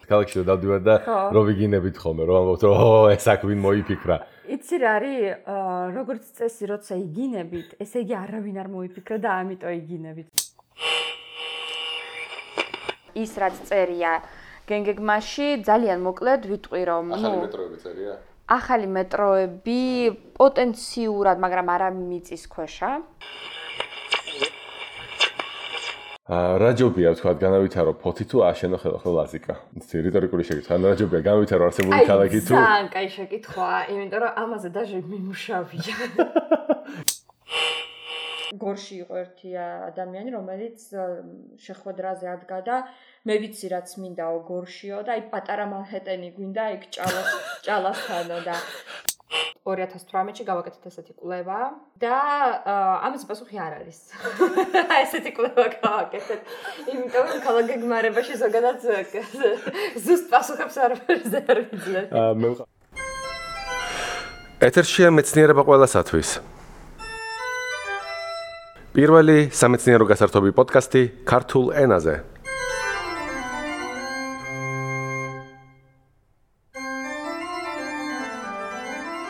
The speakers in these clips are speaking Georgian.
ქალაქში რომ დავდივარ და რომ ვიგინებით ხოლმე, რომ ამბობთ, რომ ეს აქ ვინ მოიფიქრა. იცი რა არის, როგორც წესი, როცა იგინებით, ესე იგი არავინ არ მოიფიქრა და ამიტომ იგინებით. ის რაც წერია გენგეგმაში, ძალიან მოკლედ ვიტყვი რომ, ახალი მეტროები წერია? ახალი მეტროები პოტენციურად, მაგრამ არა მიწის ქვეშა. რა ჯობია თქვა განავითარო ფოთი თუ აშენო ხელახელ ლაზიკა? რიტორიკული შეკითხვა. რა ჯობია განავითარო არსებული ქალაქი თუ? ძალიან კაი შეკითხვა, იმიტომ რომ ამაზე დაჟე მიმუშავია. გორში იყო ერთი ადამიანი, რომელიც შეხვედრაზე ადგა და მე ვიცი რაც მინდაო გორშიო და აი პატარა მანჰეტენი გვინდა იქ ჭალასთანო და 2018-ში გავაკეთეთ ესეთი კვლევა და ამაზე პასუხი არ არის. ესეთი კვლევა გავაკეთეთ. იმიტომ რომ ქალაქ გეგმარებაში ზოგადად ზუსტ პასუხებს არ ვიძლებთ. ეთერშია მეცნიერება ყველასათვის. პირველი სამეცნიერო გასართობი პოდკასტი ქართულ ენაზე.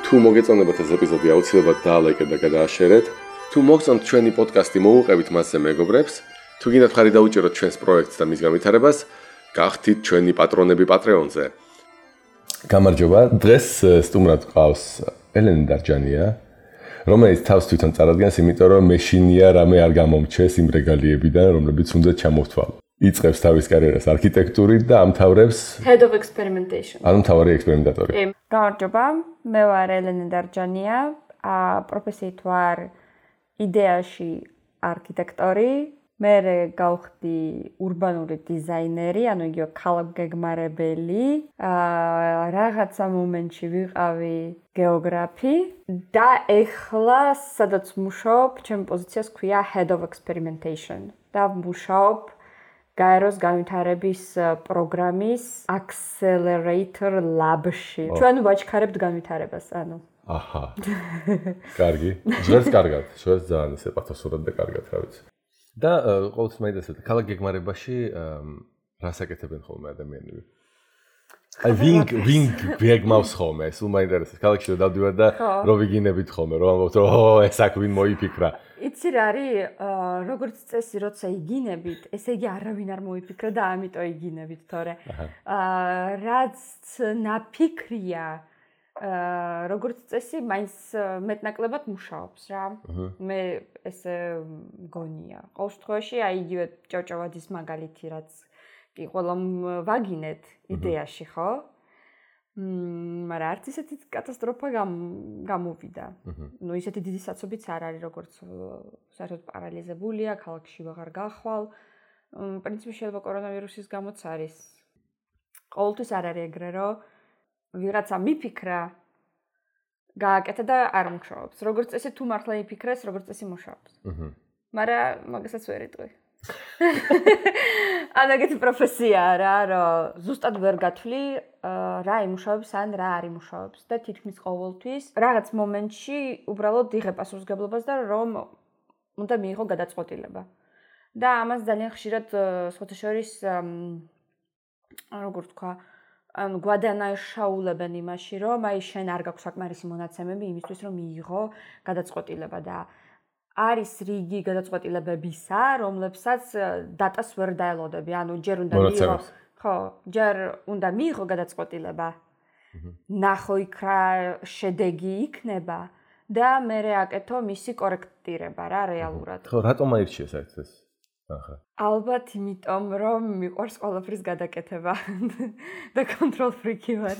თუ მოგეწონებათ ეს ეპიზოდი, აუცილებლად დაალაიკეთ და გადააშერეთ. თუ მოგწონთ ჩვენი პოდკასტი, მოუყევით მასზე მეგობრებს. თუ გინდათ ხარი დაუჭეროთ ჩვენს პროექტს და მის განვითარებას, გახდით ჩვენი პატრონები Patreon-ზე. გამარჯობა, დღეს სტუმრად გყავს ელენე დარჯანია, რომელიც თავს თვითონ წარადგენს, იმიტომ რომ მეშინია რამე არ გამომჩეს იმ რეგალიებიდან, რომლებიც უნდა ჩამოვთვალო. იწყებს თავის კარიერას არქიტექტურით და ამთავრებს Head of Experimentation. ანუ მთავარი ექსპერიმენტატორი. გამარჯობა, მე ვარ ელენე დარჯანია, პროფესიით ვარ იდეაში არქიტექტორი, მე გავხდი ურბანული დიზაინერი, ანუ იგივე ქალაქგეგმარებელი, რაღაცა მომენტში ვიყავი გეოგრაფი და ეხლა სადაც მუშაობ, ჩემი პოზიციას ქვია Head of Experimentation და მუშაობ გაეროს განვითარების პროგრამის Accelerator Lab-ში. ჩვენ ვაჩქარებთ განვითარებას, ანუ. აჰა. კარგი. ჟღერს კარგად, ჟღერს ძალიან ისე პათოსურად და კარგად, რა ვიცი. და ყოველთვის მაინტერესებს ქალაქ გეგმარებაში რას აკეთებენ ხოლმე ადამიანები? აი ვინ გეგმავს ხოლმე, სულ მაინტერესებს ქალაქში რომ დავდივარ და რომ ვიგინებით ხოლმე, რომ ამბობთ, რომ ეს აქ ვინ მოიფიქრა. იცი რა არის, როგორც წესი, როცა იგინებით, ესე იგი არავინ არ მოიფიქრა და ამიტომ იგინებით, თორე რაც ნაფიქრია, როგორც წესი, მაინც მეტნაკლებად მუშაობს რა. მე ესე მგონია. ყოველ შემთხვევაში, აი იგივე ჭავჭავაძის მაგალითი, რაც კი ყველა ვაგინეთ იდეაში, ხო? მაგრამ არც ისეთი კატასტროფა გამოვიდა. ნუ ისეთი დიდი საცობიც არ არის, როგორც საერთოდ პარალიზებულია, ქალაქში ვეღარ გახვალ. პრინციპი შეიძლება კორონავირუსის გამოც არის. ყოველთვის არ არის ეგრე, რომ ვიღაცა მიფიქრა, გააკეთა და არ მუშაობს. როგორც წესი თუ მართლა იფიქრეს, როგორც წესი მუშაობს. მაგრამ მაგასაც ვერ იტყვი. ანუ ეგეთი პროფესიაა რა, რომ ზუსტად ვერ გათვლი რა იმუშავებს ან რა არ იმუშავებს და თითქმის ყოველთვის რაღაც მომენტში უბრალოდ იღებ პასუხისმგებლობას და რომ უნდა მიიღო გადაწყვეტილება. და ამას ძალიან ხშირად სხვათა შორის როგორ თქვა, ანუ გვადანაშაულებენ იმაში, რომ აი შენ არ გაქვს საკმარისი მონაცემები იმისთვის, რომ მიიღო გადაწყვეტილება და არის რიგი გადაწყვეტილებებისა, რომლებსაც დატას ვერ დაელოდები. ანუ ჯერ უნდა მიიღო, ხო, ჯერ უნდა მიიღო გადაწყვეტილება. ნახო იქ რა შედეგი იქნება და მერე აკეთო მისი კორექტირება რა რეალურად. ხო, რატომ აირჩიე საერთოდ ეს? ახლა. ალბათ იმიტომ, რომ მიყვარს ყველაფრის გადაკეთება და control freak-ი ვარ.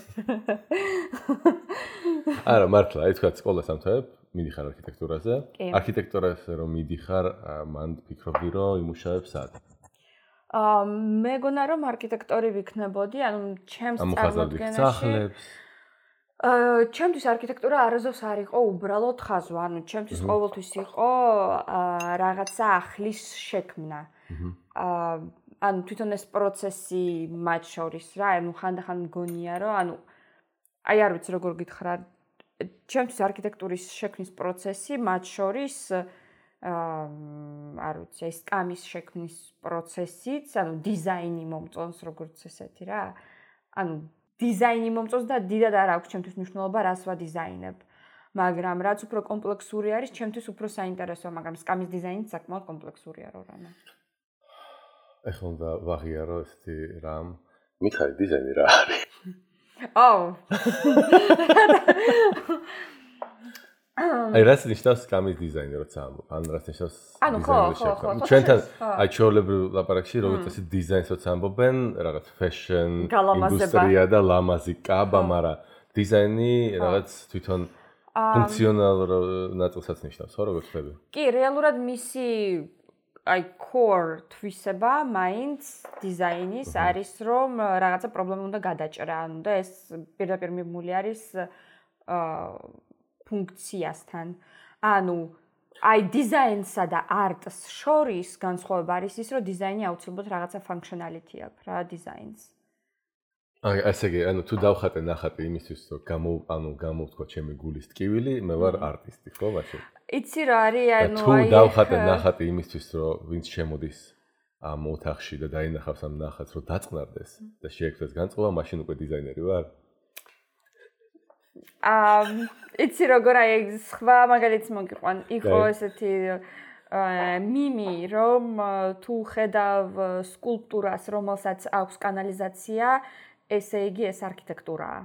არა, მართლა, აი თქვა სკოლას ამთავრებ, მიდიხარ არქიტექტურაზე. არქიტექტურაზე რომ მიდიხარ, მან ფიქრობდი, რომ იმუშავებ სად? მეგონა რომ არქიტექტორი ვიქნებოდი, ანუ ჩემს წარმოდგენაში სახლებს. ჩემთვის არქიტექტურა არასდროს არ იყო უბრალოდ ხაზვა, ანუ ჩემთვის ყოველთვის იყო რაღაცა ახლის შექმნა. ანუ თვითონ ეს პროცესი მათ შორის რა, ანუ ხანდახან მგონია რომ ანუ აი არ ვიცი როგორ გითხრა, ჩემთვის არქიტექტურის შექმნის პროცესი მათ შორის არ ვიცი, ეს კამის შექმნის პროცესიც, ანუ დიზაინი მომწონს როგორც ესეთი რა. ანუ დიზაინი მომწონს და დიდად არ აქვს ჩემთვის მნიშვნელობა რას ვადიზაინებ. მაგრამ რაც უფრო კომპლექსური არის, ჩემთვის უფრო საინტერესოა, მაგრამ სკამის დიზაინი საკმაოდ კომპლექსურია რო რამე. ეხლა უნდა ვაღიარო ესეთი რამ. მიხარი დიზაინი რა არის? აი რაც ნიშნავს სკამის დიზაინი როცა ამბობ, ან რაც ნიშნავს დიზაინი. ჩვენთან აი ჩვეულებრივ ლაპარაკში როგორც ეს დიზაინს როცა ამბობენ, რაღაც fashion, ინდუსტრია და ლამაზი კაბა, მაგრამ დიზაინი რაღაც თვითონ ფუნქციონალურ ნაწილსაც ნიშნავს, ხო როგორც ხდება? კი, რეალურად მისი აი core თვისება მაინც დიზაინის არის რომ რაღაცა პრობლემა უნდა გადაჭრა, ანუ და ეს პირდაპირ მიბმული არის ფუნქციასთან. ანუ აი დიზაინსა და არტს შორის განსხვავება არის ის, რომ დიზაინი აუცილებლად რაღაცა functionality აქვს რა დიზაინს. აი ესე იგი, ანუ თუ დავხატე ნახატი იმისთვის, რომ გამოვთქვა ჩემი გულის ტკივილი, მე ვარ არტისტი, ხო, მაშინ? იცი რა არის, ანუ თუ დავხატე ნახატი იმისთვის, რომ ვინც შემოდის ამ ოთახში და დაინახავს ამ ნახატს, რომ დაწყნარდეს და შეექმნას განწყობა, მაშინ უკვე დიზაინერი ვარ. იცი როგორ აი სხვა მაგალითს მოგიყვან, იყო ესეთი მიმი, რომ თუ ხედავ სკულპტურას, რომელსაც აქვს კანალიზაცია, ესე იგი ეს არქიტექტურაა.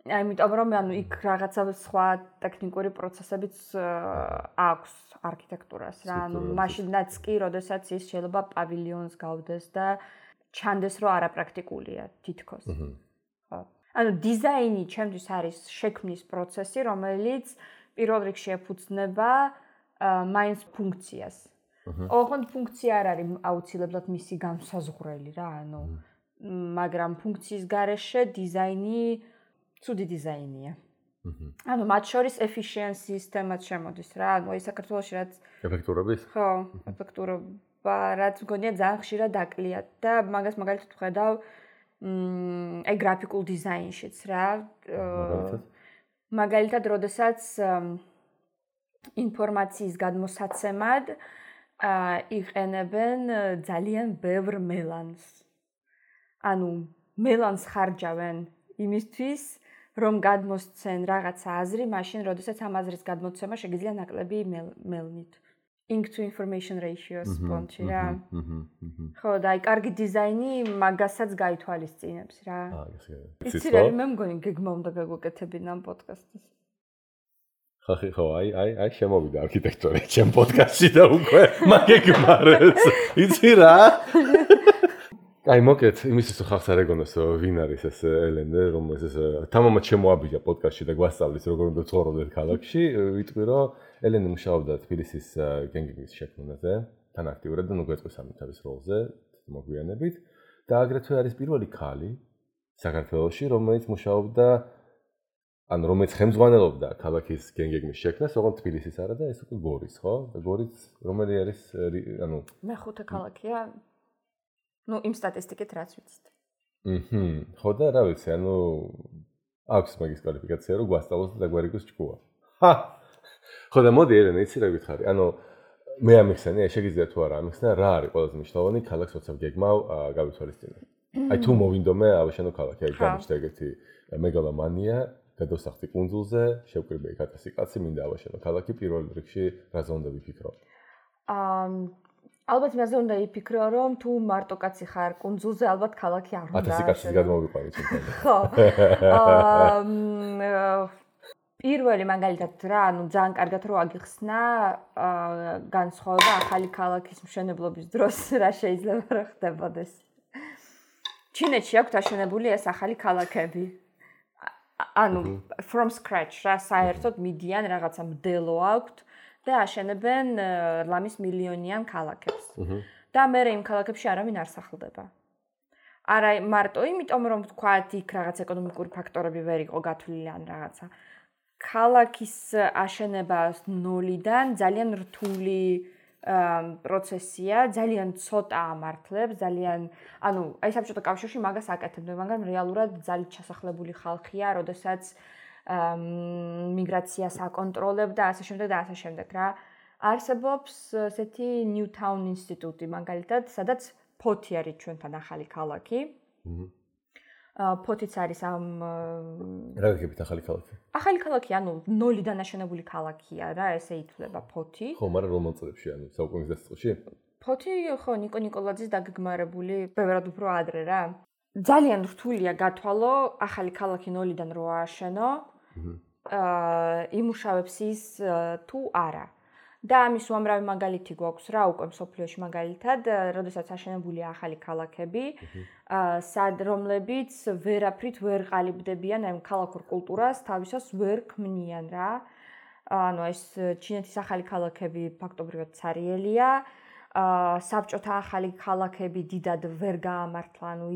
Ამიტომ რომ ანუ იქ რაღაცა სხვა ტექნიკური პროცესებიც აქვს არქიტექტურას რა. ანუ მაშინაც კი, როდესაც ის შეიძლება პავილიონს გავდეს და ჩანდეს რომ არაპრაქტიკულია თითქოს. ხო. ანუ დიზაინი ჩემთვის არის შექმნის პროცესი, რომელიც პირველ რიგში ეფუძნება მაინც ფუნქციას. ოღონდ ფუნქცია არ არის აუცილებლად მისი განსაზღვრელი რა, ანუ მაგრამ ფუნქციის გარეშე დიზაინი ცუდი დიზაინია. ანუ მათ შორის efficiency-ის თემაც შემოდის რა. ანუ აი საქართველოში რაც ეფექტურობის? ხო, ეფექტურობა რაც მგონია ძალიან ხშირად დაკლიათ და მაგას მაგალითად ვხედავ აი გრაფიკულ დიზაინშიც რა. მაგალითად, როდესაც ინფორმაციის გადმოსაცემად იყენებენ ძალიან ბევრ მელანს. ანუ მელანს ხარჯავენ იმისთვის, რომ გადმოსცენ რაღაცა აზრი, მაშინ, როდესაც ამ აზრის გადმოცემა შეგიძლია ნაკლები მელნით. Ink to information ratio-ს პონჩი რა. ხო, და აი კარგი დიზაინი მაგასაც გაითვალისწინებს რა. იცი რა, მე მგონი გეგმა უნდა გაგვეკეთებინა ამ პოდკასტის. ხო, აი შემოვიდა არქიტექტორა ჩემ პოდკასტში და უკვე მაგეგმარებს. იცი რა? აი მოკეთ, იმისთვის ხალხს არ ეგონოს ვინ არის ეს ელენე, რომელიც ეს თამამად შემოაბიჯა პოდკასტში და გვასწავლის როგორ უნდა ცხოვრობდეთ ქალაქში. ვიტყვი რომ ელენე მუშაობდა თბილისის გენგების შექმნაზე, თან აქტიურად და ნუ გვეწყვის ამ თავის როლზე, მოგვიანებით და აგრეთვე არის პირველი ქალი საქართველოში, რომელიც მუშაობდა ანუ რომელიც ხელმძღვანელობდა ქალაქის გენგების შექმნას, ოღონდ თბილისის არა და ეს უკვე გორის, ხო? და გორის რომელი არის ანუ მეხუთე ქალაქია ну იმ სტატისტიკით რაც ვიცით. ხო და რა ვიცი, ანუ აქვს მაგის კვალიფიკაცია რომ გვასწავლოს და დაგვარიგოს ჭკუა. ხა. ხო და მოდი ელენე, იცი რა გითხარი? ანუ მე ამიხსენე, შეგიძლია თუ არა ამიხსნა, რა არის ყველაზე მნიშვნელოვანი ქალაქს როცა გეგმავ გავითვალისწინე. აი თუ მოვინდომე ავაშენო ქალაქი, აი გამიჩნდა ეგეთი მეგალომანია, გადავსახდი კუნძულზე, შევკრიბე 1000 კაცი, მინდა ავაშენო ქალაქი, პირველ რიგში რაზე უნდა ვიფიქრო? ალბათ მეზე უნდა იფიქრო, რომ თუ მარტო კაცი ხარ კუნძულზე, ალბათ ქალაქი არ უნდა. 1000 კაცის გადმოვიყვანი თვითონ. ხო. პირველი მაგალითად რა, ანუ ძალიან კარგად რო აგიხსნა, განსხვავება ახალი ქალაქის მშენებლობის დროს რა შეიძლება რა ხდებოდეს. ჩინეთში აქვთ აშენებული ეს ახალი ქალაქები. ანუ from scratch რა, საერთოდ მიდიან რაღაცა მდელო აქვთ. და აშენებენ ლამის მილიონიან ქალაქებს. და მე იმ ქალაქებში არავინ არ სახლდება. არა მარტო იმიტომ რომ თქვათ იქ რაღაც ეკონომიკური ფაქტორები ვერ იყო გათვლილი ან რაღაცა. ქალაქის აშენება ნოლიდან ძალიან რთული პროცესია, ძალიან ცოტა ამართლებს, ძალიან ანუ აი საბჭოთა კავშირში მაგას აკეთებდნენ, მაგრამ რეალურად ძალიან ჩასახლებული ხალხია, როდესაც მიგრაციას აკონტროლებდა ასე შემდეგ და ასე შემდეგ რა. არსებობს ესეთი Newtown ინსტიტუტი მაგალითად, სადაც 4 არის ჩვენთან ახალი ქალაქი. ფოთიც არის ამ რა გიგებით ახალი ქალაქი? ახალი ქალაქი, ანუ ნოლიდან აშენებული ქალაქია რა, ესე ითვლება ფოთი. ხო, მაგრამ რომ მომწრებში, ანუ საუკუნის დასაწყისში? ფოთი ხო ნიკო ნიკოლაძის დაგეგმარებული ბევრად უფრო ადრე რა. ძალიან რთულია გათვალო ახალი ქალაქი ნოლიდან რო ააშენო. იმუშავებს ის თუ არა. და ამის უამრავი მაგალითი გვაქვს რა უკვე მსოფლიოში მაგალითად, როდესაც აშენებულია ახალი ქალაქები, რომლებიც ვერაფრით ვერ ყალიბდებიან ამ ქალაქურ კულტურას, თავისას ვერ ქმნიან რა. ანუ ეს ჩინეთის ახალი ქალაქები ფაქტობრივად ცარიელია. საბჭოთა ახალი ქალაქები დიდად ვერ გაამართლა, ანუ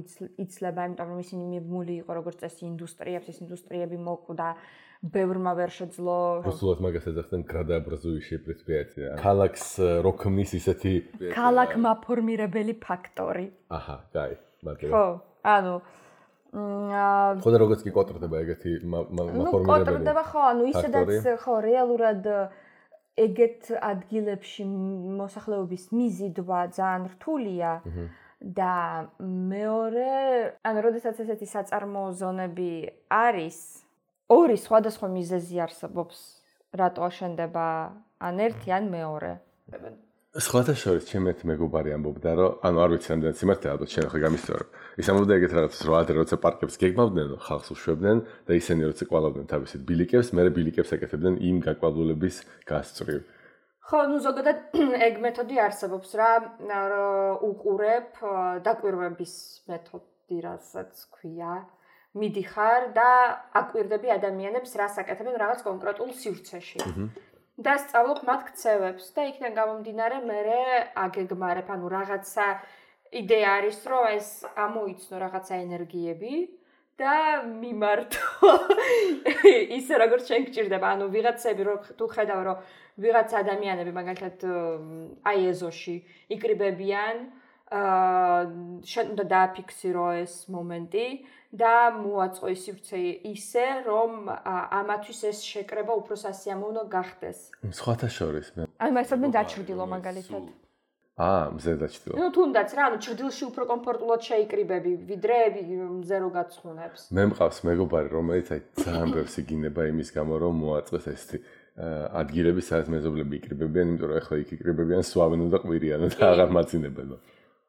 იცლება, იმიტომ რომ ისინი მიბმული იყო როგორც წესი ინდუსტრიებს, ეს ინდუსტრიები მოკვდა, ბევრმა ვერ შეძლო. Просто მაგას ეძახდნენ градообразующие предприятия. ქალაქს რო ქმნის ისეთი ქალაქმაფორმირებელი ფაქტორი. აჰა, კაი, მაგრამ ხო, ანუ ხო და როგორც კი კოტრდება ეგეთი მაფორმირებელი. კოტრდება ხო, ანუ ისედაც ხო რეალურად ეგეთ ადგილებში მოსახლეობის მიზიდვა ძალიან რთულია და მეორე, ანუ როდესაც ესეთი საწარმოო ზონები არის, ორი სხვადასხვა მიზეზი არსებობს, რატო აშენდება ან ერთი ან მეორე. სხვათა შორის ჩემი ერთი მეგობარი ამბობდა, რომ ანუ არ ვიცი რამდენად სიმართლეა, ალბათ შენ ხო გამისწორო. ის ამბობდა ეგეთ რაღაცას, რომ ადრე როცა პარკებს გეგმავდნენ, ხალხს უშვებდნენ და ისინი როცა კვალავდნენ თავისით ბილიკებს, მერე ბილიკებს ეკეთებდნენ იმ გაკვალულების გასწვრივ. ხო, ნუ ზოგადად ეგ მეთოდი არსებობს რა, უყურებ დაკვირვების მეთოდი, რასაც ქვია. მიდიხარ და აკვირდები ადამიანებს, რას აკეთებენ რაღაც კონკრეტულ სივრცეში. და სწავლობ მათ ქცევებს და იქიდან გამომდინარე მერე აგეგმარებ, ანუ რაღაცა იდეა არის, რომ ეს ამოიცნო რაღაცა ენერგიები და მიმართო ისე როგორც შენ გჭირდება, ანუ ვიღაცები რო თუ ხედავ, რომ ვიღაც ადამიანები მაგალითად აი ეზოში იკრიბებიან, შენ უნდა დააფიქსირო ეს მომენტი და მოაწყო ის სივრცე ისე, რომ ამათვის ეს შეკრება უფრო სასიამოვნო გახდეს. სხვათა შორის მე. აი მასადმე დაჩრდილო მაგალითად. მზე დაჩრდილო. ნუ თუნდაც რა, ანუ ჩრდილში უფრო კომფორტულად შეიკრიბები, ვიდრე მზე რო გაცხუნებს. მე მყავს მეგობარი, რომელიც აი ძალიან ბევრს იგინება იმის გამო, რომ მოაწყოს ესეთი ადგილები, სადაც მეზობლები იკრიბებიან, იმიტომ რომ ახლა იქ იკრიბებიან, სვავენ და ყვირიანო და აღარ მაწინებელო.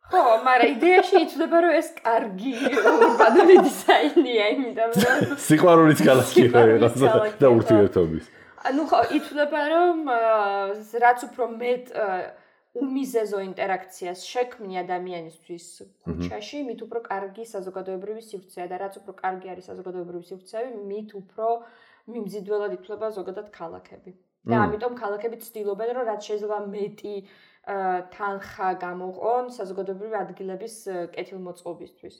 ხო, მაგრამ იდეაში იცვლება, რომ ეს კარგი ურბანული დიზაინია, იმიტომ რომ სიყვარულის ქალაქია და ურთიერთობის. ანუ ხო, იცვლება, რომ რაც უფრო მეტ უმიზეზო ინტერაქციას შექმნი ადამიანისთვის ქუჩაში, მით უფრო კარგი საზოგადოებრივი სივრცეა და რაც უფრო კარგი არის საზოგადოებრივი სივრცეები, მით უფრო მიმზიდველად ითვლება ზოგადად ქალაქები. და ამიტომ ქალაქები ცდილობენ, რომ რაც შეიძლება მეტი თანხა გამოყონ საზოგადოებრივი ადგილების კეთილმოწყობისთვის.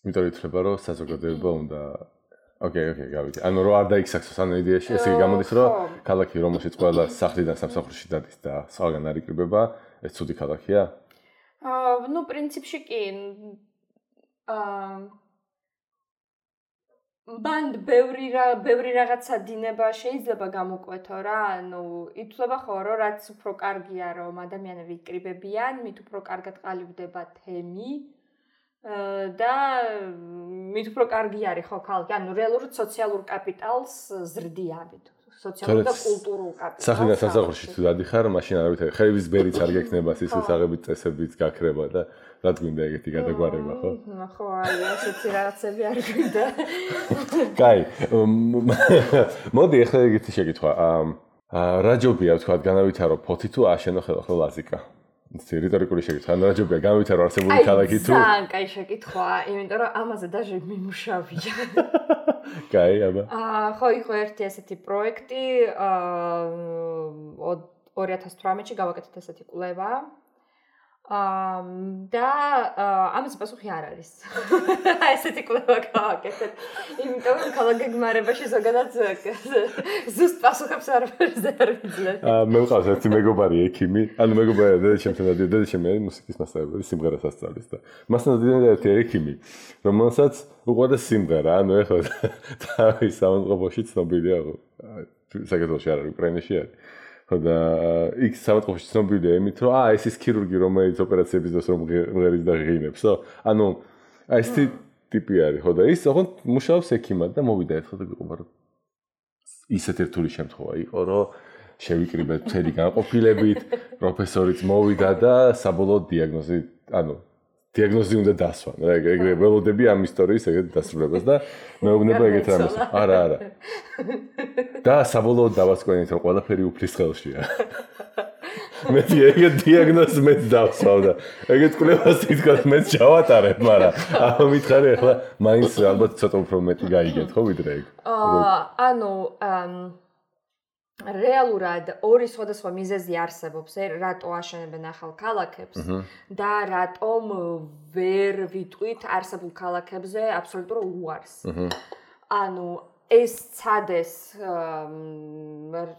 იმიტომ ითვლება, რომ საზოგადოება უნდა ოკეი, გავიგე. ანუ რო არ დაიქსახოს ანუ იდეაში, ესე იგი გამოდის, რომ ქალაქი რომელშიც ყველა სახლიდან სამსახურში დადის და სხვაგან არ იკრიბება, ეს ცუდი ქალაქია? ნუ პრინციპში კი. ბანდ ბევრი რაღაცა დინება შეიძლება გამოკვეთო რა, ანუ ითვლება ხო, რომ რაც უფრო კარგია, რომ ადამიანები იკრიბებიან, მით უფრო კარგად ყალიბდება თემი და მით უფრო კარგი არის ხო ქალაქი, ანუ რეალურად სოციალურ კაპიტალს ზრდიავით, სოციალურ და კულტურულ კაპიტალს. სახლიდან სამსახურში თუ დადიხარ, მაშინ არავითარი ხეების ბერიც არ გექნება, სისხლისაღებით წესებიც გაქრება და რაც გვინდა ეგეთი გადაგვარება, ხო? ხო, აი, ასეთი რაღაცები არ გვინდა. კაი. მოდი ახლა ეგეთი შეკითხვა. რა ჯობია თქვა განავითარო ფოთი თუ აშენო ხელახლა ლაზიკა? რიტორიკული შეკითხვა. რა ჯობია განავითარო არსებული ქალაქი თუ? ძალიან კაი შეკითხვა, იმიტომ რომ ამაზე დაჟე მიმუშავია. კაი, აბა. ხო, იყო ერთი ასეთი პროექტი 2018-ში გავაკეთეთ ესეთი კვლევა. და ამაზე პასუხი არ არის. ესეთი კვლევა გავაკეთეთ. იმიტომ რომ ქალაქგეგმარებაში ზოგადად ზუსტ პასუხებს არ ვიძლევ. მე მყავს ერთი მეგობარი ექიმი, ანუ მეგობარი დედაჩემთან დადიოდა, დედაჩემი არის მუსიკის მასწავლებელი, სიმღერას ასწავლის და მასთან დადიოდა ერთი ექიმი, რომელსაც უყვარდა სიმღერა, ანუ ეხლა თავის სამწყობოში ცნობილია, საქართველოში არ არის, უკრაინაში არის. და იქ სამწყობში ცნობილია იმით, რომ ეს ის ქირურგი, რომელიც ოპერაციების დროს რომ მღერის და ღინებსო. ანუ ესეთი ტიპი არის, ხო და ის ოღონდ მუშაობს ექიმად და მოვიდა ერთხელ და გიყობა რომ ისეთ რთული შემთხვევა იყო, რომ შევიკრიბეთ მთელი განყოფილებით, პროფესორიც მოვიდა და საბოლოოდ დიაგნოზი უნდა დასვა. ეგრე ველოდები ამ ისტორიის ეგრეთ დასრულებას და მეუბნება ეგეთ რამეს. არა. და საბოლოოდ დავასკვენით, რომ ყველაფერი უფლის ხელშია. მე ეგეთ დიაგნოზს მეც დავსვავ და ეგეთ კვლევას თითქოს მეც ჩავატარებ, მაგრამ ამითხარი ახლა მაინც ალბათ ცოტა უფრო მეტი გაიგეთ, ხო ვიდრე ეგ. რეალურად ორი სხვადასხვა მიზეზი არსებობს, რატო აშენებენ ახალ ქალაქებს და რატომ ვერ ვიტყვით არსებულ ქალაქებზე აბსოლუტურ უარს. ეს ცადეს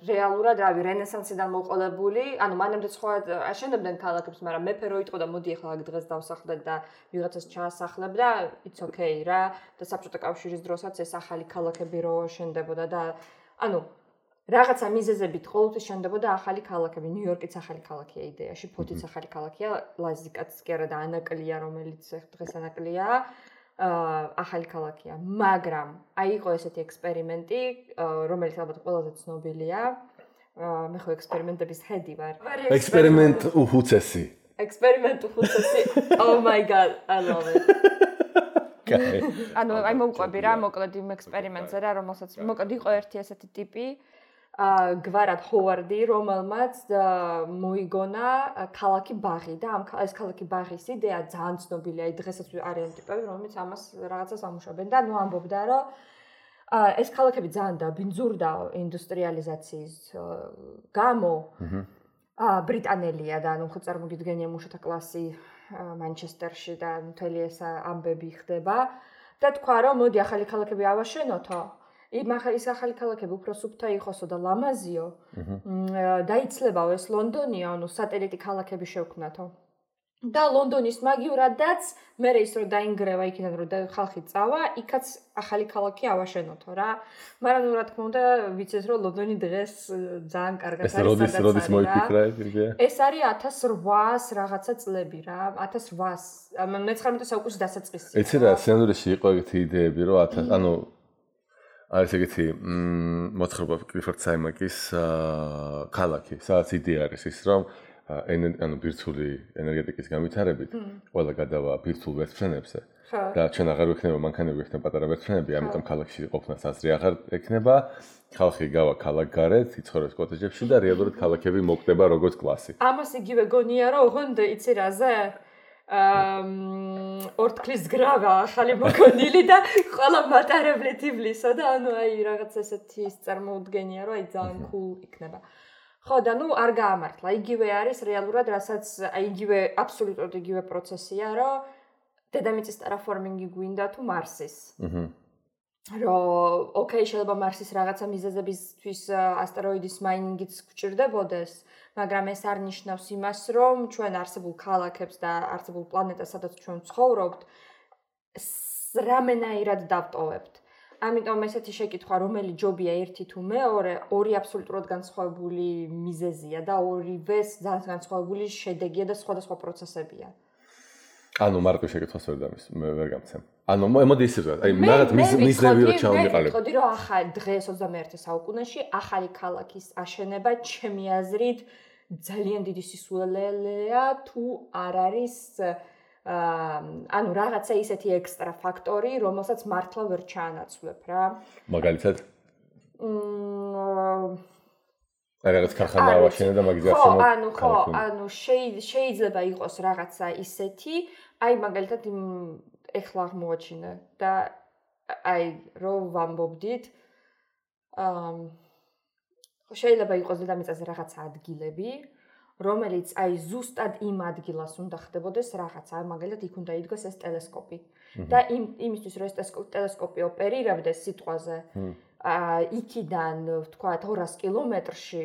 რეალურად რავი რენესანსიდან მოყოლებული, მანამდე სხვა აშენებდნენ ქალაქებს, მაგრამ მეფე რო იტყოდა მოდი ახლა დღეს დავსახლდეთ და ვიღაცას ჩაასახლებ და it's okay რა და საბჭოთა კავშირის დროსაც ეს ახალი ქალაქები რო შენდებოდა და რაღაცა მიზეზებით ყოველთვის შენდებოდა ახალი ქალაქები. ნიუ-იორკიც ახალი ქალაქია იდეაში, ფოთიც ახალი ქალაქია, ლაზიკაც კი არა და ანაკლია, რომელიც დღეს ანაკლია. ახალი ქალაქია, მაგრამ იყო ესეთი ექსპერიმენტი, რომელიც ალბათ ყველაზე ცნობილია. მე ხო ექსპერიმენტების ხედი ვარ. ექსპერიმენტ უხუცესი. Oh my god, I love it. მოვყვები რა, მოკლედ იმ ექსპერიმენტზე რა, რომელსაც მოკლედ იყო ერთი ესეთი ტიპი, გვარად ჰოვარდი, რომელმაც მოიგონა ქალაქი ბაღი და ეს ქალაქი ბაღის იდეა ძალიან ცნობილია, დღესაც არიან ტიპები, რომლებიც ამას რაღაცას ამუშავებენ და ამბობდა, რომ ეს ქალაქები ძალიან დაბინძურდა ინდუსტრიალიზაციის გამო. ბრიტანელია და ხო წარმოგიდგენია მუშათა კლასი მანჩესტერში და მთელი ეს ამბები ხდება და თქვა, რომ მოდი ახალი ქალაქები ავაშენოთო. ის ახალი ქალაქები უფრო სუფთა იყოსო და ლამაზიო. დაიცლებაო ეს ლონდონია, სატელიტი ქალაქები შევქმნათო. და ლონდონის მაგივრადაც მე ის რომ დაინგრევა იქიდან რომ ხალხი წავა, იქაც ახალი ქალაქი ავაშენოთო რა. მაგრამ რა თქმა უნდა, ვიცეს რომ ლონდონი დღეს ძალიან კარგად არის სადაც არის. როდის მოიფიქრა ეს იდეა? ეს არის 1800 რაღაცა წლები რა, 1800 მე-19 საუკუნის დასაწყისი. ეცი რა, სცენარიაში იყო ეგეთი იდეები, რომ არის ეგეთი მოთხრობა კლიფორდ საიმაკის ქალაქი, სადაც იდეა არის ის, რომ ბირთვული ენერგეტიკის განვითარებით ყველა გადავა ბირთვულ ვერტმფრენებზე და ჩვენ აღარ ვექნება მანქანები, ვექნება პატარა ვერტმფრენები, ამიტომ ქალაქში ყოფნა საზრი აღარ ექნება, ხალხი გავა ქალაქგარეთ, იცხოვრებს კოტეჯებში და რეალურად ქალაქები მოკვდება როგორც კლასი. ამას იგივე გონია, რომ ოღონდ იცი რაზე ორთქლის გრავა ახალი მოგონილი და ყველა მატარებლით ივლისო და რაღაც ესეთი წარმოუდგენია, რომ ძალიან cool იქნება. ხო და არ გაამართლა. იგივე არის რეალურად, რასაც იგივე აბსოლუტურად იგივე პროცესია, რომ დედამიწის ტერაფორმინგი გვინდა თუ მარსის. რომ ოკეი, შეიძლება მარსის რაღაცა მიზეზებისთვის ასტეროიდის მაინინგიც გვჭირდებოდეს, მაგრამ ეს არ ნიშნავს იმას, რომ ჩვენ არსებულ ქალაქებს და არსებულ პლანეტას, სადაც ჩვენ ვცხოვრობთ, რამენაირად დავტოვებთ. ამიტომ ესეთი შეკითხვა, რომელი ჯობია ერთი თუ მეორე, ორი აბსოლუტურად განსხვავებული მიზეზია და ორივეს ძალიან განსხვავებული შედეგია და სხვადასხვა პროცესებია. მარტო შეკითხვას ვერ გამცემ. მოდი ისე ვთქვა, მაგათ მიზნები რო ჩავმიყალებ. ვიტყოდი, რომ დღეს 21 საუკუნეში ახალი ქალაქის აშენება ჩემი აზრით ძალიან დიდი სისულელეა თუ არ არის რაღაცა ისეთი ექსტრა ფაქტორი, რომელსაც მართლა ვერ ჩაანაცვლებ რა. მაგალითად? რაღაც ქარხანა ავაშენე და მაგის გარშემო. ხო, შეიძლება იყოს რაღაცა ისეთი, მაგალითად ეხლა აღმოაჩინე და რო ვამბობდით, შეიძლება იყოს დედამიწაზე რაღაცა ადგილები, რომელიც ზუსტად იმ ადგილას უნდა ხდებოდეს რაღაცა, მაგალითად იქ უნდა იდგოს ეს ტელესკოპი. და იმისთვის რომ ეს ტელესკოპი ოპერირებდეს სიტყვაზე, იქიდან ვთქვათ 200 კილომეტრში,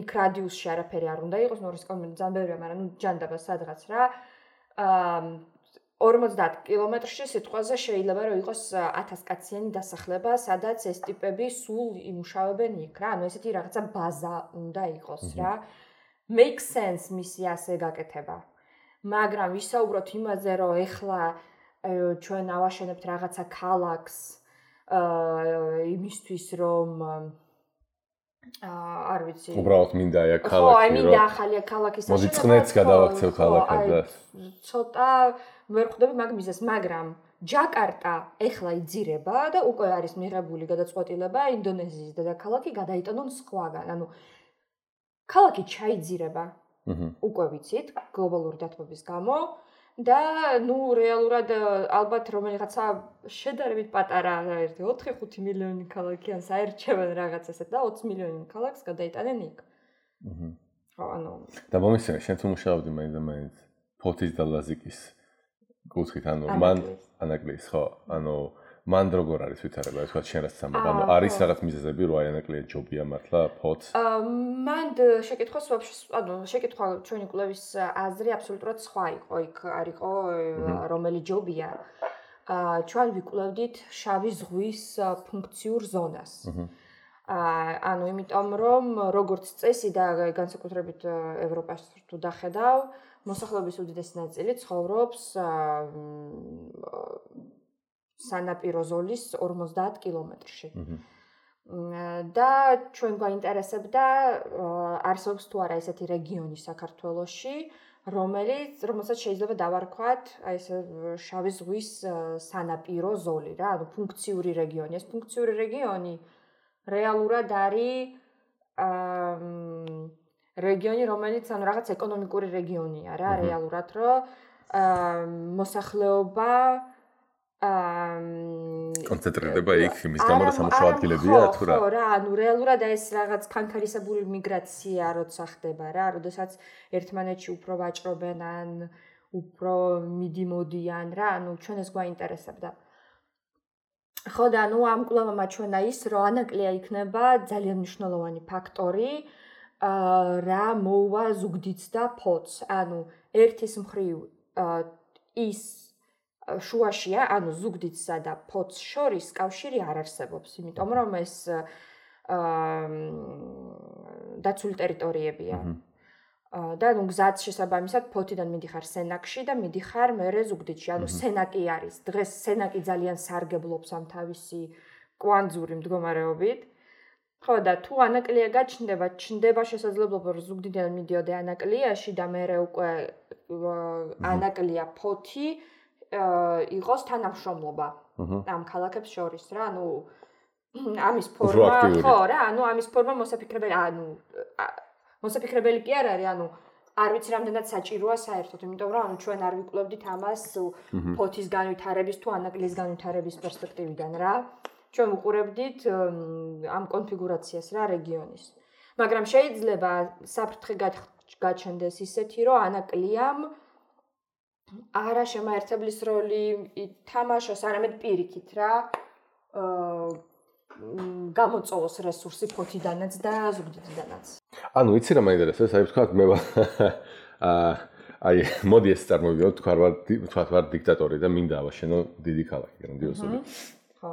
იქ რადიუსში არაფერი არ უნდა იყოს, 200 კილომეტრი ძალიან ბევრია, მაგრამ ჯანდაბა სადღაც რა. 50 კილომეტრში სიტყვაზე შეიძლება რომ იყოს 1000 კაციანი დასახლება, სადაც ეს ტიპები სულ იმუშავებენ იქ რა. ესეთი რაღაცა ბაზა უნდა იყოს რა. Makes sense მისი ასე გაკეთება. მაგრამ ვისაუბროთ იმაზე, რომ ეხლა ჩვენ ავაშენებთ რაღაცა ქალაქს იმისთვის რომ არ ვიცი. უბრალოდ მინდა აი ქალაქი. ხო, აი მინდა ახალი ქალაქის მოდი წნეთს გადავაქცევ ქალაქად და ცოტა ვერ ხვდები მაგ მიზეს, მაგრამ ჯაკარტა ეხლა იძირება და უკვე არის მიღებული გადაწყვეტილება ინდონეზიის დედაქალაქი გადაიტანონ სხვაგან. ანუ ქალაქი ჩაიძირება. უკვე ვიცით გლობალური დათბობის გამო და რეალურად ალბათ რომელიღაცა შედარებით პატარა 4-5 მილიონი ქალაქი ან საერჩევენ რაღაც ესეთ და 20 მილიონი ქალაქს გადაიტანენ იქ. ხო, ანუ და მომისმენ შენ თუ მუშაობდი მაინც ფოთის და ლაზიკის კუთხით, ანუ მან ანაკლიის, ხო, ანუ მან როგორ არის ვითარება, თქვა შენ რაც ამბობ, ანუ არის რაღაც მიზეზები, რომ აი ანაკლია ჯობია მართლა ფოთს? მან შეკითხვას ანუ შეკითხვა ჩვენი კვლევის აზრი აბსოლუტურად სხვა იყო, იქ არისო რომელი ჯობია. ჩვენ ვიკვლევდით შავი ზღვის ფუნქციურ ზონას. ანუ იმიტომ რომ როგორც წესი და განსაკუთრებით ევროპას თუ დახედავ, მოსახლეობის უდიდესი ნაწილი ცხოვრობს სანაპირო ზოლის 50 კილომეტრში. და ჩვენ გვაინტერესებდა არსებობს თუ არა ესეთი რეგიონი საქართველოში, რომელსაც შეიძლება დავარქვათ აი ეს შავი ზღვის სანაპირო ზოლი რა, ანუ ფუნქციური რეგიონი. ეს ფუნქციური რეგიონი რეალურად არის რეგიონი, რომელიც ანუ რაღაც ეკონომიკური რეგიონია რა, რეალურად რომ მოსახლეობა კონცენტრირდება იქ იმის გამო რომ სამუშაო ადგილებია თუ რა. ხო რა, ანუ რეალურად ეს რაღაც ხანქარისებური მიგრაცია როცა ხდება რა, როდესაც ერთმანეთში უფრო ვაჭრობენ ან უფრო მიდიმოდიან რა, ანუ ჩვენ ეს გვაინტერესებდა. ხო და ანუ ამ კვლევამ ჩვენა ის რომ ანაკლია იქნება ძალიან მნიშვნელოვანი ფაქტორი რა მოუვა ზუგდიდს და ფოთს. ანუ ერთის მხრივ ის შუაშია, ანუ ზუგდიდსა და ფოთს შორის კავშირი არ არსებობს, იმიტომ რომ ეს დაცული ტერიტორიებია. და ნუ გზაც შესაბამისად ფოთიდან მიდიხარ სენაკში და მიდიხარ მერე ზუგდიდში. ანუ სენაკი არის. დღეს სენაკი ძალიან სარგებლობს ამ თავისი კვანძური მდგომარეობით. ხო და თუ ანაკლია გაჩნდება, ჩნდება შესაძლებლობა რომ ზუგდიდიდან მიდიოდე ანაკლიაში და მერე უკვე ანაკლია ფოთი იყოს თანამშრომლობა ამ ქალაქებს შორის რა, ანუ ამის ფორმა, ხო რა, ანუ ამის ფორმა მოსაფიქრებელი, ანუ მოსაფიქრებელი კი არ არის, ანუ არ ვიცი რამდენად საჭიროა საერთოდ, იმიტომ რომ ანუ ჩვენ არ ვიკვლევდით ამას ფოთის განვითარების თუ ანაკლიის განვითარების პერსპექტივიდან რა. ჩვენ ვუყურებდით ამ კონფიგურაციას რა რეგიონის. მაგრამ შეიძლება საფრთხე გაჩნდეს ისეთი, რომ ანაკლიამ არა შემაერთებლის როლი ითამაშოს, არამედ პირიქით რა გამოწოვოს რესურსი ფოთიდანაც და ზუგდიდიდანაც. ანუ იცი რა მაინტერესებს, აი ვთქვათ მე აი მოდი ეს წარმოვიდოდ, თქვათ ვარ დიქტატორი და მინდა ავაშენო დიდი ქალაქი, გრანდიოზული. ხო.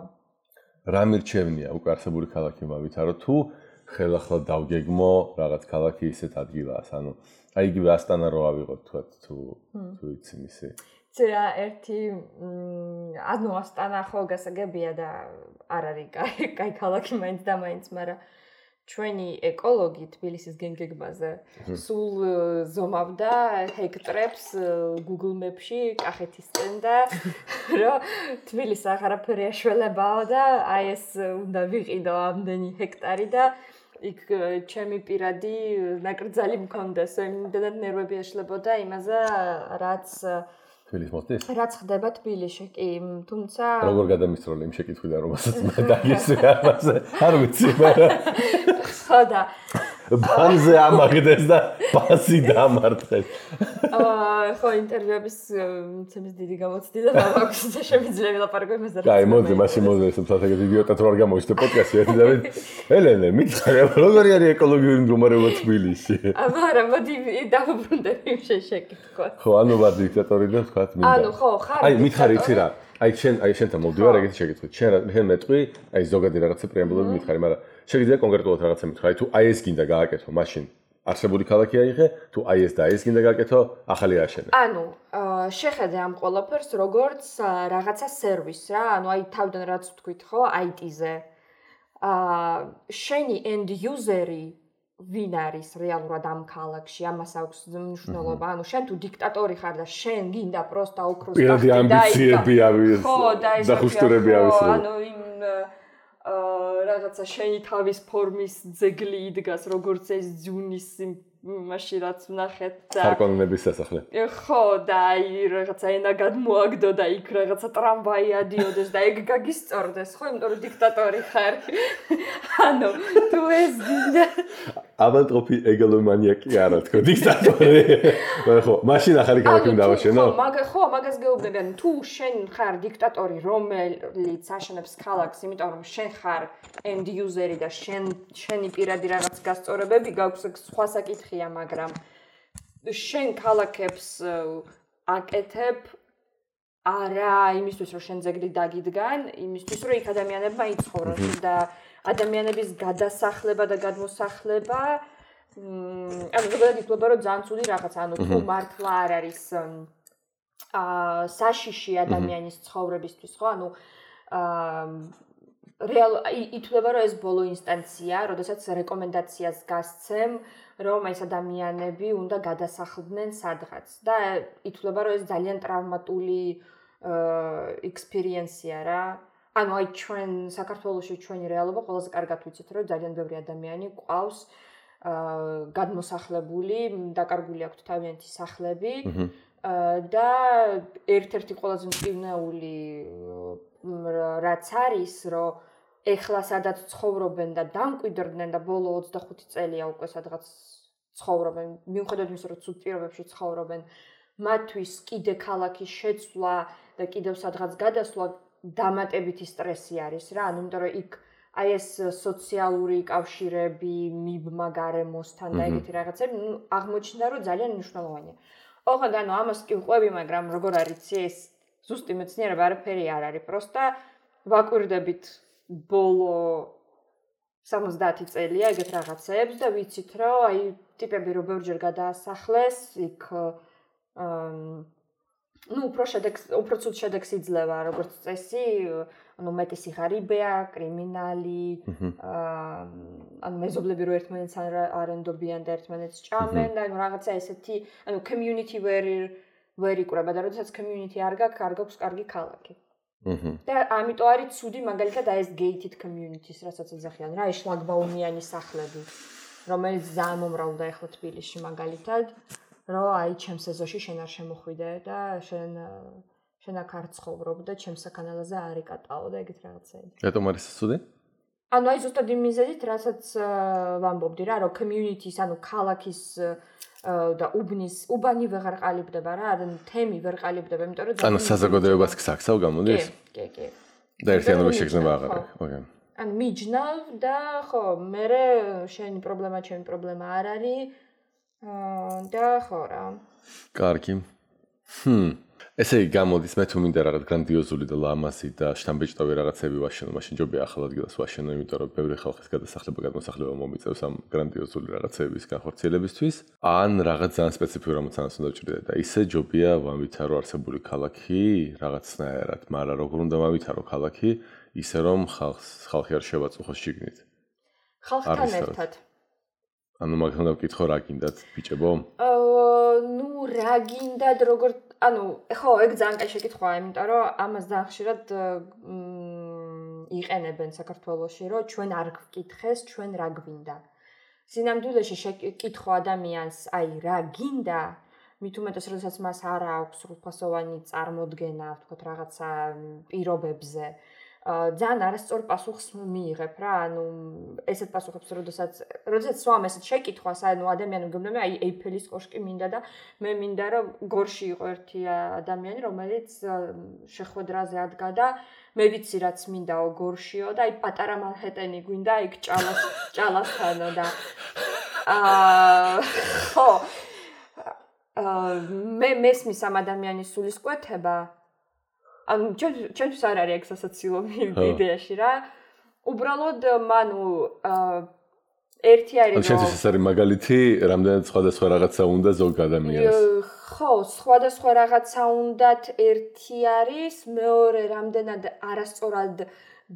რა მირჩევნია უკვე არსებული ქალაქი მავითარო თუ ხელახლა დავგეგმო რაღაც ქალაქი ისეთ ადგილას, ანუ აი იგივე ასტანა რო ავიღოთ თქვათ თუ იცი მისი. ცერა ერთი ანუ ასტანა ხო გასაგებია და არ არის კაი ქალაქი მაინც და მაინც, მაგრამ ჩვენი ეკოლოგი თბილისის გენგეგმაზე სულ ზომავდა ჰექტრებს Google Map-ში კახეთისკენ და რომ თბილისი აღარაფერი აშველებაო და აი ეს უნდა ვიყიდო ამდენი ჰექტარი და იქ ჩემი პირადი ნაკრძალი მქონდეს, იმდენად ნერვები ეშლებოდა იმაზე, რაც თბილისს მოსდის? რაც ხდება თბილისში, კი, თუმცა როგორ გადამისროლე იმ შეკითხვიდან, რომელსაც მე დაგისვი ამაზე, არ ვიცი, მაგრამ ხო და ბანზე ამაგდეს და პასი დამარტყეს. ხო, ინტერვიუების მცემის დიდი გამოცდი და მაქვს და შემიძლია ვილაპარაკო იმაზე. კაი, მოდი, მაშინ მოდი, სამსახიობ იდიოტად რო არ გამოიშთე პოდკასტი, ერთი და ელენე, მითხარ, როგორი არის ეკოლოგიური მდგომარეობა თბილისში? მაგრამ მოდი დავუბრუნდები იმ შეკითხვას. ხო, ანუ ვარ დიქტატორი და თქვათ მინდა. ანუ ხო, ხარ. აი, მითხარი იცი რა? აი შენთან მოვდივარ ეგეთი შეკითხვით. შენ მეტყვი, აი ზოგადი რაღაცა პრეამბულები მითხარი, მაგრამ შეგიძლია კონკრეტულად რაღაცა მითხარი, თუ აი ეს გინდა გააკეთო, მაშინ არსებული ქალაქი აიღე, თუ აი ეს და ეს გინდა გაკეთო, ახალი აშენე. ანუ შეხედე ამ ყველაფერს როგორც რაღაცა სერვისს რა, ანუ აი თავიდან რაც ვთქვით ხო, IT-ზე. შენი end user-ი ვინ არის რეალურად ამ ქალაქში, ამას აქვს მნიშვნელობა. ანუ შენ თუ დიქტატორი ხარ და შენ გინდა პროსტა ოქროს გახდი და პირადი ამბიციები ავიღე. ხო, და ხუშტურები ავიღე. ანუ იმ რაღაცა შენი თავის ფორმის ძეგლი იდგას, როგორც ეს ძუნის მაშინ რაც ვნახეთ და ხარკონების სასახლე. ხო, და აი რაღაცა ენა გადმოაგდო და იქ რაღაცა ტრამვაი ადიოდეს და ეგ გაგისწორდეს, ხო, იმიტომ რომ დიქტატორი ხარ. ანუ თუ ეს გინდა ავანტროპი ეგალომანიაკი არა თქო დიქტატორი. ხო, მაშინ ახალი ქალაქი უნდა დავაშენო? ხო, მაგას გეუბნები, ანუ თუ შენ ხარ დიქტატორი, რომელიც აშენებს ქალაქს, იმიტომ რომ შენ ხარ end user-ი და შენი პირადი რაღაც გასწორებები გაქვს, სხვა საკითხია, მაგრამ შენ ქალაქებს აკეთებ არა იმისთვის, რომ შენ ძეგლი დაგიდგან, იმისთვის, რომ იქ ადამიანებმა იცხოვრონ და ადამიანების გადასახლება და გადმოსახლება ანუ ზოგადად ითვლება, რომ ძალიან ცუდი რაღაცა, ანუ თუ მართლა არ არის საშიში ადამიანის ცხოვრებისთვის, ხო? ანუ ითვლება, რომ ეს ბოლო ინსტანცია, როდესაც რეკომენდაციას გასცემ, რომ ეს ადამიანები უნდა გადასახლდნენ სადღაც და ითვლება, რომ ეს ძალიან ტრავმატული ექსპერიენსია რა. ანუ აი ჩვენ საქართველოში ჩვენი რეალობა ყველაზე კარგად ვიცით, რომ ძალიან ბევრი ადამიანი ყავს გადმოსახლებული, დაკარგული აქვთ თავიანთი სახლები და ერთ-ერთი ყველაზე მწვნეული რაც არის, რომ ეხლა სადაც ცხოვრობენ და დამკვიდრდნენ და ბოლო 25 წელია უკვე სადღაც ცხოვრობენ, მიუხედავად იმისა, რომ ცუდ პირობებში ცხოვრობენ, მათთვის კიდე ქალაქის შეცვლა და კიდევ სადღაც გადასვლა დამატებითი სტრესი არის რა, ანუ იმიტომ რომ იქ აი ეს სოციალური კავშირები, მიბმა გარემოსთან და ეგეთი რაღაცები, აღმოჩნდა რომ ძალიან მნიშვნელოვანია. ოღონდ ანუ ამას კი ვყვები, მაგრამ როგორ არის ეს ზუსტი მეცნიერება არაფერი არ არის, პროსტა ვაკვირდებით ბოლო 70 წელია ეგეთ რაღაცებს და ვიცით რომ აი ტიპები რო ბევრჯერ გადაასახლეს, იქ უფრო ცუდ შედეგს იძლევა როგორც წესი, ანუ მეტი სიღარიბეა, კრიმინალი, ანუ მეზობლები რო ერთმანეთს არ ენდობიან და ერთმანეთს ჭამენ და ანუ რაღაცა ესეთი, ანუ community ვერ იკვრება და როდესაც community არ გაქვს კარგი ქალაქი. და ამიტომ არის ცუდი მაგალითად აი ეს gated communities, რასაც ეძახიან რა, ეს შლაგბაუმიანი სახლები, რომელიც ძალიან მომრავლდა ახლა თბილისში მაგალითად. რომ აი ჩემს ეზოში შენ არ შემოხვიდე და შენ აქ არ ცხოვრობ და ჩემს საკანალაზე არ იკატაო და ეგეთ რაღაცები. რატომ არის ცუდი? ანუ აი ზუსტად იმ მიზეზით, რასაც ვამბობდი რა, რომ community-ს, ანუ ქალაქის და უბანი ვეღარ ყალიბდება რა, ანუ თემი ვერ ყალიბდება, იმიტომ რომ ანუ საზოგადოებას გსაქსავ გამოდის? კი. და ერთიანობის შეგრძნება აღარ არის. ოკეი. ანუ მიჯნავ და ხო, მე შენი პრობლემა, ჩემი პრობლემა არ არის. და ხო რა. კარგი. ესე იგი გამოდის მე თუ მინდა რაღაც გრანდიოზული და ლამაზი და შთამბეჭდავი რაღაცები ვაშენო, მაშინ ჯობია ახალ ადგილას ვაშენო, იმიტომ რომ ბევრი ხალხის გადასახლება მომიწევს ამ გრანდიოზული რაღაცების განხორციელებისთვის. ან რაღაც ძალიან სპეციფიური რამოცანას უნდა ვჭრიდე და ისე ჯობია ვამვითარო არსებული ქალაქი რაღაცნაირად, მაგრამ როგორ უნდა ვამვითარო ქალაქი, ისე რომ ხალხი არ შევაწუხოს შიგნით. ხალხთან ერთად. ანუ მაგას უნდა ვკითხო რა გინდათ ბიჭებო? ნუ რა გინდათ როგორ ანუ ხო ეგ ძალიან კაი შეკითხვაა, იმიტომ რომ ამას ძალიან ხშირად იყენებენ საქართველოში, რომ ჩვენ არ გვკითხეს, ჩვენ რა გვინდა. სინამდვილეში შეკითხო ადამიანს, აი რა გინდა, მით უმეტეს როდესაც მას არ აქვს სრულფასოვანი წარმოდგენა, ვთქვათ რაღაცა პირობებზე. ძალიან არასწორ პასუხს მიიღებ რა, ანუ ესეთ პასუხებს როდესაც სვამ ესეთ შეკითხვას, ანუ ადამიანი მგონია აი ეიფელის კოშკი მინდა და მე მინდა რომ გორში იყო ერთი ადამიანი, რომელიც შეხვედრაზე ადგა და მე ვიცი რაც მინდაო გორშიო და აი პატარა მანჰეტენი გვინდა იქ ჭალასთანო და ხო მე მესმის ამ ადამიანის სულისკვეთება ანუ ჩემთვის არ არის ეგ სასაცილო იდეაში რა. უბრალოდ მანუ ერთი არის რომ შენთვის ეს არის მაგალითი, რამდენად სხვადასხვა რაღაცა უნდა ზოგ ადამიანს. ხო, სხვადასხვა რაღაცა უნდათ ერთი არის, მეორე რამდენად არასწორად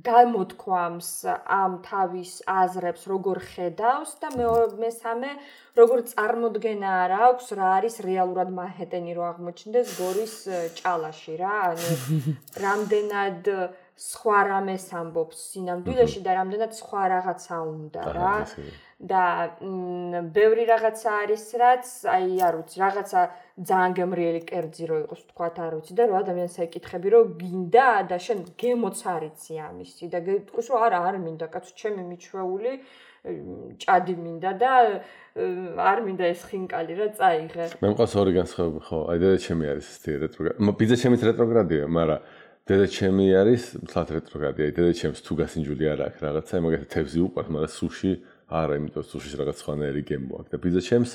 გამოთქვამს ამ თავის აზრებს, როგორ ხედავს და მესამე როგორ წარმოდგენა არ აქვს რა არის რეალურად მანჰეტენი რო აღმოჩნდეს გორის ჭალაში რა, ანუ რამდენად სხვა რამეს ამბობს სინამდვილეში და რამდენად სხვა რაღაცა უნდა რა. და ბევრი რაღაცა არის რაც აი არ ვიცი რაღაცა ძალიან გემრიელი კერძი რო იყოს თქვათ არ ვიცი და რო ადამიანს ეკითხები რომ გინდა და შენ გემოც არიცი ამისი და გეტყვის რომ არა არ მინდა კაცო ჩემი მიჩვეული ჭადი მინდა და არ მინდა ეს ხინკალი რა წაიღე მე მყავს ორი განსხვავება ხო აი და ჩემი არის ეს რეტროგრადი ბიძა ჩემიც რეტროგრადია მაგრამ დედა ჩემი არის მთლად რეტროგრადი აი დედა ჩემს თუ გასინჯული არ აქვს რაღაცა მაგათი თევზი უყვარს მაგრამ სუში არა, იმიტომ რომ სუშის რაღაც სხვანაირი გემო აქვს და ბიძა ჩემს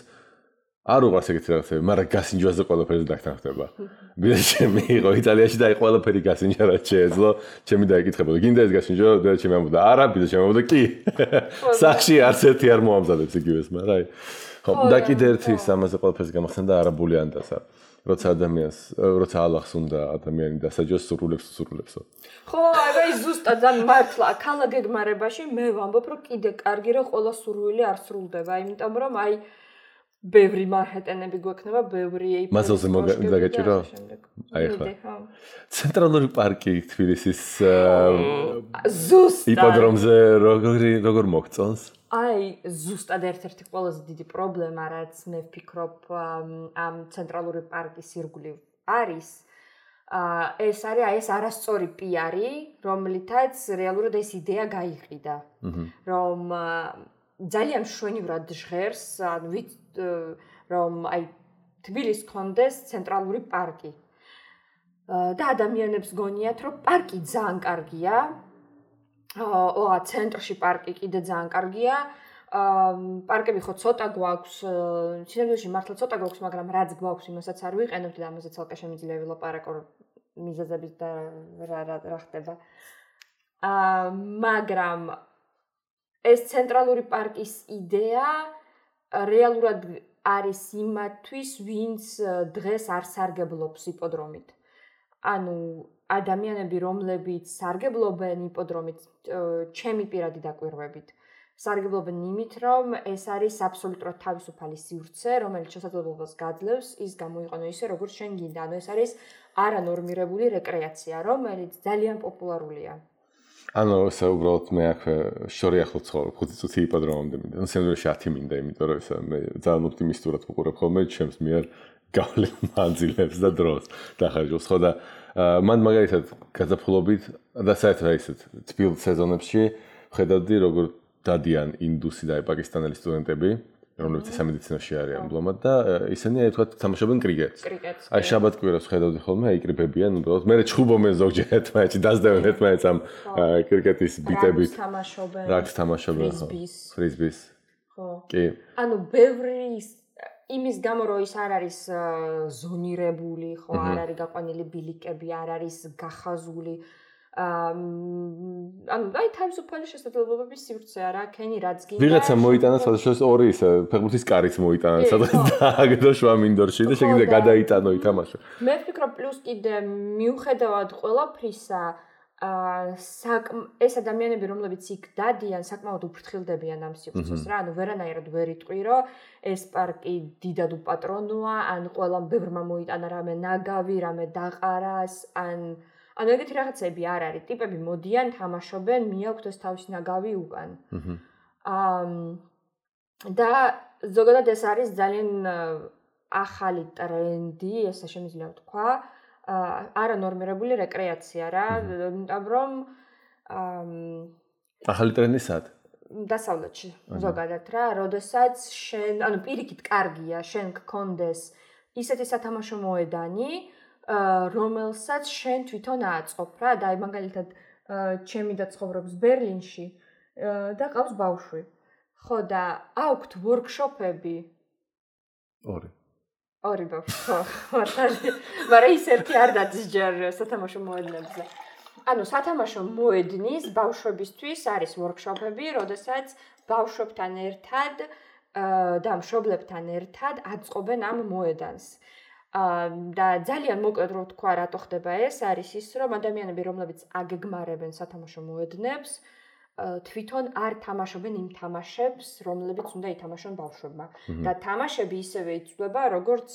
არ უყვარს ეგეთი რაღაცები, მაგრამ გასინჯვაზე ყველაფერი დაგთანხმდება. ბიძა ჩემი იყო იტალიაში და აი ყველაფერი გასინჯა რაც შეეძლო, ჩემი დაიკითხებოდა. გინდა ეს გასინჯო? და ჩემი ამბობდა, არა, ბიძა ჩემი ამბობდა, კი. სახში არც ერთი არ მოამზადებს იგივეს, მაგრამ აი ხო, და კიდე ერთი ამაზე ყველაფერს გამახსენდა არაბული ანდასა. როცა ადამიანს, როცა ალახს უნდა ადამიანი დასაჯოს სურულებსო. ხო, აი ზუსტად ძალიან მართლა, ქალა გეგმარებაში მე ვამბობ, რომ კიდე კარგი რომ ყველა სურვილი არ სრულდება, იმიტომ რომ აი ბევრი მარჰეტენები გვექნება, ბევრი ეიფელის მასალზე მოგაგაჭირო? აი ხო. ცენტრალური პარკი თბილისის ზუსტად იპოდრომზე როგორ მოგწონს? აი ზუსტად ერთ-ერთი ყველაზე დიდი პრობლემა რაც მე ვფიქრობ ამ ცენტრალური პარკის ირგვლივ არის ეს არის აი ეს არასწორი პიარი რომლითაც რეალურად ეს იდეა გაიყიდა რომ ძალიან მშვენივრად ჟღერს რომ აი თბილისს ჰქონდეს ცენტრალური პარკი და ადამიანებს გონიათ რომ პარკი ძალიან კარგია ცენტრში პარკი კიდე ძალიან კარგია. პარკები ხო ცოტა გვაქვს, სინამდვილეში მართლა ცოტა გვაქვს, მაგრამ რაც გვაქვს, იმასაც არ ვიყენებთ და ამაზე ცალკე შემიძლია ვილაპარაკო მიზეზებით და რა ხდება. მაგრამ ეს ცენტრალური პარკის იდეა რეალურად არის იმათვის, ვინც დღეს არ სარგებლობს იპოდრომით. ანუ ადამიანები, რომლებიც სარგებლობენ იპოდრომით, ჩემი პირადი დაკვირვებით, სარგებლობენ იმით, რომ ეს არის აბსოლუტურად თავისუფალი სივრცე, რომელიც შესაძლებლობას გაძლევს ის გამოიყენო ისე, როგორც შენ გინდა. ანუ ეს არის არანორმირებული რეკრეაცია, რომელიც ძალიან პოპულარულია. ანუ ესე უბრალოდ მე აქვე შორი ახლო ცხოვრობ 5 წუთი იპოდრომამდე მინდა. ანუ სინამდვილეში 10 მინდა, იმიტომ რომ ესა მე ძალიან ოპტიმისტურად ვუყურებ ხოლმე ჩემს მიერ გავლენ მანძილებს და დროს დახარჯავს ხო და მან მაგალითად გაზაფხულობით და საერთოდ ისეთ თბილ სეზონებში ხედავდი როგორ დადიან ინდუსი და პაკისტანელი სტუდენტები რომლებიც სამედიცინოში არიან მბლომად და ისინი აი თქვა თამაშობენ კრიკეტს. აი შაბათ-კვირას ხედავდი ხოლმე აიკრიბებიან უბრალოდ მე ჩხუბობენ ზოგჯერ ერთმანეთში დასდევენ ერთმანეთს ამ კრიკეტის ბიტებით. რაგს თამაშობენ ხო? ფრიზბის. ხო. კი. ანუ ბევრი იმის გამო რომ ის არ არის ზონირებული, ხო, არ არის გაყვანილი ბილიკები, არ არის გახაზული. ანუ აი თავისუფალი შესაძლებლობების სივრცე არა, ქენი რაც გინდა. ვიღაცა მოიტანა სადღაც ორი ისე ფეხბურთის კარიც მოიტანა სადღაც დააგდო შვამინდორში და შეგიძლია გადაიტანო ითამაშო. მე ვფიქრობ პლუს კიდე მიუხედავად ყველაფრისა ეს ადამიანები რომლებიც იქ დადიან საკმაოდ უფრთხილდებიან ამ სივრცეს რა ანუ ვერანაირად ვერ იტყვი რომ ეს პარკი დიდად უპატრონოა ან ყველამ ბევრმა მოიტანა რამე ნაგავი რამე დაყარას ანუ ეგეთი რაღაცები არ არის ტიპები მოდიან თამაშობენ მიაქვთ ეს თავის ნაგავი უკან და ზოგადად ეს არის ძალიან ახალი ტრენდი ესე შემიძლია ვთქვა არანორმირებული რეკრეაცია რა, იმიტომ რომ ახალი ტრენდი სად? დასავლეთში ზოგადად რა, როდესაც შენ, ანუ პირიქით კარგია, შენ გქონდეს ისეთი სათამაშო მოედანი, რომელსაც შენ თვითონ აწყობ რა, და აი მაგალითად ჩემი და ცხოვრობს ბერლინში და ყავს ბავშვი. ხო და აქვთ ვორქშოპები. ორი ბავშვი, ხო, მაგრამ ის ერთი არ დადის ჯერ სათამაშო მოედნებზე. ანუ სათამაშო მოედნის ბავშვებისთვის არის ვორქშოპები, როდესაც ბავშვებთან ერთად და მშობლებთან ერთად აწყობენ ამ მოედანს. და ძალიან მოკლედ რო ვთქვა, რატო ხდება ეს, არის ის, რომ ადამიანები, რომლებიც აგეგმარებენ სათამაშო მოედნებს, თვითონ არ თამაშობენ იმ თამაშებს, რომლებიც უნდა ითამაშონ ბავშვებმა. და თამაშები ისევე იცვლება, როგორც,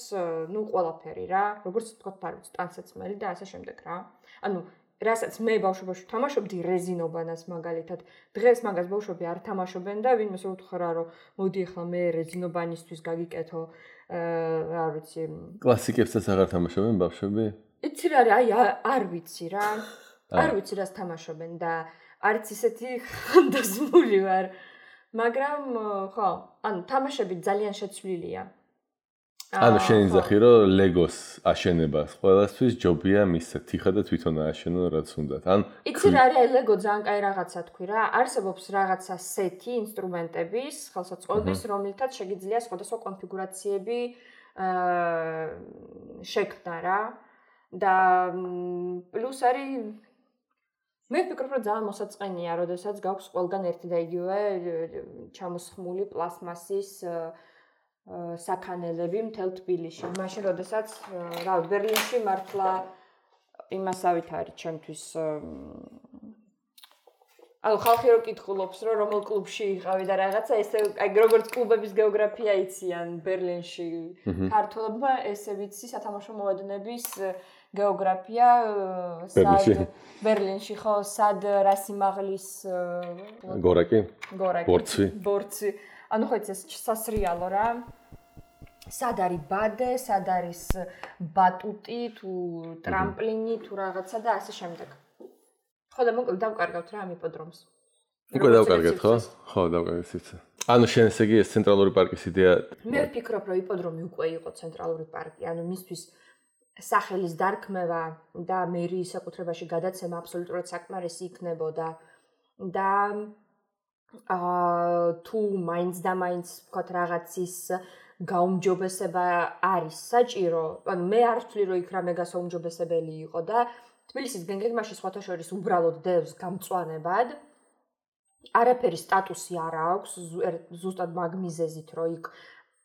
ყველაფერი რა, როგორც თქვათ, არ ვიცი, ტანსაცმელი და ასე შემდეგ რა. ანუ რასაც მე ბავშვობაში ვთამაშობდი რეზინობანას მაგალითად. დღეს მაგას ბავშვები არ თამაშობენ და ვინმეს რო უთხრა, რომ მოდი ახლა მე რეზინობანისთვის გაგიკეთო, რა ვიცი. კლასიკებსაც აღარ თამაშობენ ბავშვები? იცი რა, აი არ ვიცი რა. არ ვიცი რას თამაშობენ და არც ისეთი ხანდაზმული ვარ. მაგრამ ხო, ანუ თამაშები ძალიან შეცვლილია. ანუ შენი ძახი რომ ლეგოს აშენებას ყველასთვის ჯობია მისცეთ თიხა და თვითონ ააშენონ რაც უნდათ. ან იცი რა არის ლეგო ძალიან კაი რაღაცა თქვი რა. არსებობს რაღაცა სეთი ინსტრუმენტების, ხელსაწყოების, რომელთაც შეგიძლია სხვადასხვა კონფიგურაციები შექმნა რა. და პლუს არის მე ვფიქრობ რომ ძალიან მოსაწყენია, როდესაც გაქვს ყველგან ერთი და იგივე ჩამოსხმული პლასმასის საქანელები მთელ თბილისში. მაშინ როდესაც ბერლინში მართლა იმასავით არის ჩემთვის ანუ ხალხი რო კითხულობს რომ რომელ კლუბში იყავი და რაღაცა ესე აი როგორც კლუბების გეოგრაფია იციან ბერლინში ქართველებმა ესე ვიცი სათამაშო მოედნების გეოგრაფია ბერლინში ხო სად რა სიმაღლის გორაკი ბორცვი ანუ ხო ეს სასრიალო რა სად არის ბადე სად არის ბატუტი თუ ტრამპლინი თუ რაღაცა და ასე შემდეგ ხო და მოკლედ დავკარგავთ რა ამ იპოდრომს უკვე დავკარგეთ ხო? ხო, დავკარგეთ სიცხე. ანუ შენ ესე იგი ეს ცენტრალური პარკის იდეა მე ვფიქრობ რომ იპოდრომი უკვე იყო ცენტრალური პარკი, ანუ მისთვის სახელის დარქმევა და მერიის საკუთრებაში გადაცემა აბსოლუტურად საკმარისი იქნებოდა და თუ მაინც და მაინც ვთქვათ რაღაცის გაუმჯობესება არის საჭირო, ანუ მე არ ვთვლი რომ იქ რამე გასაუმჯობესებელი იყო და თბილისის გეგმაში სხვათა შორის უბრალოდ დევს გამწვანებად. არაფერი სტატუსი არ აქვს, ზუსტად მაგ მიზეზით, რომ იქ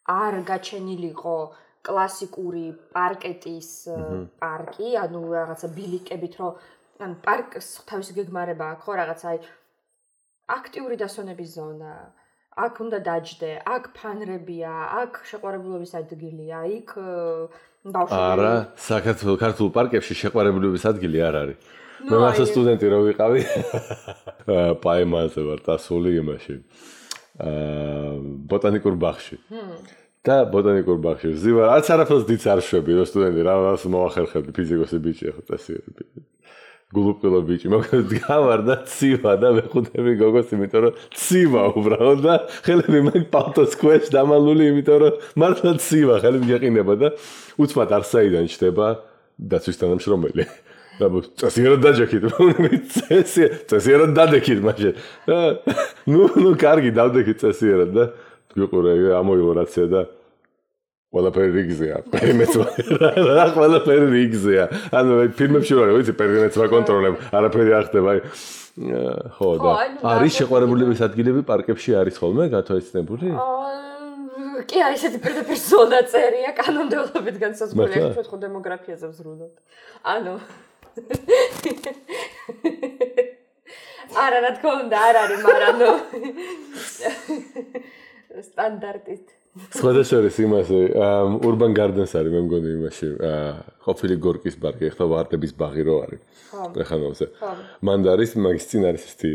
არ გაჩენილიყო კლასიკური პარკეტის პარკი, ანუ რაღაცა ბილიკებით, რომ ან პარკს თავისი გეგმარება აქვს, ხო, რაღაცა აი აქტიური დასვენების ზონა, აქ უნდა დაჯდე, აქ ფანრებია, აქ შეყვარებულობის ადგილია, იქ ბავშვები. არა, საქართველოს ქართულ პარკებში შეყვარებულობის ადგილი არ არის. მე მასა სტუდენტი რო ვიყავი პაემაზე ვარ დასული იმაში ბოტანიკურ ბაღში და ბოტანიკურ ბაღში ვზივარ არც არაფერს დიც არ შვები რო სტუდენტი რაღაც მოახერხებდი ფიზიკოსი ბიჭი ხო წესიერები გულუყილო ბიჭი მოკლედ გავარ და ცივა და მეხუთები გოგოს იმიტომ რომ ცივა უბრალოდ და ხელები მაგ პალტოს ქვეშ დამალული იმიტომ რომ მართლა ცივა ხელები გეყინება და უცბად არსაიდან ჩდება დაცვის თანამშრომელი წესიერად დაჯექით, წესიერად დადექით მაშინ. ნუ კარგი დავდექით წესიერად და გიყურე ამოიღო რაცია და ყველაფერი რიგზეა. პერიმეტრა ყველაფერი რიგზეა. ანუ ფილმებში ვარ, ვიცი, პერიმეტრა კონტროლებ, არაფერი არ ხდება. ხო და არის შეყვარებულების ადგილები პარკებში არის ხოლმე გათვალისწინებული? კი არის ესეთი პირდაპირ ზონა წერია კანონმდებლობით განსაზღვრული, ახლა ხო დემოგრაფიაზე ვზრუნავთ. ანუ არა რა თქმა უნდა არ არის მაგრამ ნუ სტანდარტით სხვადასხვა იმასე urban gardens არის მე მგონი იმაში ყოფილი გორკის პარკი ახლა ვარდების ბაღი რო არის ტრეხანოვზე მანდ არის მაგის წინ არის ესეთი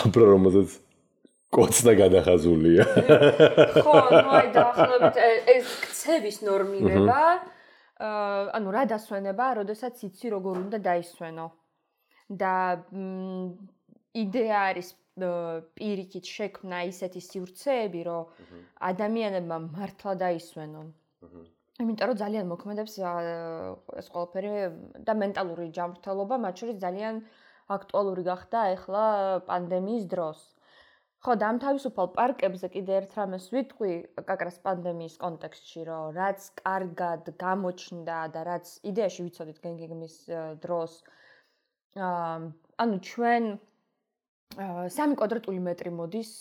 აბრა რომელზეც კოცნა გადახაზულია ხო ნუ აი დაახლოებით ეს ქცევის ნორმირება ანუ რა დასვენება, როდესაც იცი როგორ უნდა დაისვენო. და იდეა არის პირიქით შექმნა ისეთი სივრცეები, რომ ადამიანებმა მართლა დაისვენონ. იმიტომ რომ ძალიან მოქმედებს ეს ყველაფერი და მენტალური ჯანმრთელობა, მათ შორის ძალიან აქტუალური გახდა ახლა პანდემიის დროს. ხო, და ამ თავისუფალ პარკებზე კიდე ერთ რამეს ვიტყვი, კაკრას პანდემიის კონტექსტში, რომ რაც კარგად გამოჩნდა და რაც იდეაში ვიცოდით გეგმის დროს, ანუ ჩვენ 3 კვადრატული მეტრი მოდის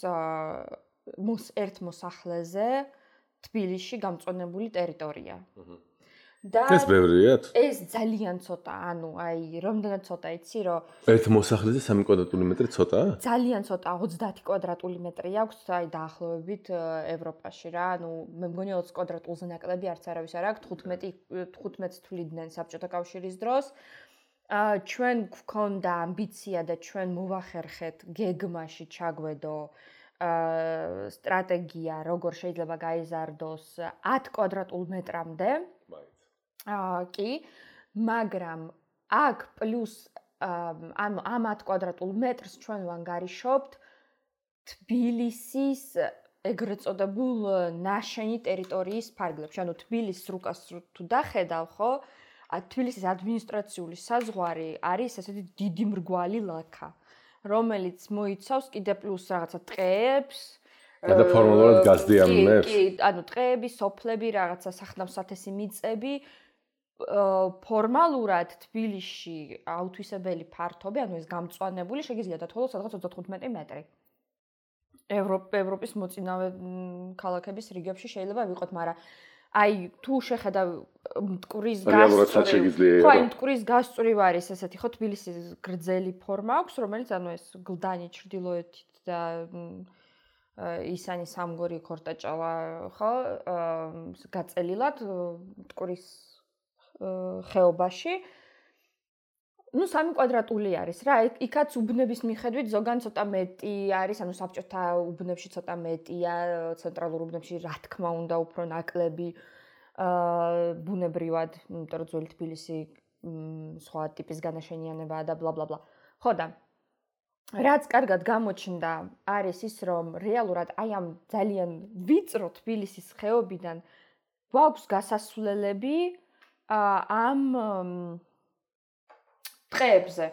ერთ მოსახლეზე თბილისში გამწვანებული ტერიტორია. და ეს ბევრიათ? ეს ძალიან ცოტა, ანუ აი რამდენად ცოტა იცი, რომ ერთ მოსახლეზე 3 კვადრატული მეტრი ცოტაა? ძალიან ცოტა, 30 კვადრატული მეტრი აქვს, აი დაახლოებით ევროპაში რა, ანუ მე მგონი 20 კვადრატულზე ნაკლები არც არავის არ აქვს, 15 თვლიდნენ საბჭოთა კავშირის დროს. ჩვენ გვქონდა ამბიცია და ჩვენ მოვახერხეთ გეგმაში ჩაგვედო სტრატეგია, როგორ შეიძლება გაიზარდოს 10 კვადრატულ მეტრამდე. კი, მაგრამ აქ პლუს ამ 10 კვადრატულ მეტრს ჩვენ ვანგარიშობთ თბილისის ეგრეთ წოდებულ ნაშენი ტერიტორიის ფარგლებში. ანუ თბილისის რუკას თუ დახედავ, ხო? თბილისის ადმინისტრაციული საზღვარი არის ესეთი დიდი მრგვალი ლაქა, რომელიც მოიცავს კიდე პლუს რაღაცა ტყეებს, და ფორმალურად გაზდიანებს. კი, ანუ ტყეები, სოფლები, რაღაცა სახნავ-სათესი მიწები. ფორმალურად თბილისში აუთვისებელი ფართობი, ანუ ეს გამწვანებული შეგიძლია დათვალოს სადღაც 35 მეტრი. ევროპის მოწინავე ქალაქების რიგებში შეიძლება ვიყოთ, მაგრამ აი თუ შეხედავ მტკვრის გასწვრივ, ხო, მტკვრის გასწვრივ არის ესეთი ხო თბილისის გრძელი ფორმა აქვს, რომელიც ანუ ეს გლდანი ჩრდილოეთით და ისანი სამგორი ქორტაჭალა ხო გაწელილად მტკვრის ხეობაში. ну 3 კვადრატული არის რა. იქაც უბნების მიხედვით ზოგან ცოტა მეტი არის, ანუ საბჭოთა უბნებში ცოტა მეტია, ცენტრალურ უბნებში რა თქმა უნდა უფრო ნაკლები ბუნებრივად, იმიტომ რომ ძველი თბილისი სხვა ტიპის განაშენიანებაა და bla bla bla. ხო და რაც კარგად გამოჩნდა არის ის, რომ რეალურად აი ამ ძალიან ვიწრო თბილისის ხეობიდან გვაქვს გასასვლელები ამ ტყეებზე.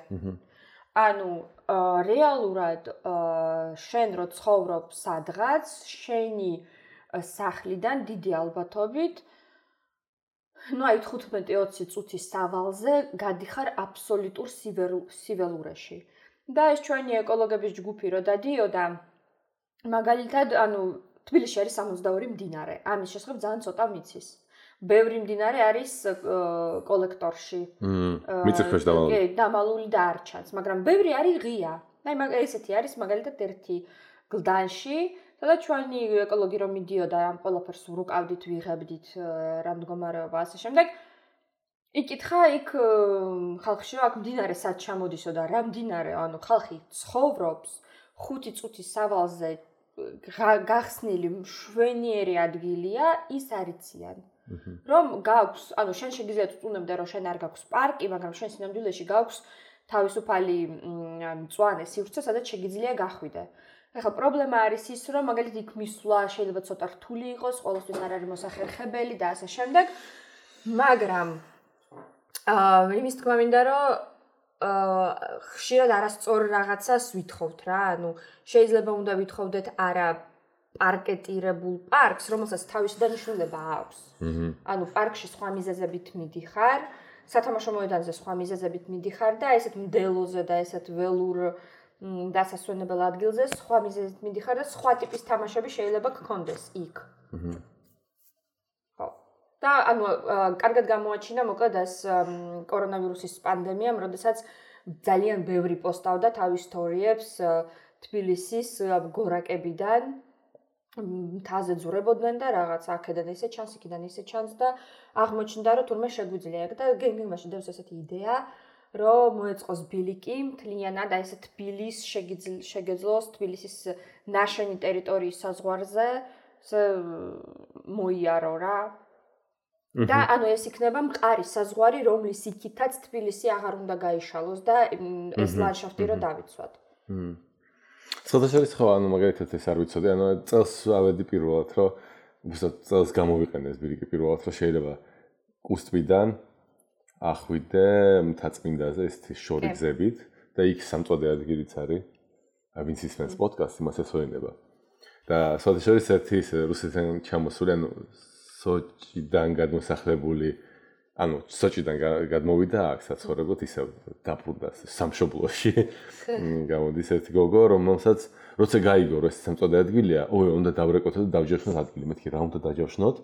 ანუ რეალურად შენ რო ცხოვრობ სადღაც, შენი სახლიდან დიდი ალბათობით ну აი 15-20 წუთის სავალზე გადიხარ აბსოლუტურ სიველურეში. და ეს ჩვენი ეკოლოგების ჯგუფი რო დადიოდა, მაგალითად, ანუ თბილისში არის 62 მდინარე. ამის შესახებ ძალიან ცოტა ვიცის. ბევრი მდინარე არის კოლექტორში. მიწისქვეშ დამალული. კი, დამალული და არ ჩანს, მაგრამ ბევრი არის ღია. აი ესეთი არის მაგალითად ერთი გლდანში, სადაც ჩვენი ეკოლოგი რომ მიდიოდა ამ ყველაფერს ვრუკავდით, ვიღებდით რა მდგომარეობა ასე შემდეგ. იკითხა იქ ხალხში რომ აქ მდინარე სად ჩამოდისო და რა მდინარე, ანუ ხალხი ცხოვრობს 5 წუთის სავალზე გახსნილი მშვენიერი ადგილია, ის არიციან. რომ გაქვს, ანუ შენ შეგიძლია წუნებდე რომ შენ არ გაქვს პარკი, მაგრამ შენ სინამდვილეში გაქვს თავისუფალი მწვანე სივრცე, სადაც შეგიძლია გახვიდე. ეხლა პრობლემა არის ის, რომ მაგალითად იქ მისვლა შეიძლება ცოტა რთული იყოს, ყოველთვის არ არის მოსახერხებელი და ასე შემდეგ. მაგრამ იმის თქმა მინდა, რომ ხშირად არასწორ რაღაცას ვითხოვთ რა, ანუ შეიძლება უნდა ვითხოვდეთ არა პარკეტირებულ პარკს, რომელსაც თავისი დანიშნულება აქვს. ანუ პარკში სხვა მიზეზებით მიდიხარ, სათამაშო მოედანზე სხვა მიზეზებით მიდიხარ და ესეთ მდელოზე და ესეთ ველურ დასასვენებელ ადგილზე სხვა მიზეზით მიდიხარ და სხვა ტიპის თამაშები შეიძლება გქონდეს იქ. ხო. და ანუ კარგად გამოაჩინა მოკლედ ეს კორონავირუსის პანდემიამ, როდესაც ძალიან ბევრი პოსტავდა თავის სტორიებს თბილისის გორაკებიდან. მთაზე ძურებოდნენ და რაღაც აქედან ისე ჩანს, იქიდან ისე ჩანს და აღმოჩნდა რომ თურმე შეგვიძლია და გენგენმაში დევს ესეთი იდეა, რომ მოეწყოს ბილიკი მთლიანად აი ესე თბილის შეგეძლოს თბილისის ნაშენი ტერიტორიის საზღვარზე მოიარო რა. და ანუ ეს იქნება მყარი საზღვარი, რომლის იქითაც თბილისი აღარ უნდა გაიშალოს და ეს ლანდშაფტი რო დავიცვათ. საერთოდ ხო, ანუ მაგალითად ეს არ ვიცოდი, ანუ წელს ავედი პირველად, რომ უბრალოდ წელს გამოვიყენეს ბილიკი პირველად, რომ შეიძლება კუსტვიდან ახვიდე მთაწმინდაზე ესეთი შორი გზებით და იქ სამწვანე ადგილიც არის. ვინც ისმენს პოდკასტს, იმას ესვენება. და საერთოდ ერთი რუსეთიდან ჩამოსული, ანუ სოჭიდან გადმოსახლებული ანუ სოჭიდან გადმოვიდა აქ საცხოვრებლად ისევ დაბრუნდა სამშობლოში. გამოდის ერთი გოგო, რომელსაც როცა გაიგო, რომ ეს სამწოდე ადგილია, უნდა დავრეკოთ და დავჯერხოთ ადგილი. მეთქი რა უნდა დაჯავშნოთ?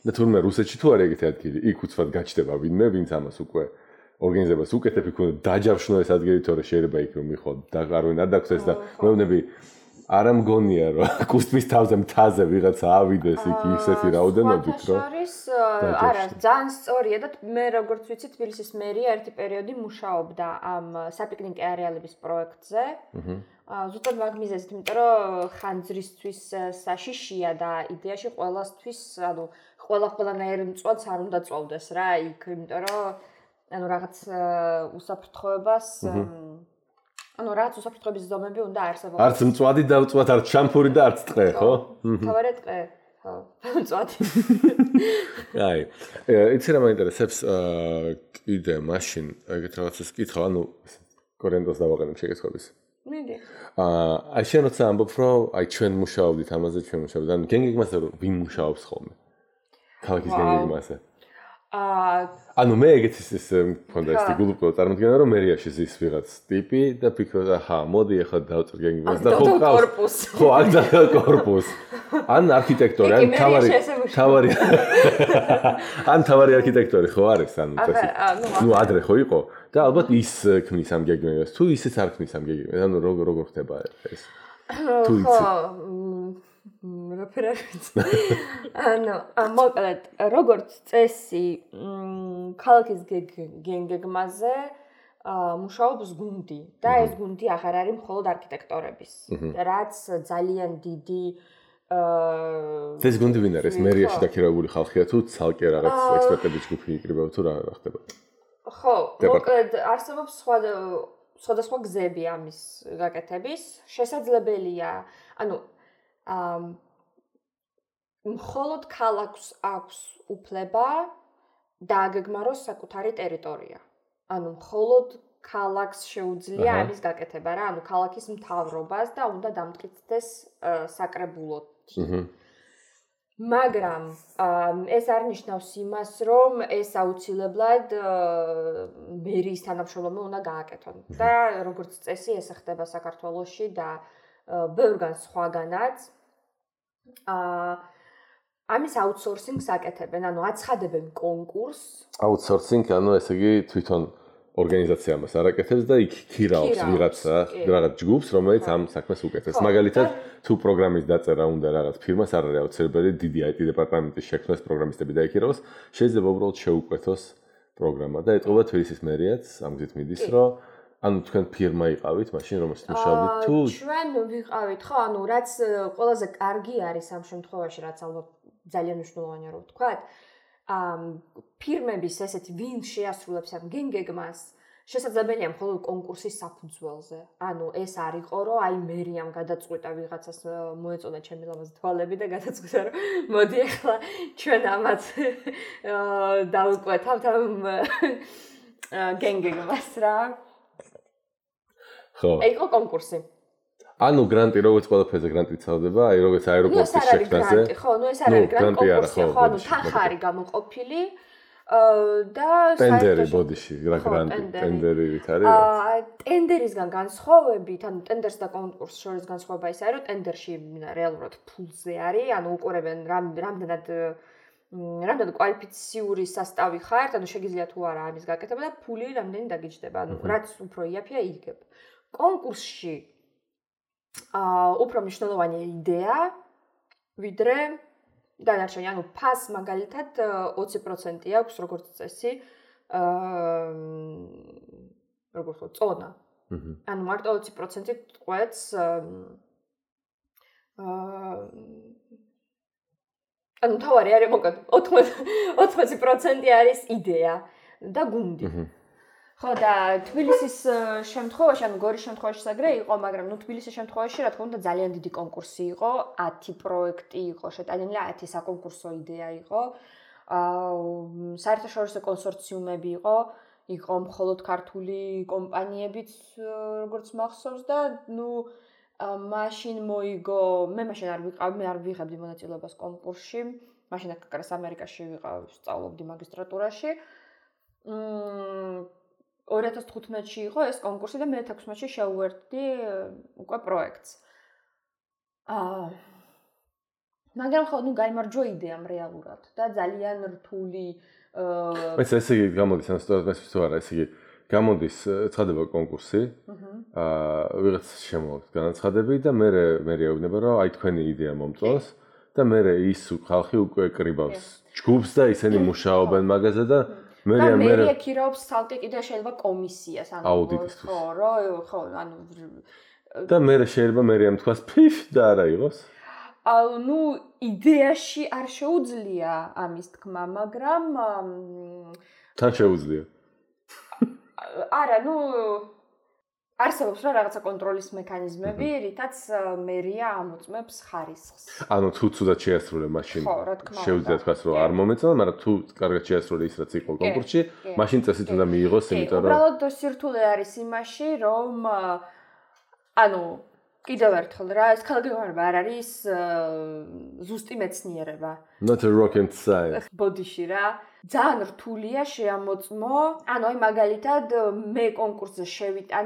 და თურმე რუსეთში თუ არ ეგეთი ადგილი, იქ უცბად გაჩნდება ვინმე, ვინც ამას უკვე ორგანიზებას უკეთებ იქ უნდა დაჯავშნო ეს ადგილი, თორე შეიძლება იქ რომ მიხო და არვინ არ დაგხვდეს და მეუბნები არ ამგონია რომ კუსტმის თავზე მთაზე ვიღაცა ავიდეს იქ ისეთი რაოდენობით რომ არა ძალიან სწორია და მე როგორც ვიცი თბილისის მერია ერთი პერიოდი მუშაობდა ამ საპიკნიკე არეალების პროექტზე. ზუსტად მაგ მიზეზით, იმიტომ რომ ხანძრისთვის საშიშია და იდეაში ყველასთვის, ანუ ყველანაირ მწვადს არ უნდა წოვდეს რა იქ, იმიტომ რომ ანუ რაღაც უსაფრთხოებას ანუ რაც უსაფრთხოების ზომები უნდა არსებობდეს. არც მწვადი დავწვათ, არც შამპური და არც ტყე, ხო? თავარი ტყე. ხო, მწვადი. აი, იცი რა მაინტერესებს კიდე მაშინ ეგეთ რაღაცას კითხავ, ანუ კორენტოს დავაყენებ შეკითხვების. მიდი. აი შენ როცა ამბობ, რომ აი ჩვენ მუშაობდით ამაზე, ჩვენ მუშაობდით, ანუ გენგეგმასზე ვინ მუშაობს ხოლმე? ქალაქის გენგეგმასზე. ანუ მე ეგეთი ის მქონდა ეს გულუპკო წარმოდგენა რომ მერიაში ზის ვიღაც ტიპი და ფიქრობდა აჰა მოდი ახლა დავწერ გენგეგმას და ხო ყავს ხო აქ და კორპუსი ან არქიტექტორი ან თავარი არქიტექტორი ხო არის ანუ ნუ ადრე ხო იყო და ალბათ ის ქმნის ამ გენგეგმას თუ ისიც არ ქმნის ამ გენგეგმას ანუ როგორ ხდება ეს თუ იცი ანუ მოკლედ როგორც წესი ქალაქის გენგეგმაზე მუშაობს გუნდი და ეს გუნდი აღარ არის მხოლოდ არქიტექტორების რაც ძალიან დიდი ეს გუნდი ვინ არის მერიაში დაქირავებული ხალხია თუ ცალკე რაღაც ექსპერტების ჯგუფი იკრიბება თუ რა ხდება ხო მოკლედ არსებობს სხვადასხვა გზები ამის გაკეთების შესაძლებელია ანუ მხოლოდ ქალაქს აქვს უფლება დააგეგმაროს საკუთარი ტერიტორია. ანუ მხოლოდ ქალაქს შეუძლია ამის გაკეთება რა, ანუ ქალაქის მთავრობას და უნდა დამტკიცდეს საკრებულოდ. მაგრამ ეს არ ნიშნავს იმას, რომ ეს აუცილებლად მერიის თანამშრომლობა უნდა გააკეთონ. და როგორც წესი ეს ხდება საქართველოში და ბევრგან სხვაგანაც ამის აუთსორსინგს აკეთებენ, ანუ აცხადებენ კონკურსს. აუთსორსინგ, ანუ ესე იგი თვითონ ორგანიზაცია მას არ აკეთებს და იქ ქირაობს რაღაც ჯგუფს, რომელიც ამ საქმეს უკეთებს. მაგალითად, თუ პროგრამის დაწერა უნდა რაღაც ფირმას არ არის აუცილებელი დიდი IT დეპარტამენტის შექმნას პროგრამისტები დაიქირავოს, შეიძლება უბრალოდ შეუკვეთოს პროგრამა და ეტყობა თბილისის მერიაც ამ გზით მიდის, რომ ანუ თქვენ ფირმა იყავით, მაშინ რომელშიც მუშაობდით თუ ჩვენ ვიყავით, ხო, ანუ რაც ყველაზე კარგი არის ამ შემთხვევაში, რაც ალბათ ძალიან მნიშვნელოვანია რომ ვთქვათ, ფირმების ესეთი ვინ შეასრულებს ამ გენგეგმას, შესაძლებელია მხოლოდ კონკურსის საფუძველზე. ანუ ეს არ იყო, რომ აი მერიამ გადაწყვიტა ვიღაცას მოეწონა ჩემი ლამაზი თვალები და გადაწყვიტა რომ მოდი ახლა ჩვენ ამას დავუკვეთავთ ამ გენგეგმას რა. ხო. იყო კონკურსი. ანუ გრანტი როგორც ყველაფერზე გრანტი წავდება, აი როგორც აეროპორტის შექმნაზე. ხო, ნუ ეს არ არის გრანტი კონკურსი, ხო, ანუ თანხარი გამოყოფილი და ტენდერი ბოდიში, რა გრანტი, ტენდერი ვით არის? ტენდერისგან განსხვავებით, ანუ ტენდერს და კონკურსს შორის განსხვავება ის არის, რომ ტენდერში რეალურად ფულზე არის, ანუ უყურებენ რამდენად კვალიფიციური სასტავი ხართ, ანუ შეგიძლია თუ არა ამის გაკეთება და ფული რამდენი დაგიჯდება, ანუ რაც უფრო იაფია იგებ. კონკურსში უფრო მნიშვნელოვანია იდეა, ვიდრე დანარჩენი, ანუ ფას მაგალითად 20% აქვს როგორც წესი, როგორც წონა. ანუ მარტო 20% ყვეთს ანუ თავარი არის მოკლედ 80% არის იდეა და გუნდი. ხო და თბილისის შემთხვევაში, ანუ გორის შემთხვევაში საგრე იყო, მაგრამ ნუ თბილისის შემთხვევაში რა თქმა უნდა ძალიან დიდი კონკურსი იყო, 10 პროექტი იყო შეტანილი, 10 საკონკურსო იდეა იყო. საერთაშორისო კონსორციუმები იყო მხოლოდ ქართული კომპანიებიც როგორც მახსოვს და ნუ მაშინ მოიგო, მე მაშინ არ ვიღებდი მონაწილეობას კონკურსში. მაშინ აკაკრას ამერიკაში ვიყავ, სწავლობდი მაგისტრატურაში. 2015-ში იყო ეს კონკურსი და მე 16-ში შევუერთდი უკვე პროექტს. მაგრამ ხო, გაიმარჯვა იდეამ რეალურად და ძალიან რთული ეს ესე იგი გამოდის ამ სიტუაციას თუ არა, ესე იგი გამოდის ცხადება კონკურსი. ვიღაც შემოაქვს განაცხადები და მე ეუბნება რომ აი თქვენი იდეა მომწონს და მე ის ხალხი უკვე კრიბავს ჯგუფს და ისინი მუშაობენ მაგაზე და მე ეკირავს ცალკე კიდე შეიძლება კომისიას აუდიტისთვის. ხო, და მე შეიძლება მე ამთქვას ფიფ და არა იყოს. იდეაში არ შეუძლია ამის თქმა, მაგრამ თან შეუძლია. არა, არსებობს რა რაღაცა კონტროლის მექანიზმები, რითაც მერია ამოწმებს ხარისხს. თუ ცუდად შეასრულე მაშინ შეუძლია თქვას რომ არ მომეწონა, მაგრამ თუ კარგად შეასრულე ის რაც იყო კონკურსში, მაშინ წესით უნდა მიიღოს, იმიტომ რომ უბრალოდ სირთულე არის იმაში, რომ კიდევ ერთხელ რა, ეს ქალგეგმარება არ არის ზუსტი მეცნიერება. Not a rocket science. ბოდიში რა. ძალიან რთულია შეამოწმო. აი მაგალითად მე კონკურსზე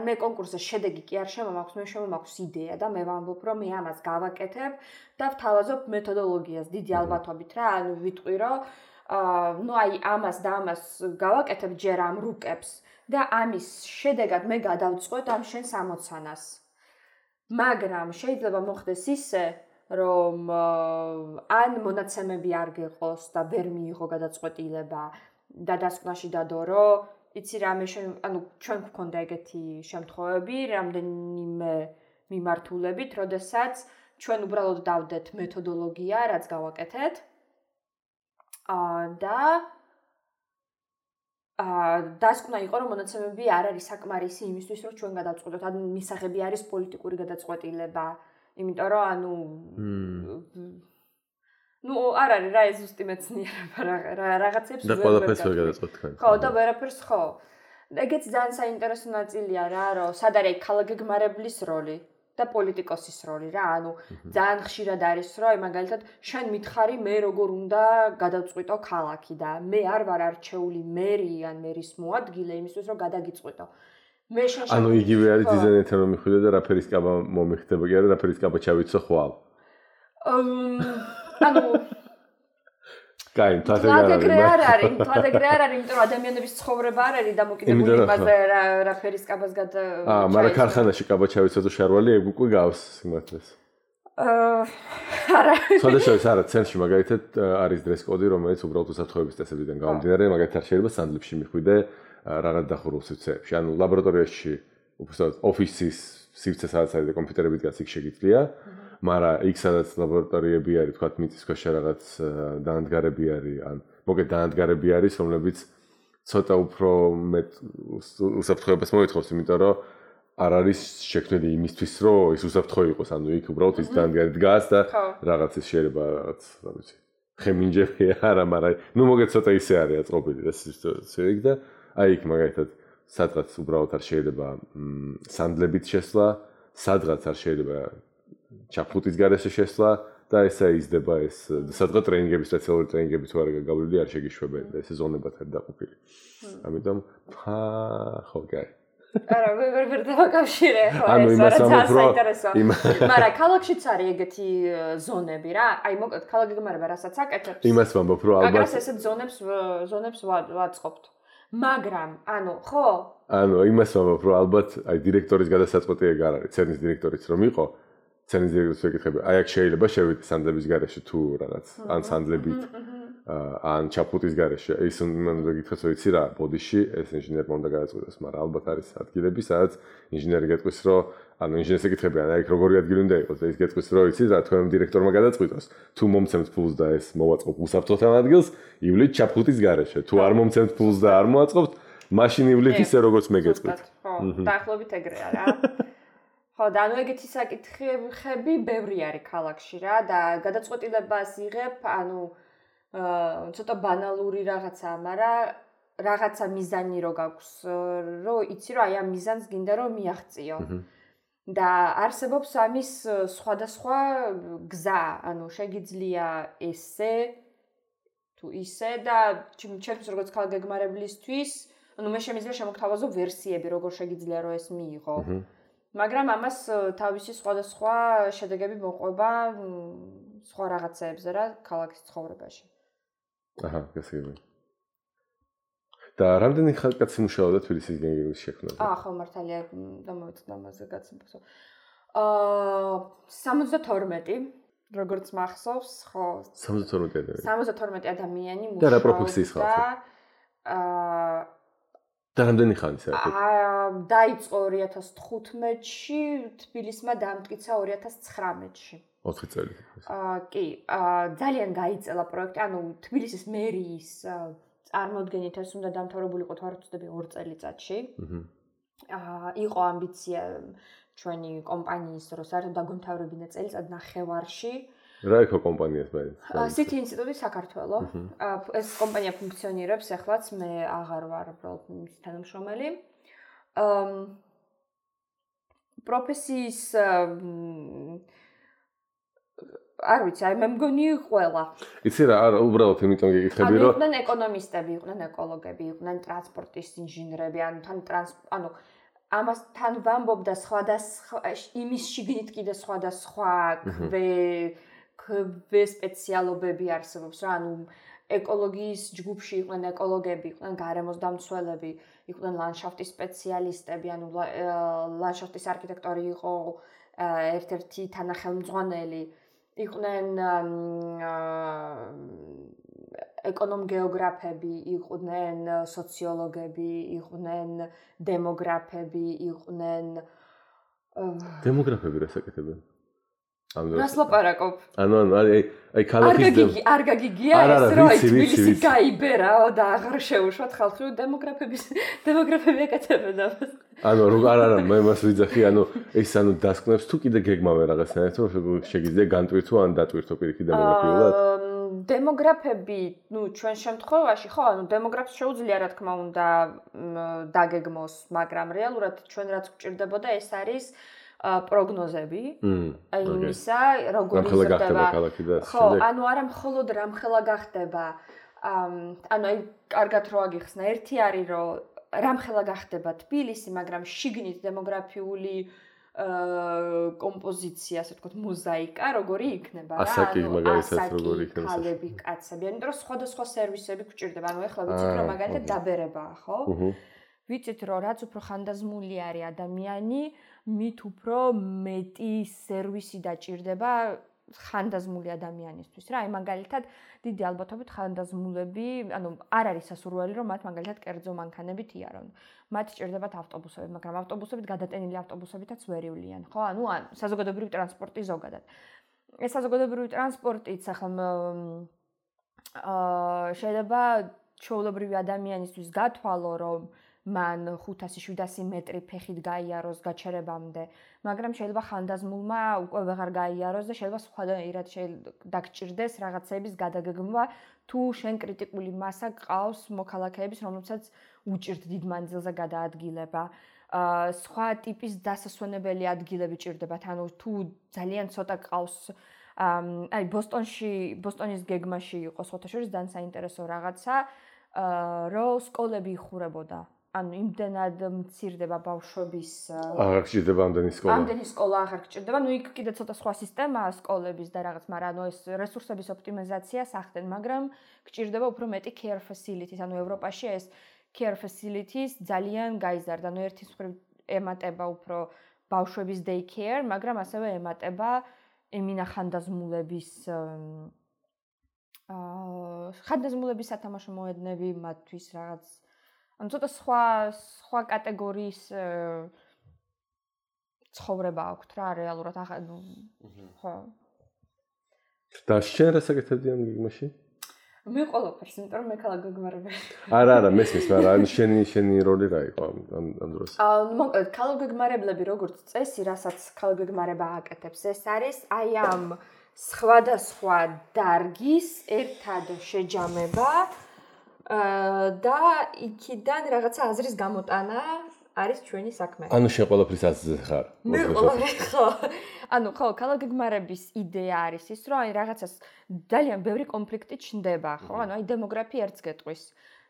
მე კონკურსზე შედეგი კი არ შემომაქვს, მე შემომაქვს იდეა და მე ვამბობ რომ მე ამას გავაკეთებ და ვთავაზობ მეთოდოლოგიას დიდი ალბათობით რა, ვიტყვი რომ ამას და ამას გავაკეთებ ჯერ ამ რუკებს და ამის შედეგად მე გადავწყვეტ ამ შენს ამოცანას. მაგრამ შეიძლება მოხდეს ისე, რომ ან მონაცემები არ გეყოს და ვერ მიიღო გადაწყვეტილება და დასკვნაში დადო, რომ იცი რა, ჩვენ გვქონდა ეგეთი შემთხვევები, რამდენიმე მიმართულებით, როდესაც ჩვენ უბრალოდ დავდეთ მეთოდოლოგია, რაც გავაკეთეთ. და დასკვნა იყო, რომ მონაცემები არ არის საკმარისი იმისთვის, რომ ჩვენ გადავწყვეტოთ, მისაღები არის პოლიტიკური გადაწყვეტილება, იმიტომ რომ არ არის რა ეს ზუსტი მეცნიერება რაღაცებს და ყველაფერს ვერ გადაწყვეტ თქვენ. ხო, და ვერაფერს ხო. ეგეც ძალიან საინტერესო ნაწილია რა, რომ სად არის ქალგეგმარებლის როლი და პოლიტიკოსის როლი რა, ძალიან ხშირად არის, რომ მაგალითად შენ მითხარი მე როგორ უნდა გადავწყვიტო ქალაქი და მე არ ვარ არჩეული მერი ან მერის მოადგილე იმისთვის, რომ გადაგიწყვიტო. მე იგივე არის დიზაინერთან რომ მიხვიდე და რაფერის კაბა მომიხდება კი არა, რაფერის კაბა ჩავიცო ხვალ. კაი, თვალეგრე არ არის, იმიტომ რომ ადამიანების ცხოვრება არ არის დამოკიდებული იმაზე რაფერის კაბას მაგრამ ქარხანაში კაბა ჩავიცო და შარვალი ეგ უკვე გავს სიმართლეს. არა. სხვადასხვა არა, ცენტრში მაგალითად არის დრეს კოდი, რომელიც უბრალოდ უსაფრთხოების წესებიდან გამომდინარე, მაგალითად შეიძლება სანდლებში მიხვიდე რაღაც დახურულ სივრცეებში. ლაბორატორიაში უბრალოდ ოფისის სივრცე სადაც არის და კომპიუტერები დგას იქ შეგიძლია. მაგრამ იქ სადაც ლაბორატორიები არის, თქვათ მიწის ქვეშ რაღაც დაანადგარები არის, ან მოგეთ დაანადგარები არის, რომლებიც ცოტა უფრო მეტ უსაფრთხოებას მოითხოვს, იმიტომ რომ არ არის შექმნილი იმისთვის, რომ ის უსაფრთხო იყოს, იქ უბრალოდ ის დაანდგარი დგას და რაღაცის შეიძლება რაღაც, რა ვიცი, ხემინჯები არა, მაგრამ მოგეთ ცოტა ისე არის აწყობილი და სივრცე და იქ მაგალითად სადღაც უბრალოდ არ შეიძლება სანდლებით შესვლა, სადღაც არ შეიძლება ჩაფხუტის გარეშე შესვლა და ესა იზრდება ეს სადღაც ტრეინინგები, სპეციალური ტრეინინგები თუ არ გაგავლილი არ შეგიშვებენ და ესე ზონებად არის დაყოფილი. ამიტომ ხო კაი. არა, ვერ დავაკავშირე ხო ეს რაც საინტერესოა. მაგრამ ქალაქშიც არის ეგეთი ზონები რა. აი მოკლედ ქალგეგმარება რასაც აკეთებს. იმას ვამბობ რომ ალბათ ესეთ ზონებს ვაწყობთ. მაგრამ ხო? იმას ვამბობ რომ ალბათ აი დირექტორის გადასაწყვეტი ეგ არ არის, ცერნის დირექტორიც რომ იყო ცერნის დირექტორს ვეკითხები, აი აქ შეიძლება შევიდე სანდლების გარეშე თუ რაღაც, ან სანდლებით, ან ჩაფხუტის გარეშე. ის უნდა გითხრას, რომ იცი რა, ბოდიში ეს ინჟინერმა უნდა გადაწყვიტოს, მაგრამ ალბათ არის ადგილები, სადაც ინჟინერი გეტყვის, რომ ინჟინერს ეკითხები, აი აქ როგორი ადგილი უნდა იყოს და ის გეტყვის, რომ იცი რა, თქვენ დირექტორმა გადაწყვიტოს, თუ მომცემთ ფულს და ეს მოვაწყობ უსაფრთხოთან ადგილს, ივლით ჩაფხუტის გარეშე. თუ არ მომცემთ ფულს და არ მოაწყობთ, მაშინ ივლით ისე როგორც მე გეტყვით. ხო, დაახლოებით ეგრეა რა. ხო, და ეგეთი საკითხები ბევრი არის ქალაქში რა და გადაწყვეტილებას იღებ, ცოტა ბანალური რაღაცაა, მაგრამ რაღაცა მიზანი რო გაქვს, რომ იცი რომ აი ამ მიზანს გინდა რომ მიაღწიო. და არსებობს ამის სხვადასხვა გზა, შეგიძლია ესე თუ თუ ისე და ჩემთვის როგორც ქალგეგმარებლისთვის, მე შემიძლია შემოგთავაზო ვერსიები, როგორ შეგიძლია რომ ეს მიიღო. მაგრამ ამას თავისი სხვადასხვა შედეგები მოყვება სხვა რაღაცეებზე რა ქალაქის ცხოვრებაში. აჰა, გასაგები. და რამდენი ხალხი მუშაობდა თბილისის გეგმის შექმნაზე? ხო, მართალია, დამოვიწყდა ამაზე გაცნობასო. 72 როგორც მახსოვს, ხო. 72 ადამიანი. 72 ადამიანი მუშაობდა. და რა პროფესიის ხალხი? და რამდენი ხანი საერთოდ? დაიწყო 2015-ში, თბილისმა დამტკიცა 2019-ში. 4 წელი. კი, ძალიან გაიწელა პროექტი, ანუ თბილისის მერიის წარმოდგენით ეს უნდა დამთავრებულიყო თუ არ ვცდები 2 წელიწადში. იყო ამბიცია ჩვენი კომპანიის რომ საერთოდ დაგვემთავრებინა წელიწად ნახევარში. რა იყო კომპანიას მაინც? City ინსტიტუტი საქართველო. ეს კომპანია ფუნქციონირებს ახლაც, მე აღარ ვარ უბრალოდ მის თანამშრომელი. პროფესიის არ ვიცი, მე მგონი ყველა. იცი რა, არა, უბრალოდ იმიტომ გეკითხები რომ იყვნენ ეკონომისტები, იყვნენ ეკოლოგები, იყვნენ ტრანსპორტის ინჟინრები, ანუ ამასთან ვამბობდა სხვადასხვა იმის შიგნით კიდე სხვადასხვა სპეციალობები არსებობს რა, ანუ ეკოლოგიის ჯგუფში იყვნენ ეკოლოგები, იყვნენ გარემოს დამცველები, იყვნენ ლანდშაფტის სპეციალისტები, ანუ ლანდშაფტის არქიტექტორი იყო ერთ-ერთი თანახელმძღვანელი, იყვნენ ეკონომ-გეოგრაფები, იყვნენ სოციოლოგები, იყვნენ დემოგრაფები, იყვნენ დემოგრაფები რას აკეთებენ? რას ლაპარაკობ? ანუ აი ქალაქის არ გაგიგია ეს რომ თბილისი გაიბერაო და აღარ შეუშვათ ხალხი დემოგრაფები აკეთებენ ამას. ანუ არა მე მას ვიძახი, ანუ ეს დასკვნებს თუ კიდე გეგმავენ რაღაცნაირად რომ შეგიძლია განტვირთო ან დატვირთო პირიქით დემოგრაფიულად? დემოგრაფები, ჩვენ შემთხვევაში ხო, დემოგრაფს შეუძლია რა თქმა უნდა დაგეგმოს, მაგრამ რეალურად ჩვენ რაც გვჭირდებოდა ეს არის პროგნოზები, აი იმისა, როგორ იზრდება ქალაქი და ხო, ანუ არა მხოლოდ რამხელა გახდება, ანუ აი კარგად რო აგიხსნა, ერთი არის რომ რამხელა გახდება თბილისი, მაგრამ შიგნით დემოგრაფიული კომპოზიცია, ასე ვთქვათ, მოზაიკა, როგორი იქნება რა, ასაკი მაგალითად როგორი იქნება ქალები, კაცები, ანუ რომ სხვადასხვა სერვისები გვჭირდება, ანუ ეხლა ვიცით რომ მაგალითად დაბერებაა, ხო? ვიცით რომ რაც უფრო ხანდაზმული არის ადამიანი, მით უფრო მეტი სერვისი დაჭირდება ხანდაზმული ადამიანისთვის რა. აი მაგალითად დიდი ალბათობით ხანდაზმულები, ანუ არ არის სასურველი რომ მათ მაგალითად კერძო მანქანებით იარონ. მათ ჭირდებათ ავტობუსები, მაგრამ ავტობუსებით გადატენილი ავტობუსებითაც ვერ ივლიან, ხო? ანუ საზოგადოებრივი ტრანსპორტი ზოგადად. ეს საზოგადოებრივი ტრანსპორტიც ახლა შეიძლება ჩვეულებრივი ადამიანისთვის გათვალო რომ მან 500-700 მეტრი ფეხით გაიაროს გაჩერებამდე, მაგრამ შეიძლება ხანდაზმულმა უკვე ვეღარ გაიაროს და შეიძლება სხვადასხვა დაგჭირდეს რაღაცების გადაგეგმვა, თუ შენ კრიტიკული მასა გყავს მოქალაქეების, რომლებსაც უჭირთ დიდ მანძილზე გადაადგილება. სხვა ტიპის დასასვენებელი ადგილები ჭირდებათ, ანუ თუ ძალიან ცოტა გყავს აი ბოსტონის გეგმაში იყო სხვათა შორის ძალიან საინტერესო რაღაცა, რომ სკოლები იხურებოდა. ანუ იმდენად მცირდება ბავშვების აღარ გჭირდება ამდენი სკოლა აღარ გჭირდება, ნუ იქ კიდე ცოტა სხვა სისტემაა სკოლების და რაღაც, მაგრამ ანუ ეს რესურსების ოპტიმიზაციას ახდენ, მაგრამ გჭირდება უფრო მეტი care facilities, ანუ ევროპაში ეს care facilities ძალიან გაიზარდა, ანუ ერთის მხრივ ემატება უფრო ბავშვების day care, მაგრამ ასევე ემატება ემინა ხანდაზმულების სათამაშო მოედნები მათთვის რაღაც ანუ ცოტა სხვა კატეგორიის ცხოვრება აქვთ რა რეალურად ხო. და შენ რას აკეთებდი ამ გეგმაში? მე ყველაფერს, იმიტომ რომ მე ქალგეგმარებელი. არა, მესმის, მაგრამ შენი როლი რა იყო ამ დროს? მოკლედ, ქალგეგმარებლები როგორც წესი, რასაც ქალგეგმარება აკეთებს, ეს არის აი ამ სხვადასხვა დარგის ერთად შეჯამება და იქიდან რაღაცა აზრის გამოტანა არის ჩვენი საქმე. ანუ შენ ყველაფრის აზრზე ხარ. მე ყველაფერი ხო. ანუ ხო, ქალაქგეგმარების იდეა არის ის, რომ აი რაღაცას ძალიან ბევრი კონფლიქტი ჩნდება, ხო? ანუ აი დემოგრაფია ერთს გეტყვის.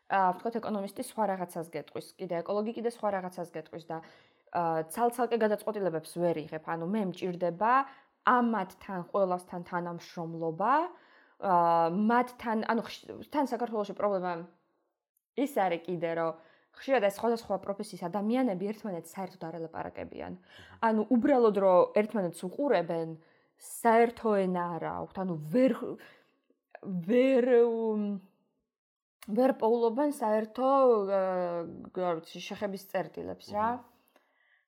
ვთქვათ ეკონომისტი სხვა რაღაცას გეტყვის, კიდე ეკოლოგი კიდე სხვა რაღაცას გეტყვის და ცალ-ცალკე გადაწყვეტილებებს ვერ იღებ. ანუ მე მჭირდება ამათთან ყველასთან თანამშრომლობა, მათთან, ანუ თან საქართველოში პრობლემა ის არის კიდე, რომ ხშირად ეს სხვადასხვა პროფესიის ადამიანები ერთმანეთს საერთოდ არ ელაპარაკებიან. ანუ უბრალოდ რომ ერთმანეთს უყურებენ, საერთო ენა არ აქვთ, ანუ ვერ პოულობენ საერთო შეხების წერტილებს რა.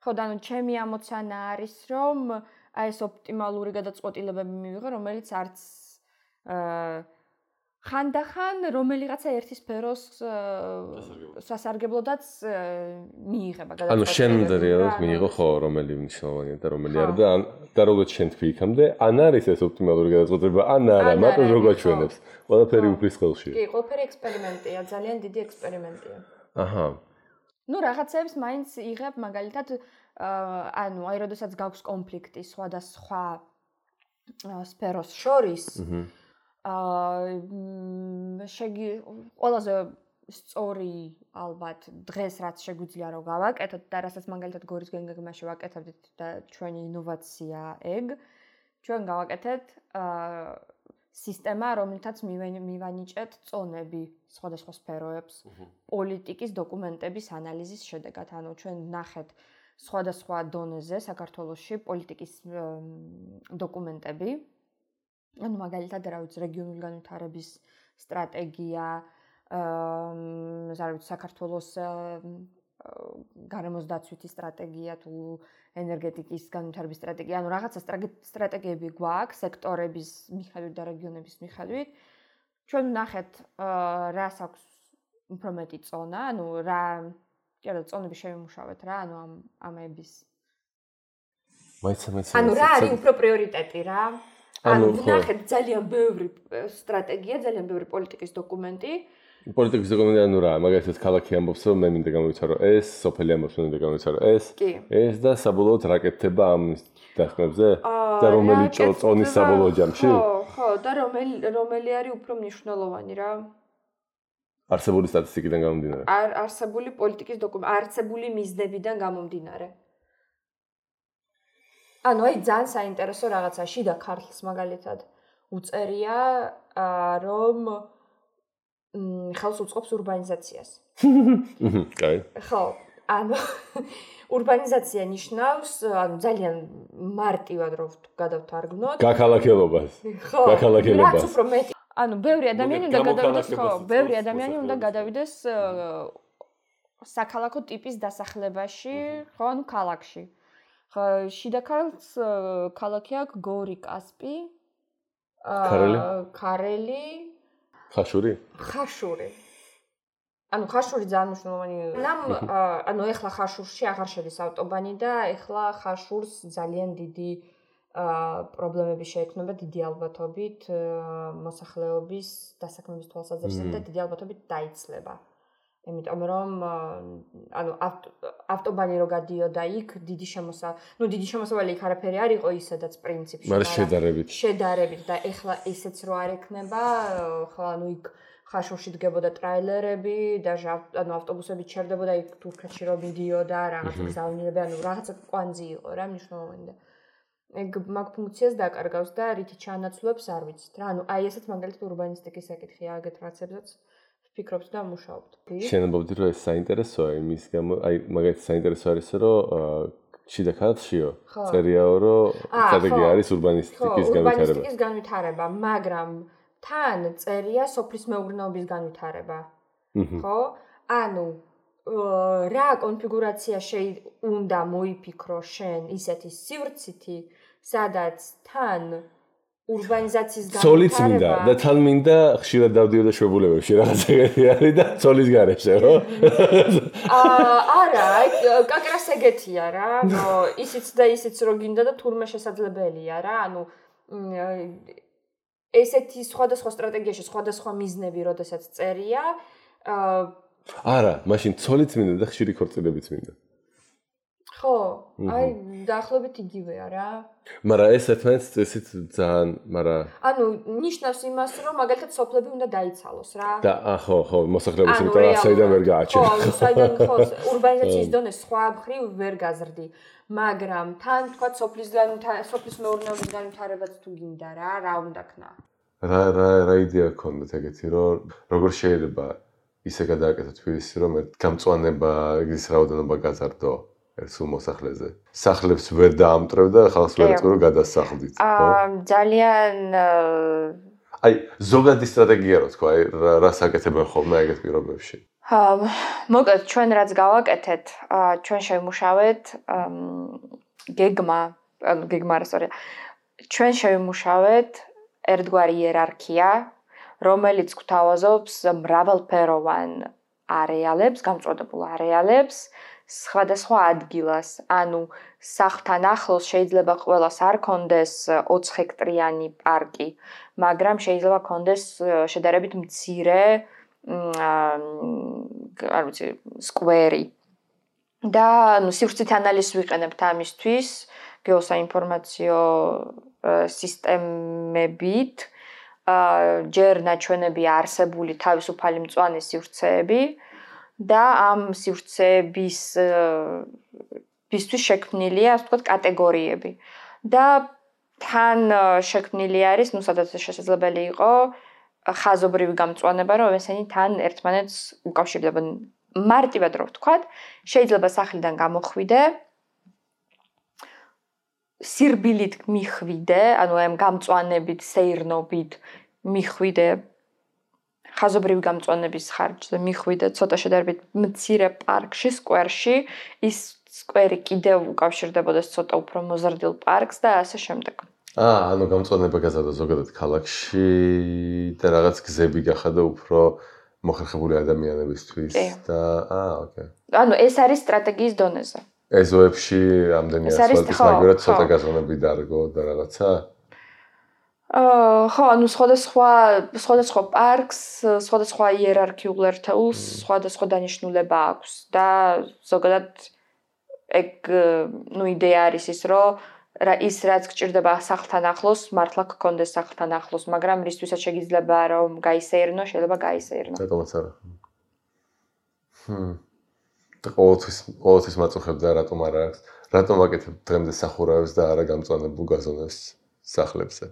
ხო და ანუ ჩემი ამოცანა არის, რომ აი ეს ოპტიმალური გადაწყვეტილებები მივიღო, რომელიც არც ხანდახან რომელიღაცა ერთი სფეროს სასარგებლოდაც მიიღება გადაწყვეტილება. ანუ შენ რეალურად მიიღო ხო რომელი მნიშვნელოვანია და რომელი არა და როგორც შენ თქვი იქამდე, ან არის ეს ოპტიმალური გადაწყვეტილება, ან არა, მარტო როგორ ჩვენებს. ყველაფერი უფლის ხელშია. კი, ყველაფერი ექსპერიმენტია, ძალიან დიდი ექსპერიმენტია. აჰა. ნუ რაღაცებს მაინც იღებ, მაგალითად, ანუ აი როდესაც გაქვს კონფლიქტი სხვადასხვა სფეროს შორის, ყველაზე სწორი ალბათ დღეს რაც შეგვიძლია რომ გავაკეთოთ და რასაც მაგალითად გორის გეგმაში ვაკეთებდით და ჩვენი ინოვაცია ეგ ჩვენ გავაკეთეთ სისტემა რომელთაც მივანიჭეთ წონები სხვადასხვა სფეროებს პოლიტიკის დოკუმენტების ანალიზის შედეგად ანუ ჩვენ ნახეთ სხვადასხვა დონეზე საქართველოში პოლიტიკის დოკუმენტები ანუ მაგალითად რა ვიცი რეგიონული განვითარების სტრატეგია საქართველოს გარემოს დაცვითი სტრატეგია თუ ენერგეტიკის განვითარების სტრატეგია, ანუ რაღაცა სტრატეგიები გვაქვს სექტორების მიხედვით და რეგიონების მიხედვით. ჩვენ ვნახეთ რას აქვს უფრო მეტი წონა, ანუ რა წონები შევიმუშავეთ რა, ანუ ამების. ანუ რა არის უფრო პრიორიტეტი რა? ანუ ვნახეთ ძალიან ბევრი სტრატეგია, ძალიან ბევრი პოლიტიკის დოკუმენტი. პოლიტიკის დოკუმენტი ანუ რა, მაგალითად ქალაქი ამბობს, რომ მე მინდა გამოვიცარო ეს, სოფელი ამბობს, მე მინდა გამოვიცარო ეს და საბოლოოდ რაკეთდება ამ დასკვნებზე და რომელი წონის საბოლოო ჯამში? ხო, და რომელი არის უფრო მნიშვნელოვანი რა? არსებული სტატისტიკიდან გამომდინარე. არსებული პოლიტიკის დოკუმენტი, არსებული მიზნებიდან გამომდინარე. ანუ აი ძალიან საინტერესო რაღაცა შიდა ქართლს მაგალითად უწერია რომ ხელს უწყობს ურბანიზაციას. კაი. ხო, ანუ ურბანიზაცია ნიშნავს, ანუ ძალიან მარტივად რომ გადავთარგმნოთ. გაქალაქელობას. ხო, რაც უფრო მეტი. ანუ ბევრი ადამიანი უნდა გადავიდეს, ხო, ბევრი ადამიანი უნდა გადავიდეს საქალაქო ტიპის დასახლებაში, ხო, ანუ ქალაქში. ხო, შიდა ქართლს ქალაქი აქვს გორი, კასპი, ქარელი ხაშური. ანუ ხაშური ძალიან მნიშვნელოვანი. ანუ ეხლა ხაშურში აღარ შედის ავტობანი და ეხლა ხაშურს ძალიან დიდი პრობლემები შეექმნება დიდი ალბათობით მოსახლეობის დასაქმების თვალსაზრისით და დიდი ალბათობით დაიცლება. იმიტომ რომ ანუ ავტობანი რო გადიოდა იქ დიდი შემოსავალი იქ არაფერი არ იყო ისედაც პრინციპში. მაგრამ შედარებით და ეხლა ისეც რო არ ექნება, ხო ანუ იქ ხაშურში დგებოდა ტრაილერები და ანუ ავტობუსები ჩერდებოდა იქ თურქეთში რო მიდიოდა რაღაცა გზავნილები, ანუ რაღაცა კვანძი იყო რა მნიშვნელოვანი და ეგ მაგ ფუნქციას დაკარგავს და რითი ჩაანაცვლებს არ ვიცით რა. ანუ აი ესეც მაგალითად ურბანისტიკის საკითხია აგეთ რაღაცებსაც ფიქრობთ და მუშაობთ. შენებობდი რომ ეს საინტერესოა იმის გამო, აი მაგალითად საინტერესო არის რომ შიდა ქართლშიო წერიაო რომ სტრატეგია არის ურბანისტიკის განვითარება, მაგრამ თან წერია სოფლის მეურნეობის განვითარება. ხო? ანუ რა კონფიგურაცია უნდა მოიფიქრო შენ ისეთი სივრცითი, სადაც თან ურბანიზაციის განვითარება. ცოლიც მინდა და თან მინდა ხშირად დავდიოდა შვებულებებში რაღაცა არის და ცოლის გარეშე, ხო? არა, კაკრას ეგეთია რა, ისიც და ისიც რო გინდა და თურმე შესაძლებელია რა, ანუ ესეთი სხვადასხვა სტრატეგიაში სხვადასხვა მიზნები, როდესაც წერია. არა, მაშინ ცოლიც მინდა და ხშირი ქორწილებიც მინდა. ხო, აი დაახლოებით იგივეა რა. მაგრამ ეს ერთმანეთს ესეთ ძალიან, მაგრამ ანუ ნიშნავს იმას, რომ მაგალითად სოფლები უნდა დაიცალოს რა. და ხო, მოსახლეობის იმიტომ ასაიდან ვერ გააჩერე. ხო, საიდან ხო, ურბანიზაციის დონე სხვა მხრივ ვერ გაზრდი. მაგრამ თან თქვა სოფლის მეურნეობის განვითარებაც თუ გინდა რა უნდა ქნა. რა იდეა გქონდათ ეგეთი, რომ როგორ შეიძლება ისე გადააკეთო თბილისი, რომ გამწვანება ის რაოდენობა გაზარდო ერთ სულ მოსახლეზე. სახლებს ვერ დაამტვრევ და ხალხს ვერ ეწყო რომ გადასახლდით, ხო? ძალიან აი, ზოგადი სტრატეგია რო თქვა, რას აკეთებენ ხოლმე ეგეთ პირობებში? მოკლედ ჩვენ რაც გავაკეთეთ, ჩვენ შევიმუშავეთ ჩვენ შევიმუშავეთ ერთგვარი იერარქია, რომელიც გვთავაზობს მრავალფეროვან არეალებს, გამწვადებულ არეალებს, სხვადასხვა ადგილას. ანუ სახლთან ახლოს შეიძლება ყველას არ კონდეს 20 ჰექტრიანი პარკი, მაგრამ შეიძლება კონდეს შედარებით მცირე არ ვიცი, სკვერი. და სივრცით ანალიზს ვიყენებთ ამისთვის გეოსაინფორმაციო სისტემებით. ჯერ ნაჩვენები არსებული თავისუფალი მწვანე სივრცეები და ამ სივრცეებისთვის შექმნილია, ასე ვთქვათ, კატეგორიები. და თან შექმნილი არის, სადაც შესაძლებელი იყო ხაზობრივი გამწვანება, რომ ესენი თან ერთმანეთს უკავშირდებიან. მარტივად რო ვთქვათ, შეიძლება სახლიდან გამოხვიდე, სირბილით მიხვიდე, ანუ ამ გამწვანებით, სეირნობით მიხვიდე ხაზობრივი გამწვანების ხარჯზე მიხვიდე ცოტა შედარებით მცირე პარკში, სკვერში, ის სკვერი კიდევ უკავშირდებოდეს ცოტა უფრო მოზრდილ პარკს და ასე შემდეგ. ანუ გამწვანება გაზარდა ზოგადად ქალაქში და რაღაც გზები გახადა უფრო მოხერხებული ადამიანებისთვის და ოკეი. ანუ ეს არის სტრატეგიის დონეზე. ეზოებში ამდენი ასფალტის მაგერად ცოტა გაზონები დარგო და რაღაცა? ხო, ანუ სხვადასხვა პარკს, სხვადასხვა იერარქიულ ერთეულს, სხვადასხვა დანიშნულება აქვს და ზოგადად ეგ იდეა არის ის, რომ ის რაც გჭირდება სახლთან ახლოს, მართლა გქონდეს სახლთან ახლოს, მაგრამ რისთვისაც შეგიძლება რომ გაისეირნო, შეიძლება გაისეირნო. რატომაც არა. და ყოველთვის მაწუხებ და რატომ არა აქვს? რატომ აკეთებ დღემდე სახურავებს და არა გამწვანებულ გაზონებს სახლებზე?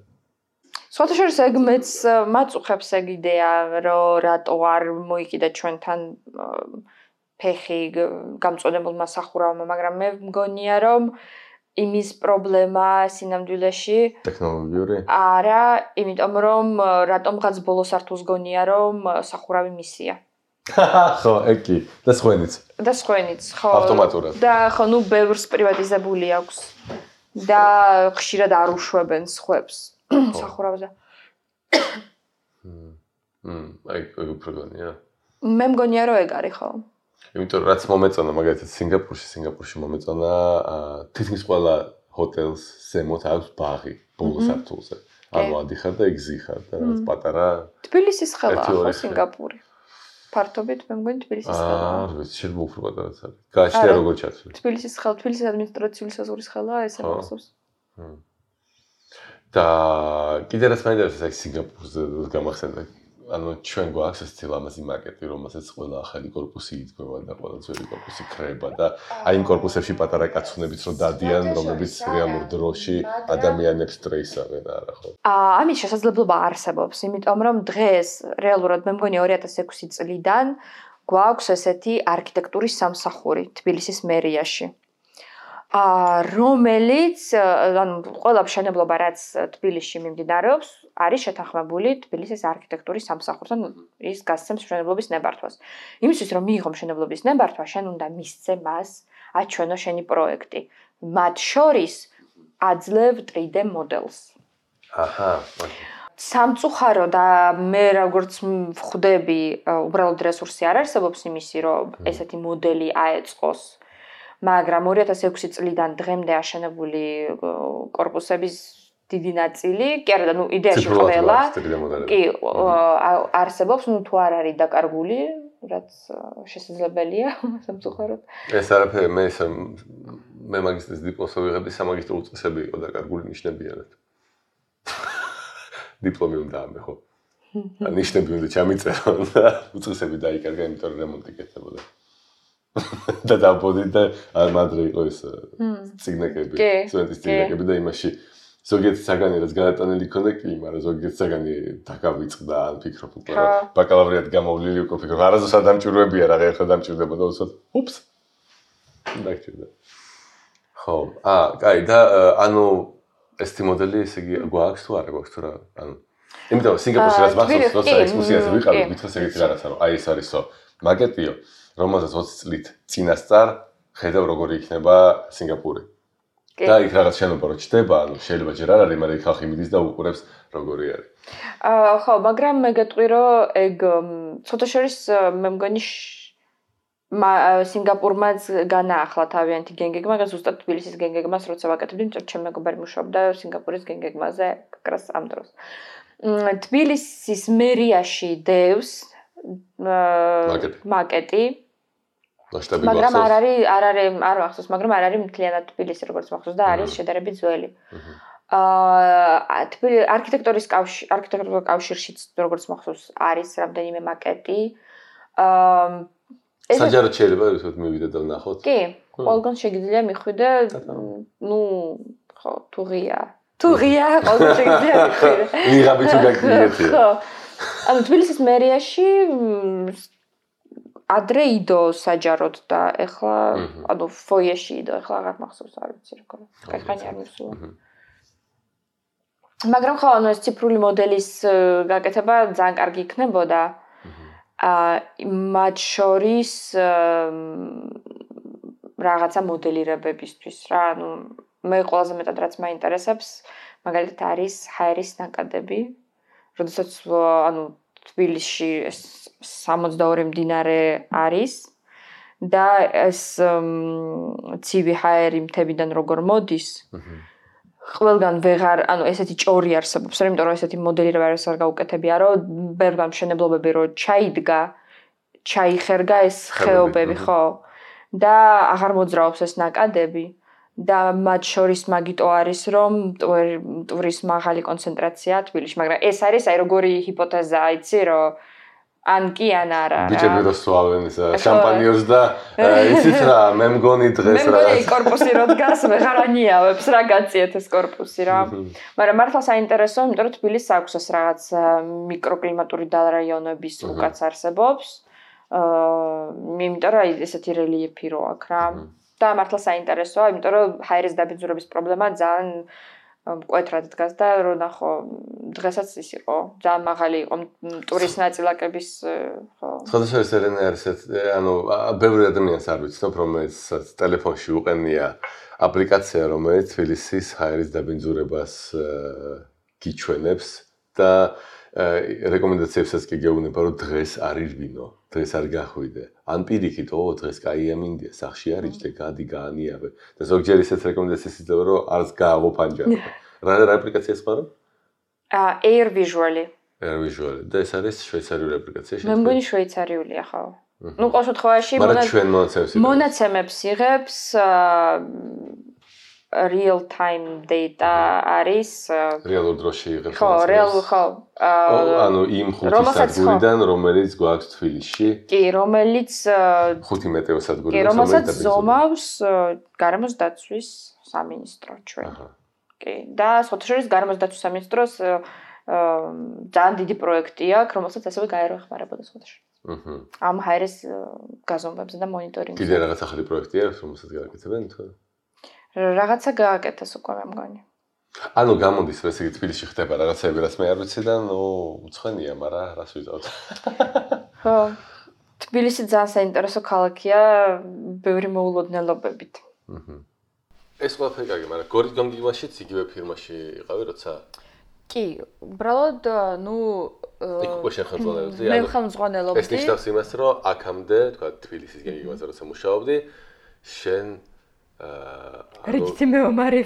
სხვათა შორის ეგ მეც მაწუხებს ეგ იდეა, რომ რატო არ მოიკიდა ჩვენთან ფეხი გამწვანებულმა სახურავმა, მაგრამ მე მგონია რომ იმის პრობლემა სინამდვილეში ტექნოლოგიური? არა, იმიტომ რომ რატომღაც ბოლო სართულს გონია რომ სახურავი მისია. ხო, ეკი, და სხვენიც. ხო. ავტომატურად. და ხო, ბევრს პრივატიზებული აქვს. და ხშირად არ უშვებენ სხვებს სახურავზე. აი, უფრო გონია. მე მგონია რომ ეგ არის, ხო. იმიტომ რომ რაც მომეწონა მაგალითად სინგაპურში მომეწონა თითქმის ყველა ჰოტელს ზემოთ აქვს ბაღი ბოლო სართულზე. ანუ ადიხარ და იგზიხარ და რაღაც პატარა თბილისის ხელაა ხო სინგაპური. ფართობით მე მგონი თბილისის ხელაა. არ ვიცი, შეიძლება უფრო პატარაც არის. გააჩნია როგორ ჩაცვლი. თბილისის ადმინისტრაციული საზღვრის ხელაა ესე მახსოვს. და კიდე რაც მაინტერესებს აი სინგაპურზე გამახსენდა. ანუ ჩვენ გვაქვს ეს ლამაზი მარკეტი, რომელსაც ყველა ახალი კორპუსი იდგება და ყველა ძველი კორპუსი ქრება და აი იმ კორპუსებში პატარა კაცუნებიც რო დადიან, რომლებიც რეალურ დროში ადამიანებს სტრესავენ, არა ხო? ამის შესაძლებლობა არსებობს, იმიტომ რომ დღეს რეალურად მე მგონი 2006 წლიდან გვაქვს ესეთი არქიტექტურის სამსახური თბილისის მერიაში. რომელიც ანუ ყველა მშენებლობა რაც თბილისში მიმდინარეობს, არის შეთანხმებული თბილისის არქიტექტურის სამსახურთან, ის გასცემს მშენებლობის ნებართვას. იმისთვის რომ მიიღო მშენებლობის ნებართვა, შენ უნდა მისცე მას აჩვენო შენი პროექტი. მათ შორის აძლევ 3D მოდელს. აჰა. სამწუხარო და მე როგორც ვხვდები, უბრალოდ რესურსი არ არსებობს იმისი, რომ ესეთი მოდელი აეწყოს. მაგრამ 2006 წლიდან დღემდე აშენებული კორპუსების დიდი ნაწილი, კი არა, იდეაში ყველა, კი არსებობს, თუ არ არის დაკარგული, რაც შესაძლებელია, სამწუხაროდ. ეს არაფერი მე მე მაგისტრის დიპლომს ვიღებდი, სამაგისტრო უწესები იყო და კარგული ნიშნებიანად. დიპლომი უნდა ამე ხო? ნიშნები უნდა ჩამიწერო და უწესები დაიკარგა, იმიტომ რომ რემონტი კეთდებოდა. და დაბოდი და ადრე იყო ეს ციგნაკები, სტუდენტის ციგნაკები და იმაში ზოგიერთი საგანი რაც განატანილი ქონდა კი, მაგრამ ზოგიერთი საგანი დაგავიწყდა, ან ფიქრობ, მაგრამ ბაკალავრიად გამოვლილი უკვე ფიქრობ, არასდროს არ დამჭირვებია რა, ახლა დამჭირდებოდა უცოდ. უპს. დაგჭირდა. ხო, კაი და ანუ ესეთი მოდელი ესე იგი გვაქვს თუ არა გვაქვს თუ რა, ანუ იმიტომ სინგაპურში რაც მახსოვს, როცა ექსკურსიაზე ვიყავით, მითხეს ეგეთი რაღაცა, რომ აი ეს არისო მაგეტიო, რომელსაც 20 წლით წინასწარ ხედავ როგორი იქნება სინგაპური. და იქ რაღაც შენობა რო ჩდება, ანუ შეიძლება ჯერ არ არის, მაგრამ იქ ხალხი მიდის და უყურებს როგორი არის. ხო, მაგრამ მე გეტყვი რომ ეგ ცოტა შორის მე მგონი სინგაპურმაც განაახლა თავიანთი გენგეგმა, მაგრამ ზუსტად თბილისის გენგეგმას როცა ვაკეთებდი, იმიტომ რომ ჩემი მეგობარი მუშაობდა სინგაპურის გენგეგმაზე კრას ამ დროს. თბილისის მერიაში დევს მაკეტი მაგრამ არ ახსოვს, მაგრამ არ არის მთლიანად თბილისი როგორც მახსოვს და არის შედარებით ძველი. არქიტექტურის კავშირშიც როგორც მახსოვს არის რამდენიმე მაკეტი. საჯაროდ შეიძლება ისეთ მივიდე და ვნახოთ. კი, ყველგან შეგიძლია მიხვიდე, ნუ ხო, თუღია, ყველგან შეგიძლია მიხვიდე. ვიღაბი თუ გაგიეთია. ხო. ანუ თბილისის მერიაში ადრე იდო საჯაროდ და ეხლა ანუ ფოიეში იდო, ეხლა აღარ მახსოვს, არ ვიცი რა ქონა. კაიხანი არ მისულა. მაგრამ ხო, ანუ ეს ციფრული მოდელის გაკეთება ძალიან კარგი იქნებოდა. მათ შორის რაღაცა მოდელირებებისთვის რა, ანუ მე ყველაზე მეტად რაც მაინტერესებს, მაგალითად არის ჰაერის ნაკადები, როდესაც ანუ თბილისში 62 მდინარე არის და ეს ცივი ჰაერი მთებიდან როგორ მოდის, ყველგან ვეღარ, ანუ ესეთი ჭორი არსებობს, იმიტომ რომ ესეთი მოდელირება არ გაუკეთებია, რომ ბევრგან მშენებლობები რო ჩაიდგა, ჩაიხერგა ეს ხეობები, ხო? და აღარ მოძრაობს ეს ნაკადები და მათ შორის მაგიტო არის, რომ მტვრის მაღალი კონცენტრაცია თბილისში, მაგრამ ეს არის აი როგორი ჰიპოთეზაა, იცი, რომ ან კი ან არა. ბიჭები რო სვავენ შამპანიოს და იცით რა, მე მგონი დღეს რა. მე მგონი კორპუსი რო დგას, ვეღარ ანიავებს რა გაციეთ ეს კორპუსი რა. მაგრამ მართლა საინტერესოა, იმიტომ რომ თბილისს აქვს ეს რაღაც მიკროკლიმატური დარაიონების უკაც არსებობს. იმიტომ რომ ესეთი რელიეფი რო აქვს რა. და მართლა საინტერესოა, იმიტომ რომ ჰაერის დაბინძურების პრობლემა ძალიან მკვეთრად დგას და რო ნახო დღესაც ის იყო ძალიან მაღალი იყო ტურის ნაწილაკების ხო სხვადასხვა ერენა არის ანუ ბევრი ადამიანს არ ვიცნობ რომელიც ტელეფონში უყენია აპლიკაცია რომელიც თბილისის ჰაერის დაბინძურებას გიჩვენებს და რეკომენდაციებსაც კი გეუბნება რომ დღეს არ ირბინო დღეს არ გახვიდე ან პირიქით დღეს კაია მინდია სახში არ იჯდე გადი გაანიავე და ზოგჯერ ისეთ რეკომენდაციას იძლევა რომ არც გაავო პანჯაბი რა აპლიკაციას ხარო Air Visually და ეს არის შვეიცარიული აპლიკაცია მე მგონი შვეიცარიულია ხო ნუ ყოველ შემთხვევაში მონაცემებს იღებს real time data არის რეალურ დროში იღებს ხო ანუ იმ ხუთი სადგურიდან რომელიც გვაქვს თბილისში კი რომელიც ხუთი მეტეო სადგური კი რომელსაც ზომავს გარემოს დაცვის სამინისტრო ჩვენ კი და სოციალურ გარემოს დაცვის სამინისტროს ძალიან დიდი პროექტი აქვს რომელსაც ასევე გაერახმარებოდა სოციალურ ამ ჰაერის გაზომვებზე და მონიტორინგზე კიდე რაღაც ახალი პროექტი აქვს რომელსაც გააკეთებენ თუ რაღაცა გააკეთეს უკვე მე მგონი. ანუ გამოდის რომ ესე იგი თბილისში ხდება რაღაცები რაც მე არ ვიცი და ნუ უცხენია, მაგრამ რას ვიზავთ. ხო. თბილისი ძალიან საინტერესო ქალაქია ბევრი მოულოდნელობებით. ეს ყველაფერი კარგი, მაგრამ გორის განგივაშიც იგივე ფირმაში იყავი როცა? კი, უბრალოდ ნუ იქ უკვე შეხელმძღვანელობდი. მე ხელმძღვანელობდი. ეს ნიშნავს იმას, რომ აქამდე, თქვა თბილისის განგივაზე როცა მუშაობდი, შენ რიგითი მეომარი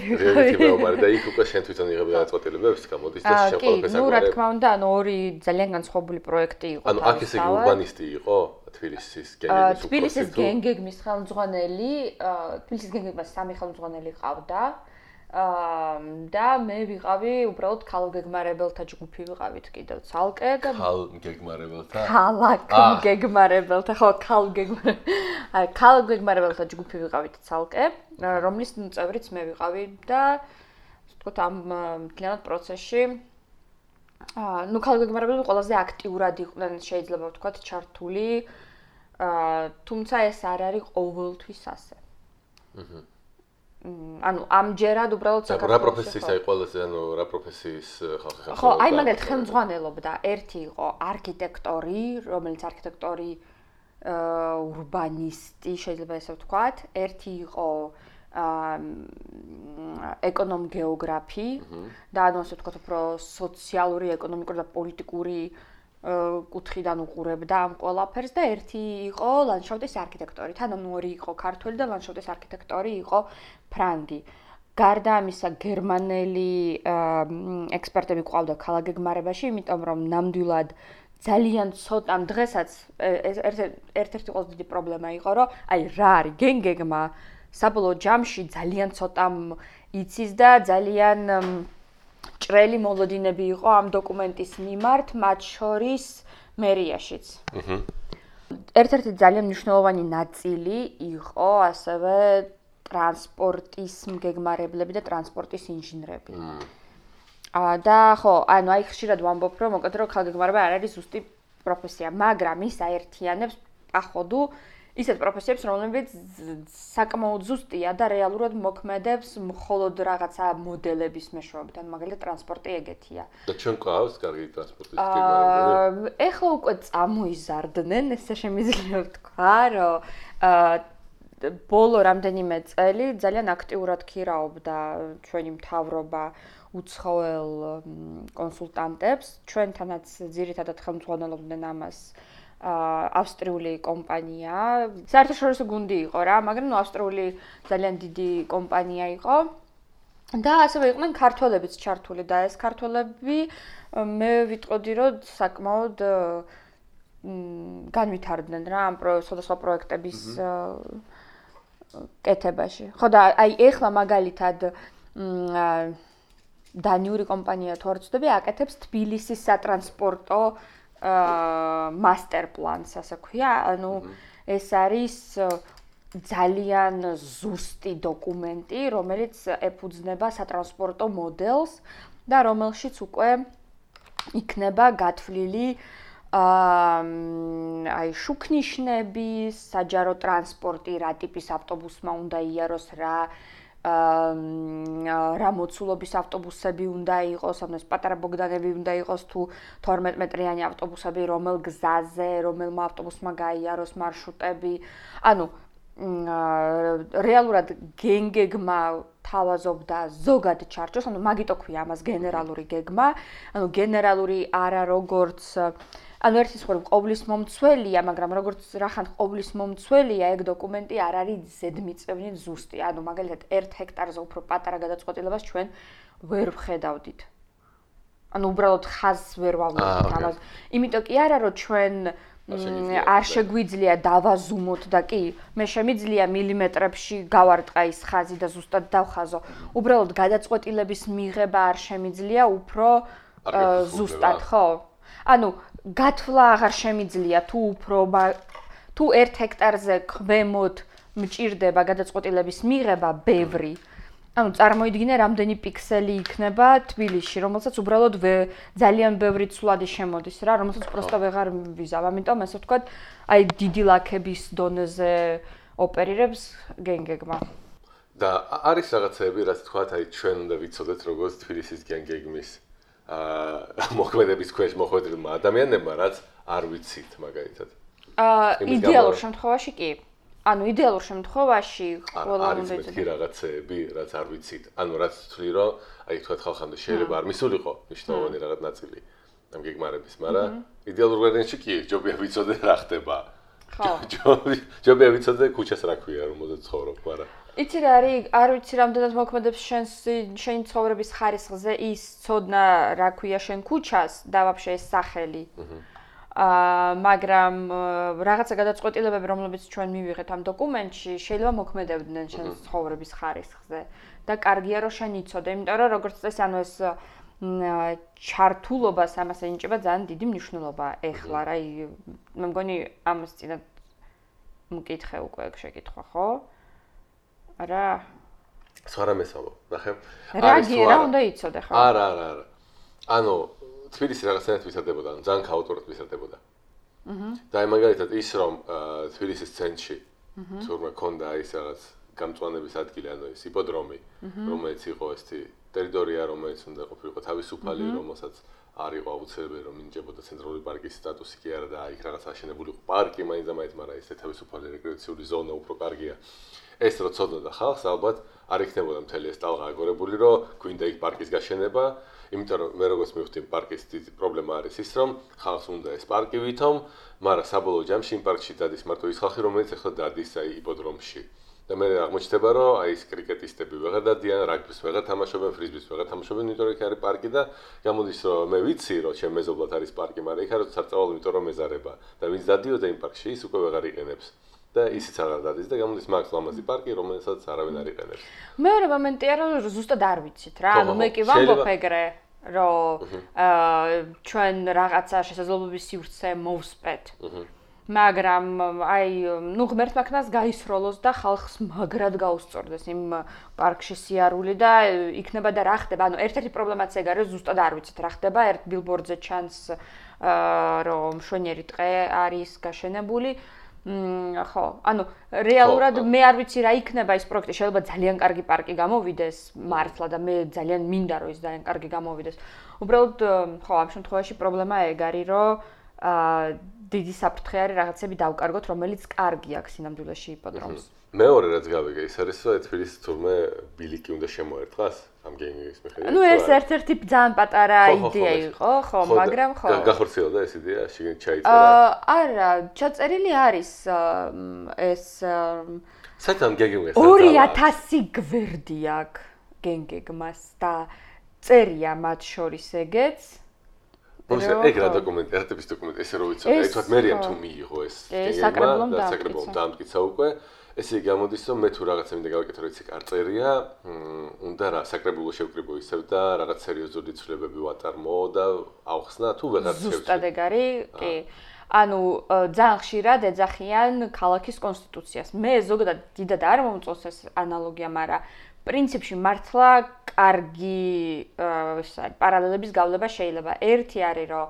და იქ უკვე შენ თვითონ იღებ გადაწყვეტილებებს გამოდის და შენ ყველაფერს აგვარი. ნუ რა თქმა უნდა, ანუ ორი ძალიან განსხვავებული პროექტი იყო. ანუ აქ ესე იგი ურბანისტი იყო, თბილისის გენგეგმის თბილისის გენგეგმის ხელმძღვანელი, თბილისის გენგეგმას 3 ხელმძღვანელი ყავდა. და მე ვიყავი უბრალოდ ქალგეგმარებელთა ჯგუფი ვიყავით კიდევ ცალკე და ქალგეგმარებელთა ხო ქალგეგმარებელთა ჯგუფი ვიყავით ცალკე რომლის წევრიც მე ვიყავი და თქო ამ მთლიანად პროცესში ნუ ქალგეგმარებელები ყველაზე აქტიურად იყვნენ შეიძლება ვთქვათ ჩართული თუმცა ეს არ არის ყოველთვის ასე ანუ ამჯერად უბრალოდ საქართველოს რა პროფესიის აი ყველაზე ანუ რა პროფესიის ხალხი ხო აი მაგალითად ხელმძღვანელობდა ერთი იყო არქიტექტორი რომელიც არქიტექტორი ურბანისტი შეიძლება ესე ვთქვათ ერთი იყო ეკონომ-გეოგრაფი და ანუ ასე ვთქვათ უფრო სოციალური ეკონომიკური და პოლიტიკური კუთხიდან უყურებდა ამ ყველაფერს და ერთი იყო ლანდშაფტის არქიტექტორი. თან ორი იყო ქართველი და ლანდშაფტის არქიტექტორი იყო ფრანგი. გარდა ამისა გერმანელი ექსპერტები ყავდა ქალგეგმარებაში, იმიტომ რომ ნამდვილად ძალიან ცოტა დღესაც ერთ-ერთი ყველაზე დიდი პრობლემა იყო, რომ აი რა არის გენგეგმა საბოლოო ჯამში ძალიან ცოტამ იცის და ძალიან ჭრელი მოლოდინები იყო ამ დოკუმენტის მიმართ, მათ შორის მერიაშიც. ერთ-ერთი ძალიან მნიშვნელოვანი ნაწილი იყო ასევე ტრანსპორტის მგეგმარებლები და ტრანსპორტის ინჟინრები. და ხო, ანუ აი ხშირად ვამბობ, რომ მოკეთ რომ ქალგეგმარება არ არის ზუსტი პროფესია, მაგრამ ის აერთიანებს პაходу ისეთ პროფესიებს, რომლებიც საკმაოდ ზუსტია და რეალურად მოქმედებს მხოლოდ რაღაცა მოდელების მეშვეობით, ანუ მაგალითად ტრანსპორტი ეგეთია. და ჩვენ ყავს კარგი ტრანსპორტის გეგმარებები? ეხლა უკვე წამოიზარდნენ, ესე შემიძლია ვთქვა, რომ ბოლო რამდენიმე წელი ძალიან აქტიურად ქირაობდა ჩვენი მთავრობა უცხოელ კონსულტანტებს, ჩვენთანაც ძირითადად ხელმძღვანელობდნენ ამას ავსტრიული კომპანია. საერთაშორისო გუნდი იყო რა, მაგრამ ნუ ავსტრიული ძალიან დიდი კომპანია იყო. და ასევე იყვნენ ქართველებიც ჩართული და ეს ქართველები მე ვიტყოდი რომ საკმაოდ განვითარდნენ რა ამ სხვადასხვა პროექტების კეთებაში. ხო და აი ეხლა მაგალითად დანიური კომპანია თუ არ ვცდები აკეთებს თბილისის სატრანსპორტო master plans ასე ქვია, ანუ ეს არის ძალიან ზუსტი დოკუმენტი, რომელიც ეფუძნება სატრანსპორტო მოდელს და რომელშიც უკვე იქნება გათვლილი აი შუქნიშნები, საჯარო ტრანსპორტი, რა ტიპის ავტობუსმა უნდა იაროს, რა მოცულობის ავტობუსები უნდა იყოს, ანუ ეს პატარა ბოგდანები უნდა იყოს თუ 12 მეტრიანი ავტობუსები, რომელ გზაზე, რომელმა ავტობუსმა გაიაროს მარშრუტები. ანუ რეალურად გენგეგმა თავაზობდა ზოგად ჩარჩოს, ანუ მაგიტო ქვია ამას გენერალური გეგმა, ანუ გენერალური არა როგორც ანუ ერთის ხომ ყოვლის მომცველია, მაგრამ როგორც რახან ყოვლის მომცველია, ეგ დოკუმენტი არ არის ზედმიწევნით ზუსტი. ანუ მაგალითად 1 ჰექტარზე უფრო პატარა გადაწყვეტილებას ჩვენ ვერ ვხედავდით. ანუ უბრალოდ ხაზს ვერ ვავლენთ ამას. იმიტომ კი არა რომ ჩვენ არ შეგვიძლია დავაზუმოთ და კი, მე შემიძლია მილიმეტრებში გავარტყა ის ხაზი და ზუსტად დავხაზო. უბრალოდ გადაწყვეტილების მიღება არ შემიძლია უფრო ზუსტად, ხო? ანუ გათვლა აღარ შემიძლია თუ უფრო თუ 1 ჰექტარზე ქვემოთ მჭირდება გადაწყვეტილების მიღება ბევრი. ანუ წარმოიდგინე რამდენი პიქსელი იქნება თბილისში, რომელსაც უბრალოდ ძალიან ბევრი ცვლადი შემოდის რა, რომელსაც პროსტა ვეღარ ვიზავ. ამიტომ ასე ვთქვათ, აი დიდი ლაქების დონეზე ოპერირებს გენგეგმა. და არის რაღაცები, რაც თქვათ, აი ჩვენ უნდა ვიცოდეთ როგორც თბილისის გენგეგმის მოქმედების ქვეშ მოხვედრილმა ადამიანებმა, რაც არ ვიცით მაგალითად. იდეალურ შემთხვევაში კი. ანუ იდეალურ შემთხვევაში ყველა უნდა იცოდეს რაღაცები, რაც არ ვიცით. ანუ რაც თვლი რომ აი თქვათ ხალხამდე შეიძლება არ მისულიყო მნიშვნელოვანი რაღაც ნაწილი ამ გეგმარების, მაგრამ იდეალურ ვარიანტში კი ჯობია ვიცოდე რა ხდება. ხო. ჯობია ვიცოდე ქუჩას რა ქვია, რომელზეც ცხოვრობ, მაგრამ იცი რა არის, არ ვიცი რამდენად მოქმედებს შენი ცხოვრების ხარისხზე ის ცოდნა რა ქვია შენ ქუჩას და ვაფშე ეს სახელი. მაგრამ რაღაცა გადაწყვეტილებები, რომლებიც ჩვენ მივიღეთ ამ დოკუმენტში, შეიძლება მოქმედებდნენ ჩვენს ცხოვრების ხარისხზე და კარგია რომ შენ იცოდე, იმიტომ რომ როგორც წესი, ანუ ეს ჩართულობას ამას ენიჭება ძალიან დიდი მნიშვნელობა ეხლა, რა, მე მგონი ამას წინათ მკითხე უკვე შეკითხვა, ხო? არა. სხვა რამესაუბრ, ნახე. რა უნდა იცოდე, ხო? არა. ანუ თბილისი რაღაცნაირად ვისადებოდა, ძალიან ქაოტურად ვისადებოდა. და აი მაგალითად ის რომ თბილისის ცენტრში თურმე ქონდა ის რაღაც გამწვანების ადგილი, ანუ ეს იპოდრომი, რომელიც იყო ესეთი ტერიტორია, რომელიც უნდა ყოფილიყო თავისუფალი, რომელსაც არ იყო აუცილებელი რომ მინიჭებოდა ცენტრალური პარკის სტატუსი კი არა და იქ რაღაც აშენებული იყო პარკი, მაინც და მაინც, მაგრამ ეს თავისუფალი რეკრეაციული ზონა უფრო კარგია. ეს რო ცოდნოდა ხალხს, ალბათ არ იქნებოდა მთელი ეს ტალღა აგორებული, რომ გვინდა იქ პარკის გაშენება. იმიტომ რომ მე როგორც მივხვდი პარკის დიდი პრობლემა არის ის რომ ხალხს უნდა ეს პარკი ვითომ, მაგრამ საბოლოო ჯამში იმ პარკში დადის მარტო ის ხალხი რომელიც ახლა დადის აი იპოდრომში. და მე აღმოჩნდება რომ აი ეს კრიკეტისტები ვეღარ დადიან, რაგბის ვეღარ თამაშობენ, ფრიზბის ვეღარ თამაშობენ, იმიტომ რომ იქ არის პარკი და გამოდის რომ მე ვიცი რომ ჩემ მეზობლად არის პარკი, მაგრამ იქ არის საწავლა, იმიტომ რომ მეზარება და ვინც დადიოდა იმ პარკში ის უკვე ვეღარ იყენებს. და ისიც აღარ დადის და გამოდის მაგ ლამაზი პარკი, რომელსაც არავინ არ იყენებს. მეორე მომენტია რომ ზუსტად არ ვიცით რა, ანუ მე კი ვამბობ ეგრე, რომ ჩვენ რაღაცა შესაძლებლობის სივრცე მოვსპეთ. მაგრამ აი, ნუ ღმერთმა ქნას გაისროლოს და ხალხს მაგრად გაუსწორდეს იმ პარკში სიარული და იქნება და რა ხდება. ანუ ერთ-ერთი პრობლემაც ეგ არის, ზუსტად არ ვიცით რა ხდება, ერთ ბილბორდზე ჩანს რომ მშვენიერი ტყე არის გაშენებული. ხო, ანუ რეალურად მე არ ვიცი რა იქნება ის პროექტი, შეიძლება ძალიან კარგი პარკი გამოვიდეს მართლა და მე ძალიან მინდა რომ ის ძალიან კარგი გამოვიდეს. უბრალოდ ხო, ამ შემთხვევაში პრობლემა ეგ არის, რომ დიდი საფრთხე არის რაღაცები დავკარგოთ, რომელიც კარგი აქვს სინამდვილეში იპოდრომს. მეორე რაც გავიგე, ის არის რომ თბილისის თურმე ბილიკი უნდა შემოერტყას ამ გენგის მიხედვით. ნუ ეს ერთ-ერთი ძალიან პატარა იდეა იყო, ხო, მაგრამ ხო. გახორციელდა ეს იდეა, შიგნით ჩაიწერა. არა, ჩაწერილი არის ეს საერთოდ გენგის 2000 გვერდი აქვს გენგეგმას და წერია მათ შორის ეგეც. ეგ რა დოკუმენტი, ერთების დოკუმენტი, ესე რომ ვიცოდი, აი თქვათ მერიამ თუ მიიღო ეს საკრებულომ დაამტკიცა უკვე. ესე გამოდის რომ მე თუ რაღაცა მინდა გავაკეთო, რომ იქ არ წერია, უნდა რა საკრებულო შევკრიბო ისევ და რაღაც სერიოზული ცვლილებები ვატარმო და ავხსნა თუ ვეღარ შევჭი. ზუსტად ეგ არის, კი. ანუ ძალიან ხშირად ეძახიან ქალაქის კონსტიტუციას. მე ზოგადად დიდად არ მომწონს ეს ანალოგია, მაგრამ პრინციპში მართლა კარგი პარალელების გავლება შეიძლება. ერთი არის რომ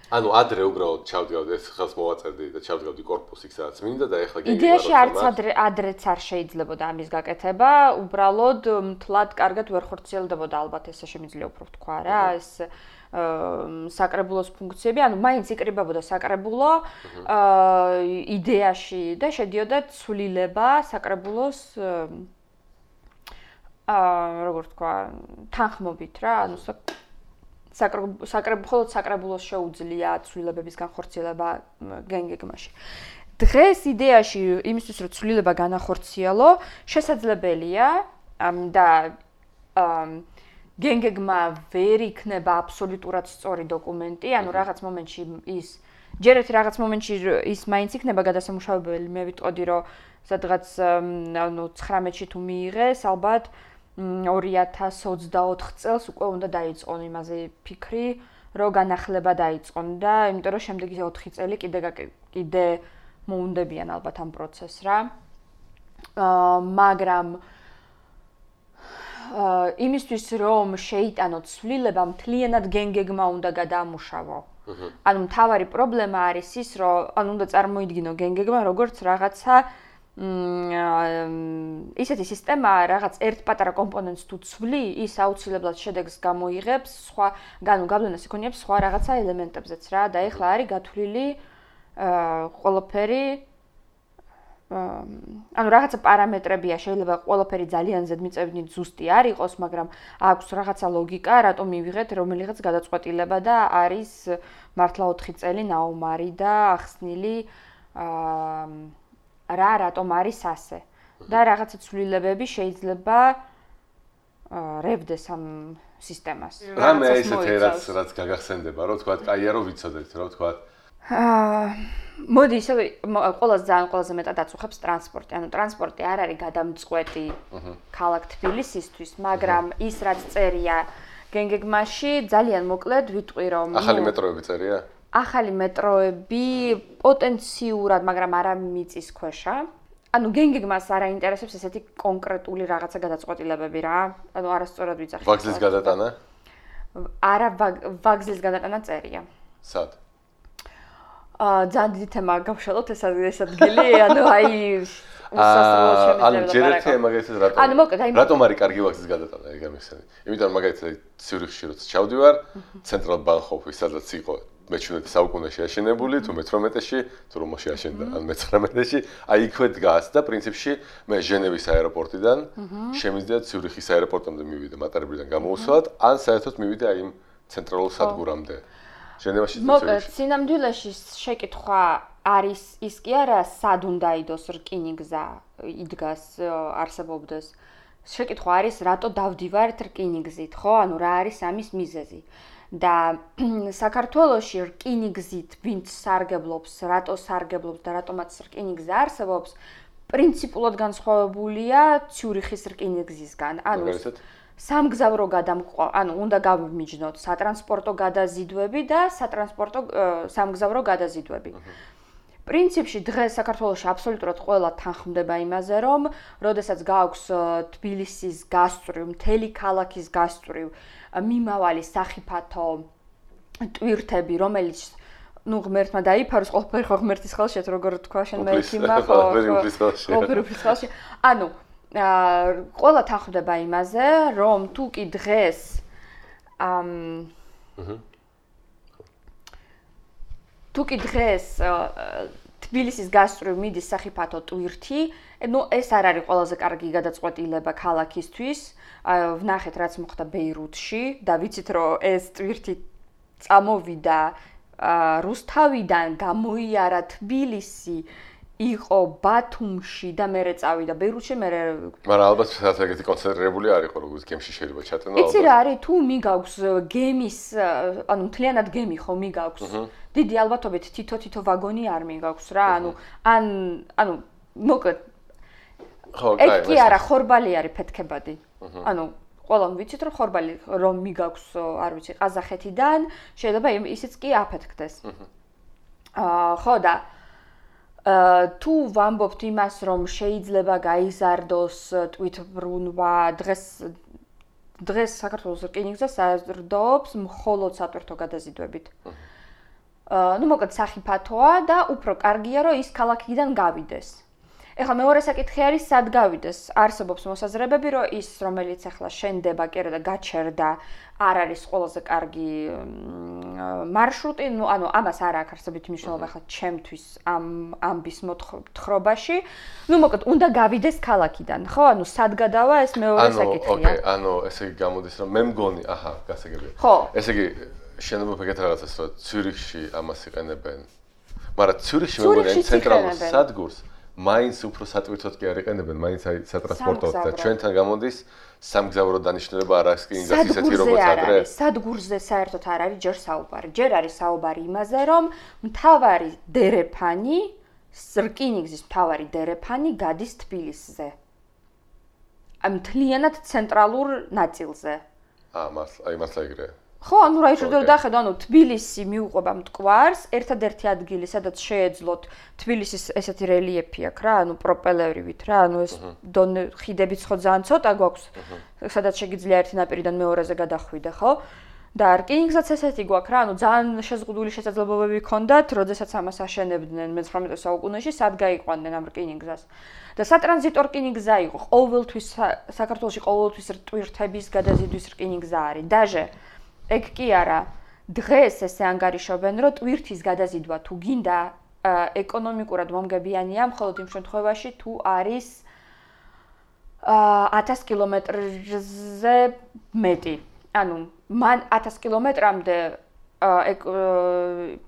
ანუ ადრე უბრალოდ ჩავდგავდი ეს ხელს მოვაწერდი და ჩავდგავდი კორპუსი სადაც მინდა და ეხლა გენგი იდეაში არც ადრეც არ შეიძლებოდა ამის გაკეთება, უბრალოდ მთლად კარგად ვერ ხორციელდებოდა ალბათ ესე შემიძლია უფრო ვთქვა რა, ეს საკრებულოს ფუნქციები, ანუ მაინც იკრიბებოდა საკრებულო იდეაში და შედიოდა ცვლილება საკრებულოს როგორ ვთქვა, თანხმობით რა, ანუ მხოლოდ საკრებულოს შეუძლია ცვლილებების განხორციელება გენგეგმაში. დღეს იდეაში იმისთვის რომ ცვლილება განახორციელო, შესაძლებელია და გენგეგმა ვერ იქნება აბსოლუტურად სწორი დოკუმენტი, ანუ რაღაც მომენტში ის ჯერეთ რაღაც მომენტში ის მაინც იქნება გადასამუშავებელი, მე ვიტყოდი რომ სადღაც ანუ 19-ში თუ მიიღეს, ალბათ 2024 წელს უკვე უნდა დაიწყონ იმაზე ფიქრი, რომ განახლება დაიწყონ და იმიტომ რომ შემდეგი 4 წელი კიდე მოუნდებიან ალბათ ამ პროცესს რა. მაგრამ იმისთვის რომ შეიტანოთ ცვლილება, მთლიანად გენგეგმა უნდა გადაამუშავო. ანუ მთავარი პრობლემა არის ის, რომ ანუ უნდა წარმოიდგინო გენგეგმა როგორც რაღაცა ისეთი სისტემაა, რაღაც ერთ პატარა კომპონენტს თუ ცვლი, ის აუცილებლად შედეგს გამოიღებს სხვა, გავლენას იქონიებს სხვა რაღაცა ელემენტებზეც რა და ეხლა არის გათვლილი ყველაფერი ანუ რაღაცა პარამეტრებია, შეიძლება ყველაფერი ძალიან ზედმიწევნით ზუსტი არ იყოს, მაგრამ აქვს რაღაცა ლოგიკა, რატომ მივიღეთ რომელიღაც გადაწყვეტილება და არის მართლა 4 წელი ნაუმარი და ახსნილი რატომ არის ასე. და რაღაცა ცვლილებები შეიძლება რევდეს ამ სისტემას. რამე ესეთი რაც გაგახსენდება, რომ თქვა, კაია რომ ვიცოდეთ, რომ თქვა მოდი ისე ყველაზე მეტად აწუხებს ტრანსპორტი. ანუ ტრანსპორტი არ არის გადამწყვეტი ქალაქ თბილისისთვის, მაგრამ ის რაც წერია გენგეგმაში ძალიან მოკლედ ვიტყვი რომ ახალი მეტროები წერია? ახალი მეტროები პოტენციურად, მაგრამ არა მიწის ქვეშა. ანუ გენგეგმას არ აინტერესებს ესეთი კონკრეტული რაღაცა გადაწყვეტილებები რა. ანუ არასწორად ვიძახი. ვაგზლის გადატანა? არა, ვაგზლის გადატანა წერია. სად? ძალიან დიდი თემა გავშალოთ ეს ადგილი, ანუ აი უსასრულოდ შემიძლია. ანუ ჯერ ერთი მაგალითად რატომ არის კარგი ვაგზლის გადატანა, ეგ ამიხსენი. იმიტომ რომ მაგალითად ციურიხში როცა ჩავდივარ, ცენტრალ ბანჰოფი, სადაც იყო მე-17 საუკუნეში აშენებული, თუ მე-18-ში, თუ რომში აშენდა, ან მე-19-ში, აი იქვე დგას და პრინციპში მე ჟენევის აეროპორტიდან შემიძლია ციურიხის აეროპორტამდე მივიდე, მატარებლიდან გამოუსვლად, ან საერთოდ მივიდე აი იმ ცენტრალურ სადგურამდე. ჟენევაში მოკლედ, სინამდვილეში შეკითხვა არის ის კი არა, სად უნდა იდოს რკინიგზა იდგას, არსებობდეს. შეკითხვა არის, რატო დავდივართ რკინიგზით, ხო? ანუ რა არის ამის მიზეზი. და საქართველოში რკინიგზით ვინც სარგებლობს, რატო სარგებლობს და რატომაც რკინიგზა არსებობს, პრინციპულად განსხვავებულია ციურიხის რკინიგზისგან. ანუ სამგზავრო ანუ უნდა გავიმიჯნოთ სატრანსპორტო გადაზიდვები და სამგზავრო გადაზიდვები. პრინციპში დღეს საქართველოში აბსოლუტურად ყველა თანხმდება იმაზე, რომ როდესაც გააქვს თბილისის გასწვრივ, მთელი ქალაქის გასწვრივ მიმავალი სახიფათო ტვირთები, რომელიც ღმერთმა დაიფაროს, ყველაფერი ხო ღმერთის ხელში, როგორ თქვა შენ მე ექიმა ხო? ყველაფერი უფლის ხელში. ანუ ყველა თანხმდება იმაზე, რომ თუ კი დღეს თბილისის გასწვრივ მიდის სახიფათო ტვირთი, ეს არ არის ყველაზე კარგი გადაწყვეტილება ქალაქისთვის. ვნახეთ რაც მოხდა ბეირუთში და ვიცით რომ ეს ტვირთი წამოვიდა რუსთავიდან, გამოიარა თბილისი, იყო ბათუმში და მერე წავიდა ბეირუთში, მაგრამ ალბათ სადაც ეგეთი კონცენტრირებული არ იყო, როგორც გემში შეიძლება ჩატენო ალბათ. იცი რა არის, თუ მიგაქვს გემის, ანუ მთლიანად გემი ხო მიგაქვს. დიდი ალბათობით თითო ვაგონი არ მიგაქვს რა, ანუ მოკლედ ეგ კი არა, ხორბალი არის ფეთქებადი. ანუ ყველამ ვიცით რომ ხორბალი რომ მიგაქვს, არ ვიცი, ყაზახეთიდან, შეიძლება ისიც კი აფეთქდეს. ხო და თუ ვამბობთ იმას, რომ შეიძლება გაიზარდოს ტვირთბრუნვა, დღეს საქართველოს რკინიგზა საზრდოობს მხოლოდ სატვირთო გადაზიდვებით. ну მოკლედ სახიფათოა და უფრო კარგია რომ ის ქალაქიდან გავიდეს. ეხლა მეორე საკითხი არის სად გავიდეს. არსებობს მოსაზრებები რომ ის რომელიც ახლა შენდება კერა და გაჩერდა არ არის ყველაზე კარგი მარშრუტი, ანუ ამას არ აქვს არსებითი მნიშვნელობა ახლა ჩემთვის ამბის მოთხრობაში. ну მოკლედ უნდა გავიდეს ქალაქიდან, ხო? ანუ სად გადავა ეს მეორე საკითხია. ოკეი, ანუ ესე იგი გამოდის რომ მე მგონი, აჰა, გასაგებია. ხო. ესე იგი შენობა ეგეთ რაღაცას რომ ციურიხში ამას იყენებენ. მაგრამ ციურიხში მე მგონი ცენტრალურ სადგურს მაინც უფრო სატვირთოდ კი არ იყენებენ, მაინც აი სატრანსპორტოდ და ჩვენთან გამოდის სამგზავრო დანიშნულება არ აქვს კი ინგლისის ისეთი როგორც ადრე. სადგურზე საერთოდ არ არის ჯერ საუბარი. ჯერ არის საუბარი იმაზე, რომ მთავარი დერეფანი, რკინიგზის მთავარი დერეფანი გადის თბილისზე. მთლიანად ცენტრალურ ნაწილზე. აი მართლა ეგრეა. ხო, ანუ რა შეიძლება დახედო, ანუ თბილისი მიუყვება მტკვარს, ერთადერთი ადგილი, სადაც შეეძლოთ თბილისის ესეთი რელიეფი აქვს რა, ანუ პროპელერივით რა, ანუ ეს ხიდებიც ხო ძალიან ცოტა გვაქვს, სადაც შეგიძლია ერთი ნაპირიდან მეორეზე გადახვიდე, ხო? და რკინიგზაც ესეთი გვაქვს რა, ანუ ძალიან შეზღუდული შესაძლებლობები ჰქონდათ, როდესაც ამას აშენებდნენ მე-19 საუკუნეში, სად გაიყვანდნენ ამ რკინიგზას. და სატრანზიტო რკინიგზა იყო, ყოველთვის საქართველოში ყოველთვის ტვირთების გადაზიდვის რკინიგზა არის. დაჟე ეგ კი არა, დღეს ესე ანგარიშობენ, რომ ტვირთის გადაზიდვა თუ გინდა ეკონომიკურად მომგებიანია, მხოლოდ იმ შემთხვევაში თუ არის 1000 კილომეტრზე მეტი. ანუ მან 1000 კილომეტრამდე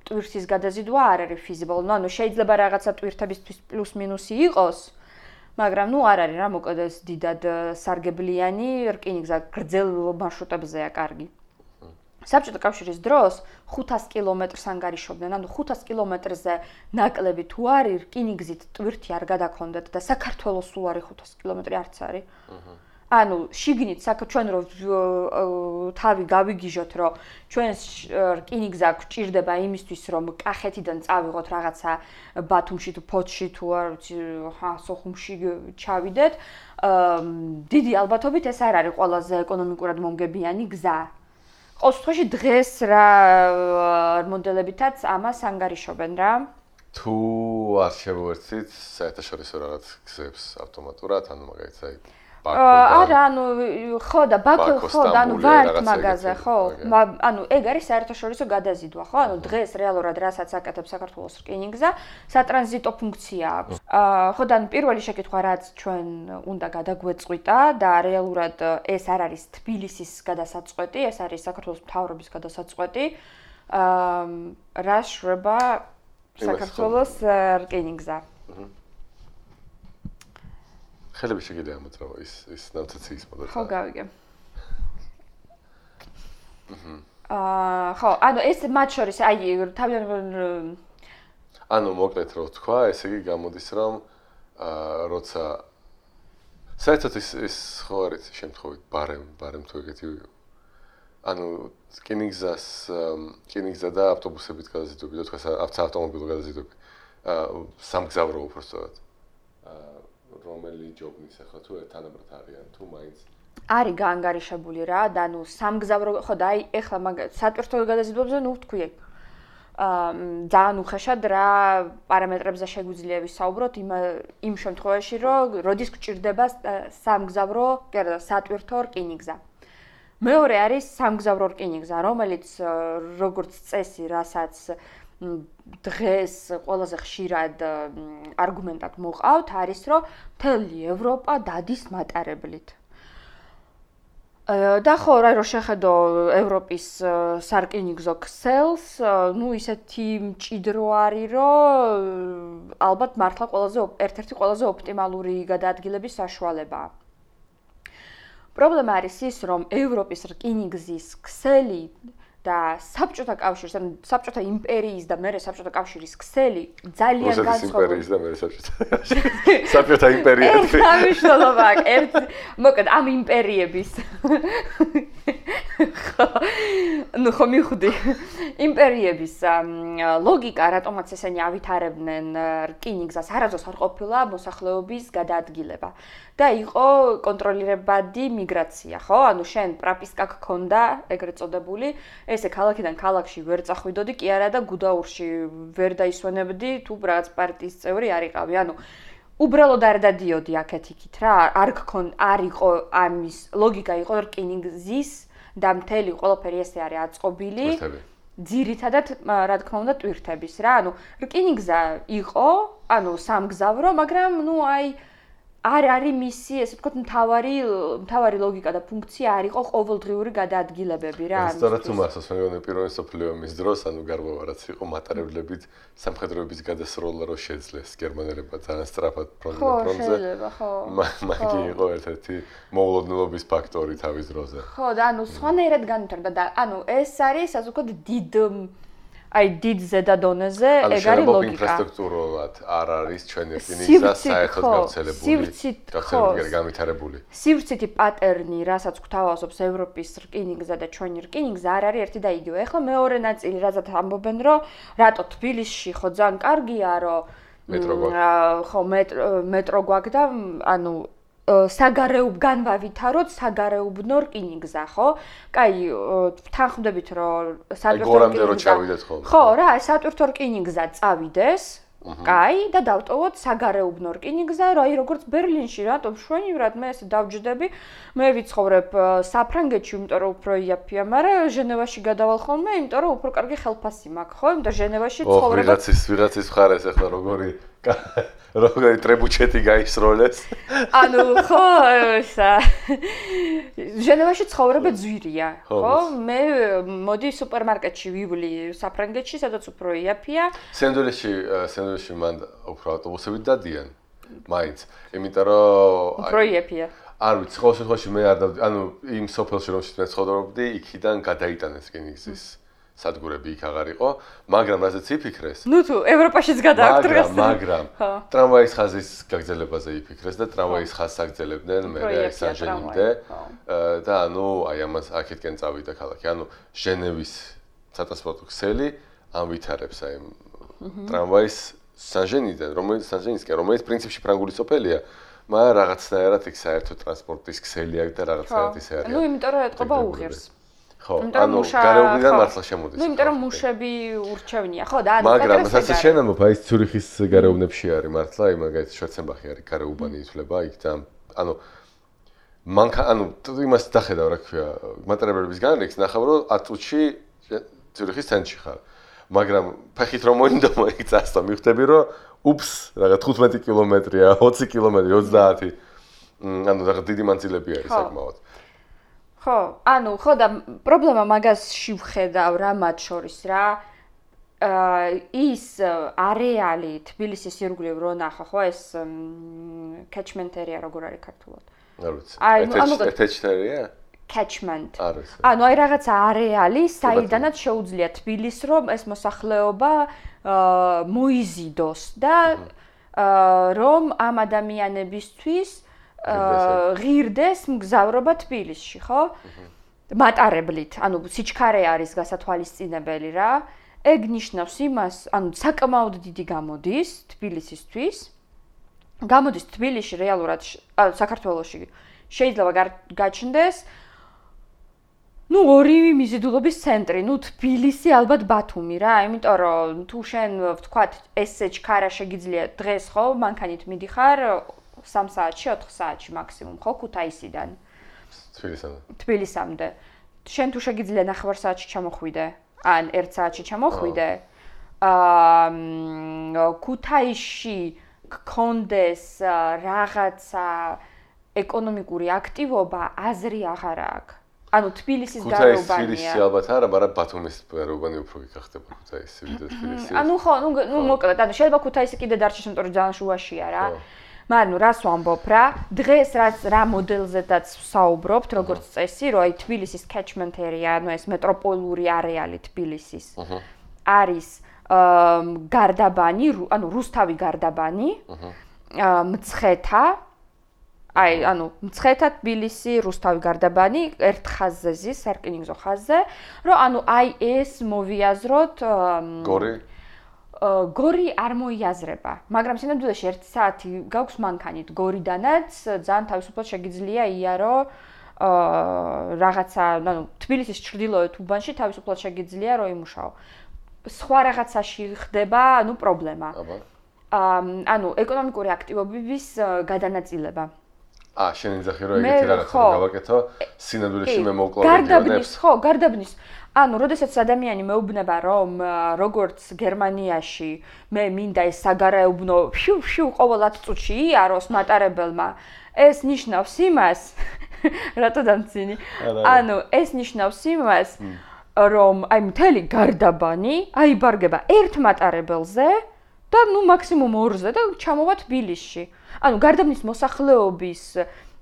ტვირთის გადაზიდვა არ არის feasible. ანუ შეიძლება რაღაცა ტვირთებისთვის პლუს მინუსი იყოს, მაგრამ არ არის რა, მოკლედ ეს დიდად სარგებლიანი რკინიგზა გრძელ მარშრუტებზეა კარგი. საბჭოთა კავშირის დროს 500 კილომეტრს ანგარიშობდნენ, ანუ 500 კილომეტრზე ნაკლები თუ არის, რკინიგზით ტვირთი არ გადაქონდათ და საქართველოს სულ არის 500 კილომეტრი არც არის. ანუ შიგნით ჩვენ რო თავი გავიგიჟოთ, რომ ჩვენს რკინიგზა გვჭირდება იმისთვის, რომ კახეთიდან წავიღოთ რაღაცა ბათუმში თუ ფოთში თუ არ ვიცი, სოხუმში ჩავიდეთ, დიდი ალბათობით ეს არ არის ყველაზე ეკონომიკურად მომგებიანი გზა. ყოველ შემთხვევაში დღეს რა მოდელებითაც ამას ანგარიშობენ რა. თუ არ შევერთით საერთაშორისო რაღაც გზებს ავტომატურად, ანუ მაგალითად არა, ანუ ხო და ბაქო ხო და ანუ ვართ მაგაზე, ხო? ანუ ეგ არის საერთაშორისო გადაზიდვა, ხო? ანუ დღეს რეალურად რასაც აკეთებს საქართველოს რკინიგზა, სატრანზიტო ფუნქცია აქვს. ხო და ანუ პირველი შეკითხვა რაც ჩვენ უნდა გადაგვეწყვიტა და რეალურად ეს არ არის თბილისის გადასაწყვეტი, ეს არის საქართველოს მთავრობის გადასაწყვეტი. რა შრება საქართველოს რკინიგზა. ხელები შეგიძლია ამოწრავო ის ნავთაციის მოდელი. ხო, გავიგე. ხო, ანუ ეს მათ შორის აი თავიდან ანუ მოკლედ რო თქვა, ესე იგი გამოდის რომ როცა საერთოდ ის ხო არის შემთხვევით ბარემ თუ ეგეთი ანუ რკინიგზა და ავტობუსებით გადაზიდვები და თქვა ავტომობილო გადაზიდვები სამგზავრო უბრალოდ რომელი ჯობნის ახლა თუ თანაბრად არიან თუ მაინც არის გაანგარიშებული რა და ანუ სამგზავრო ხო და აი ეხლა სატვირთო გადაზიდვებზე ნუ თქვი ძალიან უხეშად რა პარამეტრებზე შეგვიძლია ვისაუბროთ იმ შემთხვევაში რომ როდის გვჭირდება სამგზავრო სატვირთო რკინიგზა მეორე არის სამგზავრო რკინიგზა რომელიც როგორც წესი რასაც დღეს ყველაზე ხშირად არგუმენტად მოყავთ არის რომ მთელი ევროპა დადის მატარებლით. და ხო რა რო შეხედო ევროპის სარკინიგზო ქსელს, ნუ ისეთი მჭიდრო არის რომ ალბათ მართლა ერთ-ერთი ყველაზე ოპტიმალური გადაადგილების საშუალებაა. პრობლემა არის ის რომ ევროპის რკინიგზის ქსელი და საბჭოთა კავშირის, ანუ საბჭოთა იმპერიის და მერე საბჭოთა კავშირის ქსელი ძალიან განსხვავებული. იმპერიის და მერე საბჭოთა იმპერია. სამშობლოა, მოკლედ ამ იმპერიების. ნუ ხო მიხდი. იმპერიების ლოგიკა, რატომაც ესენი ავითარებდნენ რკინიგზას, არასდროს არ ყოფილა მოსახლეობის გადაადგილება. და იყო კონტროლირებადი მიგრაცია, ხო? ანუ შენ პრაპისკა გქონდა, ეგრეთ წოდებული, ესე ქალაქიდან ქალაქში ვერ წახვიდოდი, კი არა და გუდაურში ვერ დაისვენებდი, თუ რაღაც პარტიის წევრი არ იყავი. ანუ უბრალოდ არ დადიოდი აქეთ-იქით რა, არ იყო ამის ლოგიკა იყო რკინიგზის და მთელი ყველაფერი ესე არის აწყობილი. ძირითადად რა თქმა უნდა ტვირთების რა, ანუ რკინიგზა იყო, ანუ სამგზავრო, მაგრამ ნუ აი არ არის მისი, ესე ვთქვათ, მთავარი ლოგიკა და ფუნქცია არ იყო ყოველდღიური გადაადგილებები რა. სწორედ თუ მახსოვს, მე მგონი პირველი მსოფლიო ომის დროს, ანუ გარღვევა რაც იყო მატარებლებით სამხედროების გადასროლა რო შეძლეს გერმანელებმა ძალიან სწრაფად ფრონტზე. ხო, შეიძლება, ხო. მაგი იყო ერთ-ერთი მოულოდნელობის ფაქტორი თავის დროზე. ხო, და ანუ სხვანაირად განვითარდა და ანუ ეს არის, ასე ვთქვათ, დიდ ზედა დონეზე ეგ არის ლოგიკა. ინფრასტრუქტურულად არ არის ჩვენი რკინიგზა საერთოდ გავრცელებული, განვითარებული. სივრცითი პატერნი, რასაც გვთავაზობს ევროპის რკინიგზა და ჩვენი რკინიგზა არ არის ერთი და იგივე. ეხლა მეორე ნაწილი, რაზეც ამბობენ, რომ რატო თბილისში ხო ძალიან კარგია, რომ მეტრო გვაქვს და ანუ განვავითაროთ საგარეუბნო რკინიგზა, ხო? კაი, თანხმდებით რომ სატვირთო რკინიგზა. ხო, რა, სატვირთო რკინიგზა წავიდეს. კაი, და დავტოვოთ საგარეუბნო რკინიგზა, რა, როგორც ბერლინში, რატომ შვენივრად მე ესე დავჯდები, მე ვიცხოვრებ საფრანგეთში, იმიტომ რომ უფრო იაფია, მაგრამ ჟენევაში გადავალ ხოლმე, იმიტომ რომ უფრო კარგი ხელფასი მაქვს, ხო? იმიტომ ჟენევაში ცხოვრება. ვიღაცის მხარეს ახლა როგორი ტრებუჩეტი გაისროლეს. ანუ ხო, ჟენევაში ცხოვრება ძვირია, ხო? მე მოდი სუპერმარკეტში ვივლი საფრანგეთში, სადაც უფრო იაფია. სენდვიჩში მან უფრო ავტობუსებით დადიან. მაინც, იმიტომ რომ უფრო იაფია. არ ვიცი, ყოველ შემთხვევაში მე არ ანუ იმ სოფელში რომელშიც მე ცხოვრობდი, იქიდან გადაიტანეს რკინიგზის სადგურები იქ აღარ იყო, მაგრამ რაზეც იფიქრეს. ნუ თუ ევროპაშიც გადააქვთ დღეს. მაგრამ ტრამვაის ხაზის გაგრძელებაზე იფიქრეს და ტრამვაის ხაზს აგრძელებდნენ მე სან-ჟენიმდე და ანუ აი ამას აქეთკენ წავიდა ქალაქი. ანუ ჟენევის სატრანსპორტო ქსელი ამვითარებს აი ტრამვაის სან-ჟენიდან, რომელიც პრინციპში ფრანგული სოფელია, მაგრამ რაღაცნაირად იქ საერთო ტრანსპორტის ქსელი აქვს და რაღაცნაირად ისე არის. ნუ იმიტომ რომ ეთყობა უღირს. ხო, ანუ გარეუბნიდან მართლა შემოდის. ნუ იმიტომ რომ მუშები ურჩევნია, ხო და ანუ მაგრამ ასე შენამობ აი ცურიხის გარეუბნებში არის მართლა, აი მაგალითად შვერცენბახი არის გარეუბანი ითვლება იქ და ანუ ანუ იმას დახედავ რა ქვია, მატერიალების განრიგს ნახავ რომ 10 წუთში ცურიხის ცენტრში ხარ. მაგრამ ფეხით რომ მოინდომო იქ წასვლა მივხვდები რომ უპს რაღაც 15 კილომეტრია, 20 კილომეტრი, 30. ანუ რაღაც დიდი მანძილები არის საკმაოდ. ხო, ანუ ხო და პრობლემა მაგასში ვხედავ რა მათ შორის რა. ის არეალი თბილისის ირგვლივ რო ნახა, ხო ეს catchment area როგორ არის ქართულად? არ ვიცი. catchment-ია? catchment. არის. ანუ აი რაღაცა არეალი, საიდანაც შეუძლია თბილისს რომ ეს მოსახლეობა მოიზიდოს და რომ ამ ადამიანებისთვის ღირდეს მგზავრობა თბილისში, ხო? მატარებლით, ანუ სიჩქარე არის გასათვალისწინებელი რა. ეგ ნიშნავს იმას, ანუ საკმაოდ დიდი გამოდის თბილისისთვის. გამოდის თბილისში რეალურად საქართველოში შეიძლება გაჩნდეს ნუ ორივე მიზიდულობის ცენტრი, ნუ თბილისი ალბათ ბათუმი რა, იმიტომ რომ თუ შენ ვთქვათ ესე ჩქარა შეგიძლია დღეს ხო მანქანით მიდიხარ 3 საათში, 4 საათში მაქსიმუმ ხო ქუთაისიდან თბილისამდე. შენ თუ შეგიძლია 9 საათში ჩამოხვიდე, ან 1 საათში ჩამოხვიდე. ქუთაისში გქონდეს რაღაცა ეკონომიკური აქტივობა აზრი აღარ აქვს. ანუ თბილისის გარეუბანია. თბილისი ალბათ არა, მაგრამ ბათუმის გარეუბანი უფრო გიხდება ქუთაისი ვიდრე თბილისი. ანუ ხო, ნუ მოკლედ, ანუ შეიძლება ქუთაისი კიდე დარჩეს, იმიტომ რომ ძალიან შუაშია რა. მაგრამ ნუ რას ვამბობ რა, დღეს რა მოდელზედაც ვსაუბრობთ, როგორც წესი, რომ აი თბილისის catchment area, ანუ ეს მეტროპოლიური არეალი თბილისის არის გარდაბანი, ანუ რუსთავი გარდაბანი, მცხეთა აი, ანუ მცხეთა თბილისი, რუსთავი გარდაბანი ერთ ხაზზე ზის, სარკინიგზო ხაზზე, რომ ანუ აი ეს მოვიაზროთ გორი არ მოიაზრება, მაგრამ სინამდვილეში 1 საათი გაქვს მანქანით გორიდანაც, ძალიან თავისუფლად შეგიძლია იარო რაღაცა, ანუ თბილისის ჩრდილოეთ უბანში თავისუფლად შეგიძლია რომ იმუშაო. სხვა რაღაცაში ხდება, ანუ პრობლემა. ანუ ეკონომიკური აქტივობების გადანაწილება. შენ იძახი რომ ეგეთი რაღაცა გავაკეთო, სინამდვილეში მე მოვკლავ რეგიონებს. გარდაბნის. ანუ, როდესაც ადამიანი მეუბნება რომ როგორც გერმანიაში მე მინდა ეს საგარეუბნო შუ ყოველ 10 წუთში იაროს მატარებელმა, ეს ნიშნავს იმას, რატო დამცინი? ანუ, ეს ნიშნავს იმას, რომ აი მთელი გარდაბანი აიბარგება ერთ მატარებელზე და ნუ მაქსიმუმ 2-ზე და ჩამოვა თბილისში. ანუ გარდაბნის მოსახლეობის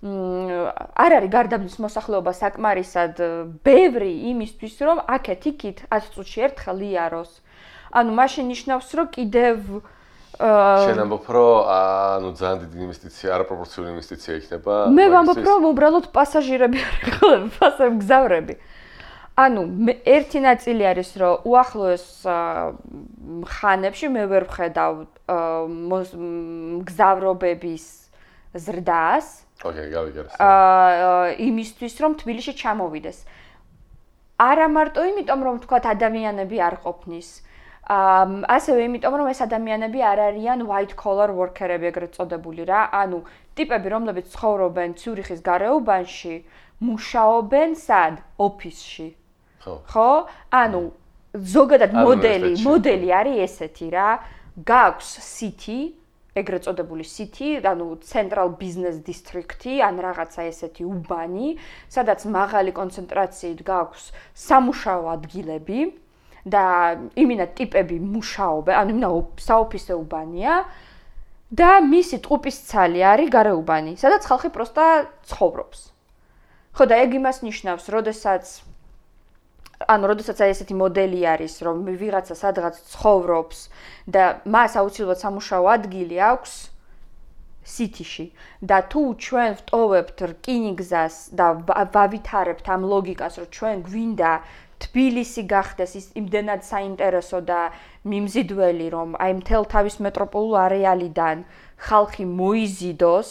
არ არის გარდაბნის მოსახლეობა საკმარისად ბევრი იმისთვის, რომ აქეთ-იქით 10 წუთში ერთხელ იაროს. ანუ მაშინ ნიშნავს, რომ კიდევ შენ ამბობ, რომ ანუ ძალიან დიდი ინვესტიცია, არაპროპორციული ინვესტიცია იქნება. მე ვამბობ, რომ უბრალოდ პასაჟირები არის, მგზავრები. ანუ ერთი ნაწილი არის, რომ უახლოეს ხანებში მე ვერ ვხედავ მგზავრობების ზრდას. ოკეი, გავიგე. იმისთვის, რომ თბილისში ჩამოვიდეს. არა მარტო იმიტომ, რომ თქვათ ადამიანები არ ყოფნის. ასევე იმიტომ, რომ ეს ადამიანები არ არიან white collar worker-ები, ეგრეთ წოდებული რა. ანუ ტიპები, რომლებიც ცხოვრობენ ციურიხის გარეუბანში, მუშაობენ სად? ოფისში. ხო? ანუ ზოგადად მოდელი არის ესეთი რა. გაქვს city, ეგრეთ წოდებული city, ანუ central business district-ი, ან რაღაცა ესეთი უბანი, სადაც მაღალი კონცენტრაციით გაქვს სამუშაო ადგილები და იმინა ტიპები მუშაობენ, ანუ იმინა საოფისე უბანია და მისი ტყუპის ცალი არის გარეუბანი, სადაც ხალხი პროსტა ცხოვრობს. ხო და ეგ იმას ნიშნავს, როდესაც აი ესეთი მოდელი არის, რომ ვიღაცა სადღაც ცხოვრობს და მას აუცილებლად სამუშაო ადგილი აქვს სიტიში და თუ ჩვენ ვტოვებთ რკინიგზას და ვავითარებთ ამ ლოგიკას, რომ ჩვენ გვინდა თბილისი გახდეს ის იმდენად საინტერესო და მიმზიდველი, რომ აი მთელ თავის მეტროპოლულ არეალიდან ხალხი მოიზიდოს,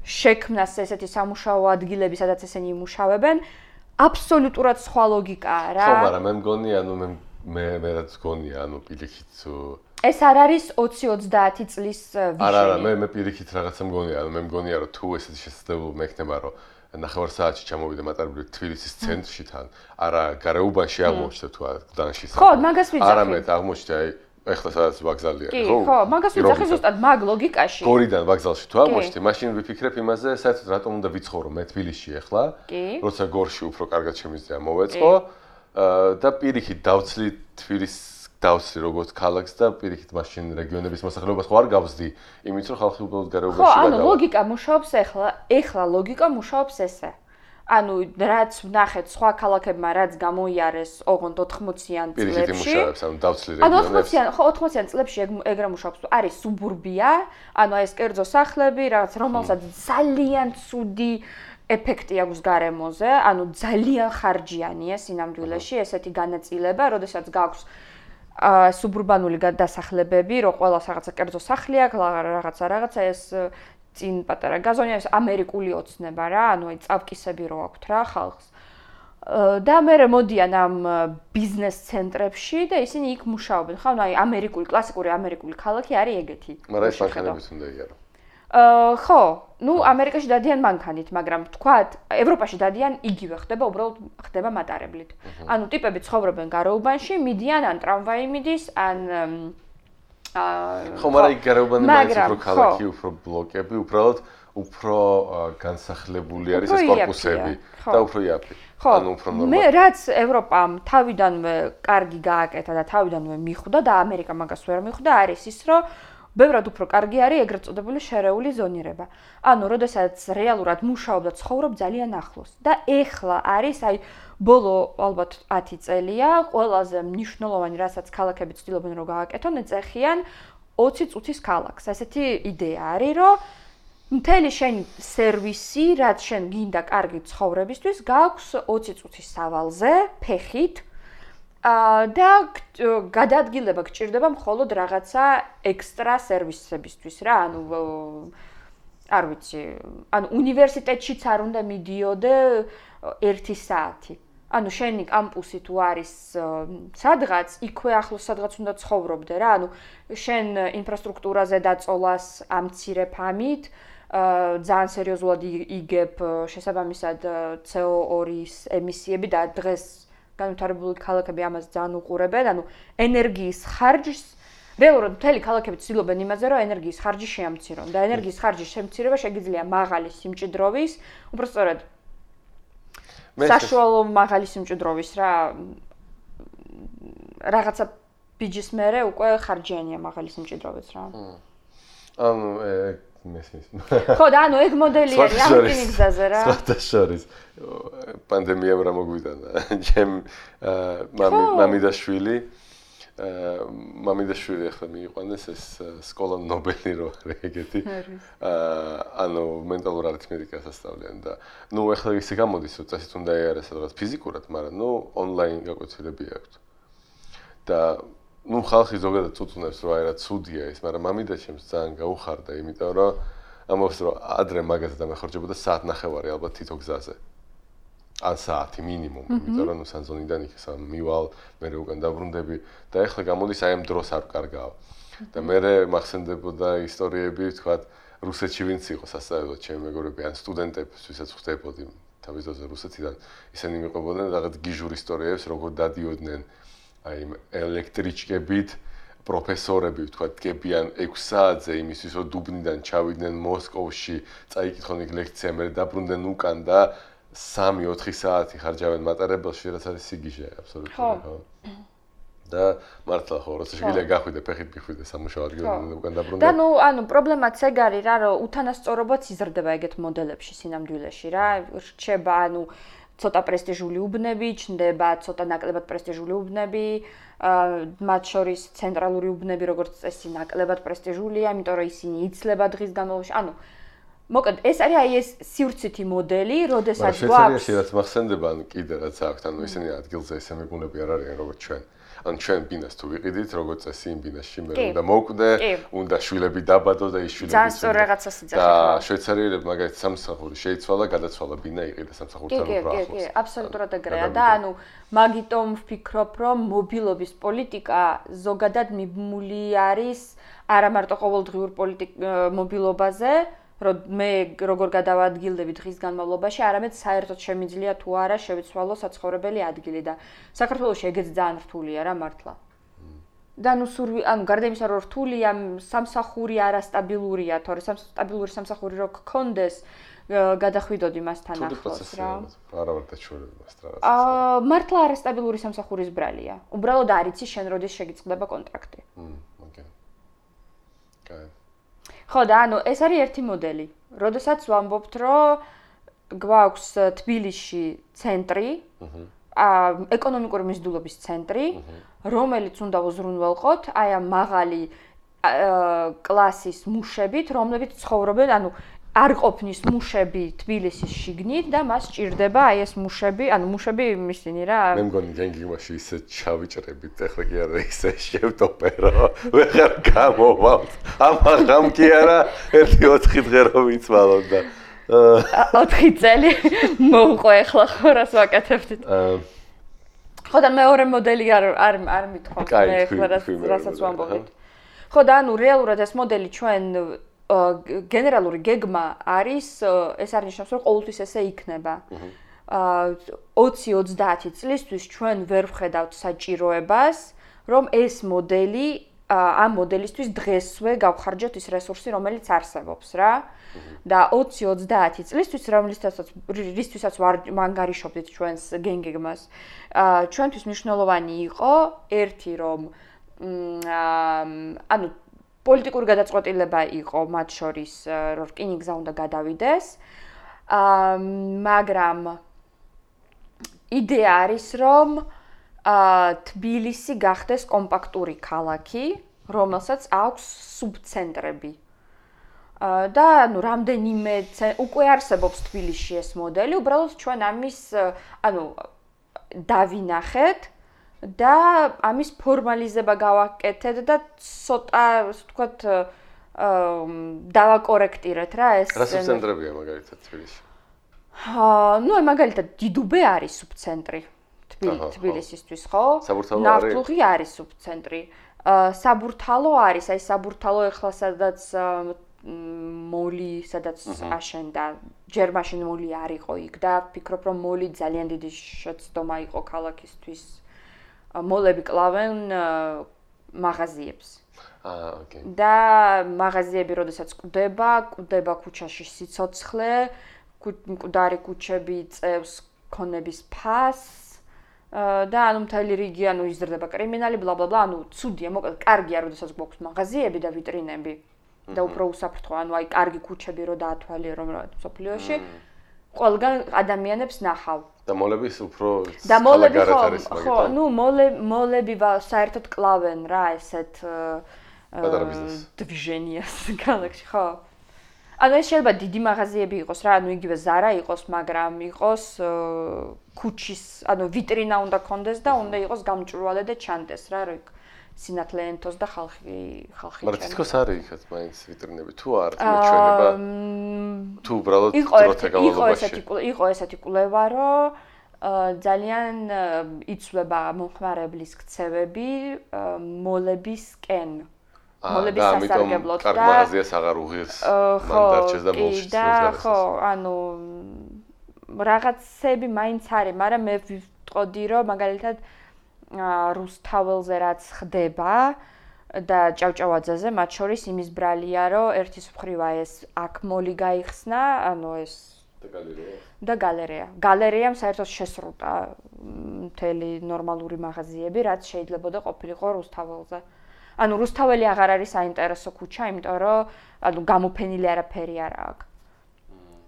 შექმნას ესეთი სამუშაო ადგილები, სადაც ესენი იმუშავებენ, აბსოლუტურად სხვა ლოგიკაა რა. ხო, მაგრამ მე მგონი, მე რაც გონია, პირიქით ეს არ არის 20-30 წლის ვიშენი. არა, მე პირიქით რაღაცა მგონია, მე მგონია, რომ თუ ესეთი შესაძლებლობა მექნება, რომ ნახევარ საათში ჩამოვიდე მატარებლით თბილისის ცენტრში თან, არა გარეუბანში აღმოჩნდა თუ გდანში. ხო, მაგას ვიძახი. არამედ აღმოჩნდა აი ეხლა სადაც ვაგზალია, ხო? ხო, მაგას ვიძახი ზუსტად მაგ ლოგიკაში. გორიდან ვაგზალში თუ აღმოჩნდი, მაშინ ვიფიქრებ იმაზე, საერთოდ რატომ უნდა ვიცხოვრო მე თბილისში ეხლა, როცა გორში უფრო კარგად შემიძლია მოვეწყო და პირიქით დავცლი თბილისს დავცლი როგორც ქალაქს და პირიქით მაშინ რეგიონების მოსახლეობას ხო არ გავზდი, იმით რომ ხალხი უბრალოდ გარეუბანში გადავა. ხო, ლოგიკა მუშაობს ეხლა ლოგიკა მუშაობს ესე. რაც ვნახეთ სხვა ქალაქებმა რაც გამოიარეს ოღონდ 80-იან წლებში. პირიქით იმუშავებს, დავცლი რეგიონებს. 80-იან წლებში ეგ რა მუშაობს, არის სუბურბია, ეს კერძო სახლები, რაღაც რომელსაც ძალიან ცუდი ეფექტი აქვს გარემოზე, ძალიან ხარჯიანია სინამდვილეში ესეთი განაწილება, როდესაც გაქვს სუბურბანული დასახლებები, რომ ყველას რაღაცა კერძო სახლი აქვს, რაღაცა ეს წინ პატარა გაზონია, ეს ამერიკული ოცნება რა, აი წავკისები რო აქვთ რა ხალხს. და მე მოდიან ამ ბიზნეს ცენტრებში და ისინი იქ მუშაობენ. ხო, აი კლასიკური ამერიკული ქალაქი არის ეგეთი. მაგრამ ეს მანქანებით უნდა იარო. ხო, ამერიკაში დადიან მანქანით, მაგრამ თქვათ, ევროპაში დადიან იგივე ხდება, უბრალოდ ხდება მატარებლით. ტიპები ცხოვრობენ გარეუბანში, მიდიან ან ტრამვაი მიდის, ან ხო, მაგრამ გარეუბანი მაინც უფრო ქალაქი, უფრო ბლოკები, უბრალოდ უფრო განსახლებული არის ეს კორპუსები და უფრო იაფი. უფრო ნორმალური. მე რაც ევროპამ თავიდანვე კარგი გააკეთა და თავიდანვე მიხვდა და ამერიკა მაგას ვერ მიხვდა, არის ის, რომ ბევრად უფრო კარგი არის ეგრეთ წოდებული შერეული ზონირება. როდესაც რეალურად მუშაობ და ცხოვრობ ძალიან ახლოს. და ეხლა არის აი ბოლო ალბათ 10 წელია ყველაზე მნიშვნელოვანი, რასაც ქალაქები ცდილობენ რომ გააკეთონ, ეწეხიან 20 წუთის ქალაქს. ესეთი იდეა არის, რომ მთელი შენი სერვისი, რაც შენ გინდა კარგი ცხოვრებისთვის, გაქვს 20 წუთის სავალზე, ფეხით. და გადაადგილება გჭირდება მხოლოდ რაღაცა ექსტრა სერვისებისთვის რა, არ ვიცი, უნივერსიტეტშიც არ უნდა მიდიოდე 1 საათი. შენი კამპუსი თუ არის სადღაც, იქვე ახლოს სადღაც უნდა ცხოვრობდე რა, შენ ინფრასტრუქტურაზე დაწოლას ამცირებ ამით, ძალიან სერიოზულად იგებ შესაბამისად CO2-ის ემისიები და დღეს განვითარებული ქალაქები ამას ძალიან უყურებენ, ენერგიის ხარჯს, რეალურად მთელი ქალაქები ცდილობენ იმაზე, რომ ენერგიის ხარჯი შეამცირონ და ენერგიის ხარჯის შემცირება შეგიძლია მაღალი სიმჭიდროვის, უბრალოდ საშუალო მაღალი სიმჭიდროვის რა რაღაცა ბიჯის მერე უკვე ხარჯიანია მაღალი სიმჭიდროვეც რა. მესმის. ხო, და ეგ მოდელი არის ამ რკინიგზაზე რა. სხვადასხვა პანდემიამ რა მოგვიტანა. ჩემ მამიდაშვილი ახლა მიიყვანეს ეს სკოლა ნობელი რო არის ეგეთი. მენტალურ არითმეტიკას ასწავლიან და ახლა ისე გამოდის, რომ წესით უნდა იარეს სადღაც ფიზიკურად, მაგრამ ონლაინ გაკვეთილები აქვს. და ხალხი ზოგადად წუწუნებს, რომ აი რა ცუდია ის, მაგრამ მამიდა ჩემს ძალიან გაუხარდა, იმიტომ რომ ამბობს, რომ ადრე მაგაზე დამეხარჯებოდა საათნახევარი ალბათ თითო გზაზე. ან საათი მინიმუმ, იმიტომ რომ სანზონიდან იქ მივალ, მე უკან დაბრუნდები და ეხლა გამოდის აი ამ დროს არ კარგავ. და მე მახსენდებოდა ისტორიები, თქვა რუსეთში ვინც იყო სასწავლებლად ჩემი მეგობრები, ან სტუდენტები, ვისაც ხვდებოდი თავის დროზე რუსეთიდან, ისინი მიყვებოდნენ რაღაც გიჟურ ისტორიებს, როგორ დადიოდნენ აი ელექტრიჩკებით პროფესორები, თქვა დგებიან 6 საათზე იმისთვის, რომ დუბნიდან ჩავიდნენ მოსკოვში, წაიკითხონ იქ ლექცია, მე დაბრუნდნენ უკან და 3-4 საათი ხარჯავენ მატარებელში, რაც არის სიგიჟე აბსოლუტურად. და მართლა ხო როცა შეგიძლია გახვიდე ფეხით გიხვიდე სამუშაო ადგილზე უკან დაბრუნდა. და პრობლემაც ეგ არის რა, რომ უთანასწორობაც იზრდება ეგეთ მოდელებში სინამდვილეში რა. რჩება ცოტა პრესტიჟული უბნები, ჩნდება ცოტა ნაკლებად პრესტიჟული უბნები, მათ შორის ცენტრალური უბნები როგორც წესი ნაკლებად პრესტიჟულია, იმიტომ რომ ისინი იცლება დღის განმავლობაში. მოკლედ ეს არის ეს სივრცითი მოდელი, როდესაც გვაქვს რაც მახსენდება, კიდე რაც აქვს, ისინი ადგილზე ესე მეგუნები არ არიან როგორც ჩვენ. ჩვენ ბინას თუ ვიყიდით, როგორც წესი იმ ბინაში მე უნდა მოვკვდე, უნდა შვილები დაბადო და ის შვილები ძალიან სწორ რაღაცას იძახი. და შვეიცარიელები მაგალითად სამსახური შეიცვალა, გადაცვალა ბინა იყიდა სამსახურთან უფრო ახლოს. კი, აბსოლუტურად ეგრეა და მაგიტომ ვფიქრობ, რომ მობილობის პოლიტიკა ზოგადად მიბმული არის არა მარტო ყოველდღიურ მობილობაზე, რომ მე როგორ გადავადგილდები დღის განმავლობაში, არამედ საერთოდ შემიძლია თუ არა შევიცვალო საცხოვრებელი ადგილი და საქართველოში ეგეც ძალიან რთულია რა მართლა. და გარდა იმისა, რომ რთულია, სამსახური არასტაბილურია, თორე სტაბილური სამსახური რო გქონდეს, გადახვიდოდი მასთან ახლოს რა. არა ვარ დაჩვენებული მას რაღაც. მართლა არასტაბილური სამსახურის ბრალია. უბრალოდ არ იცი შენ როდის შეგიწყდება კონტრაქტი. ოკეი. კაი. ხო და ეს არის ერთი მოდელი. როდესაც ვამბობთ, რომ გვაქვს თბილისში ცენტრი, ეკონომიკური მიზიდულობის ცენტრი, რომელიც უნდა უზრუნველყოთ აი ამ მაღალი კლასის მუშებით, რომლებიც ცხოვრობენ, არ ყოფნის მუშები თბილისის შიგნით და მას სჭირდება აი ეს მუშები ისინი რა. მე მგონი გენგიმაში ისე ჩავიჭრებით, ეხლა კი არა ისე შევტოპერო, ვეღარ გამოვალთ. ამაღამ კი არა, 1-4 დღე რომ ვიცვალოთ და 4 წელი მოუყო ეხლა ხო რას ვაკეთებდით. ხო და მეორე მოდელი არ მithქვამთ მე ეხლა რასაც ვამბობთ. ხო და რეალურად ეს მოდელი ჩვენ გენერალური გეგმა არის, ეს არნიშნავს, რომ ყოველთვის ესე იქნება. 20-30 წლისთვის ჩვენ ვერ ვხედავთ საჭიროებას, რომ ეს მოდელი ამ მოდელისთვის დღესვე გავხარჯოთ ის რესურსი, რომელიც არსებობს რა. და 20-30 წლისთვის, რისთვისაც ვანგარიშობდით ჩვენს გენგეგმას, ჩვენთვის მნიშვნელოვანი იყო ერთი რომ პოლიტიკური გადაწყვეტილება იყო მათ შორის, რომ რკინიგზა უნდა გადავიდეს. მაგრამ იდეა არის, რომ თბილისი გახდეს კომპაქტური ქალაქი, რომელსაც აქვს სუბცენტრები. და რამდენიმე უკვე არსებობს თბილისში ეს მოდელი, უბრალოდ ჩვენ ამის დავინახეთ და ამის ფორმალიზება გავაკეთეთ და ცოტა, ასე ვთქვათ, დავაკორექტირეთ რა ეს. რა სუბცენტრებია მაგალითად თბილისში? მაგალითად დიდუბე არის სუბცენტრი თბილისისთვის, ხო? ნავთლუღი არის სუბცენტრი. საბურთალო არის, აი საბურთალო ეხლა სადაც მოლი, სადაც აშენდა, ჯერ მაშინ მოლი არ იყო იქ და ვფიქრობ, რომ მოლი ძალიან დიდი შეცდომა იყო ქალაქისთვის. მოლები კლავენ მაღაზიებს. ოკეი. და მაღაზიები როდესაც კვდება ქუჩაში სიცოცხლე, მკვდარი ქუჩები წევს ქონების ფასს და მთელი რიგი იზრდება კრიმინალი, ბლა-ბლა-ბლა, ცუდია, მოკლედ კარგია, როდესაც გვაქვს მაღაზიები და ვიტრინები და უფრო უსაფრთხო, აი კარგი ქუჩები რო დაათვალიერო მსოფლიოში, ყველგან ადამიანებს ნახავ. და მოლების უფრო ხალაგარეთ არის მაგით. ხო, მოლები საერთოდ კლავენ რა ესეთ პატარა ბიზნეს. დვიჟენიას ქალაქში, ხო. ეს შეიძლება დიდი მაღაზიები იყოს რა, იგივე Zara იყოს, მაგრამ იყოს ქუჩის, ვიტრინა უნდა კონდეს და უნდა იყოს გამჭვირვალე და ჩანდეს რა, რომ სინათლე ენტოს და ხალხი მაგრამ თითქოს არის იქაც მაინც ვიტრინები თუ არ მეჩვენება თუ უბრალოდ დროთა განმავლობაში იყო ესეთი კვლევა რომ ძალიან იცვლება მომხმარებლის ქცევები მოლებისკენ მოლების სასარგებლოდ და მაღაზიას აღარ უღირს მან დარჩეს და ბოლში და ხო რაღაცები მაინც არის მაგრამ მე ვიტყოდი რომ მაგალითად რუსთაველზე რაც ხდება და ჭავჭავაძეზე მათ შორის იმის ბრალია რომ ერთის მხრივ ეს აქ მოლი გაიხსნა ეს და გალერეა. გალერეამ საერთოდ შესრულა მთელი ნორმალური მაღაზიები, რაც შეიძლებოდა ყოფილიყო რუსთაველზე. ანუ რუსთაველი აღარ არის საინტერესო ქუჩა, იმიტომ რომ გამოფენილი არაფერი არ აქვს.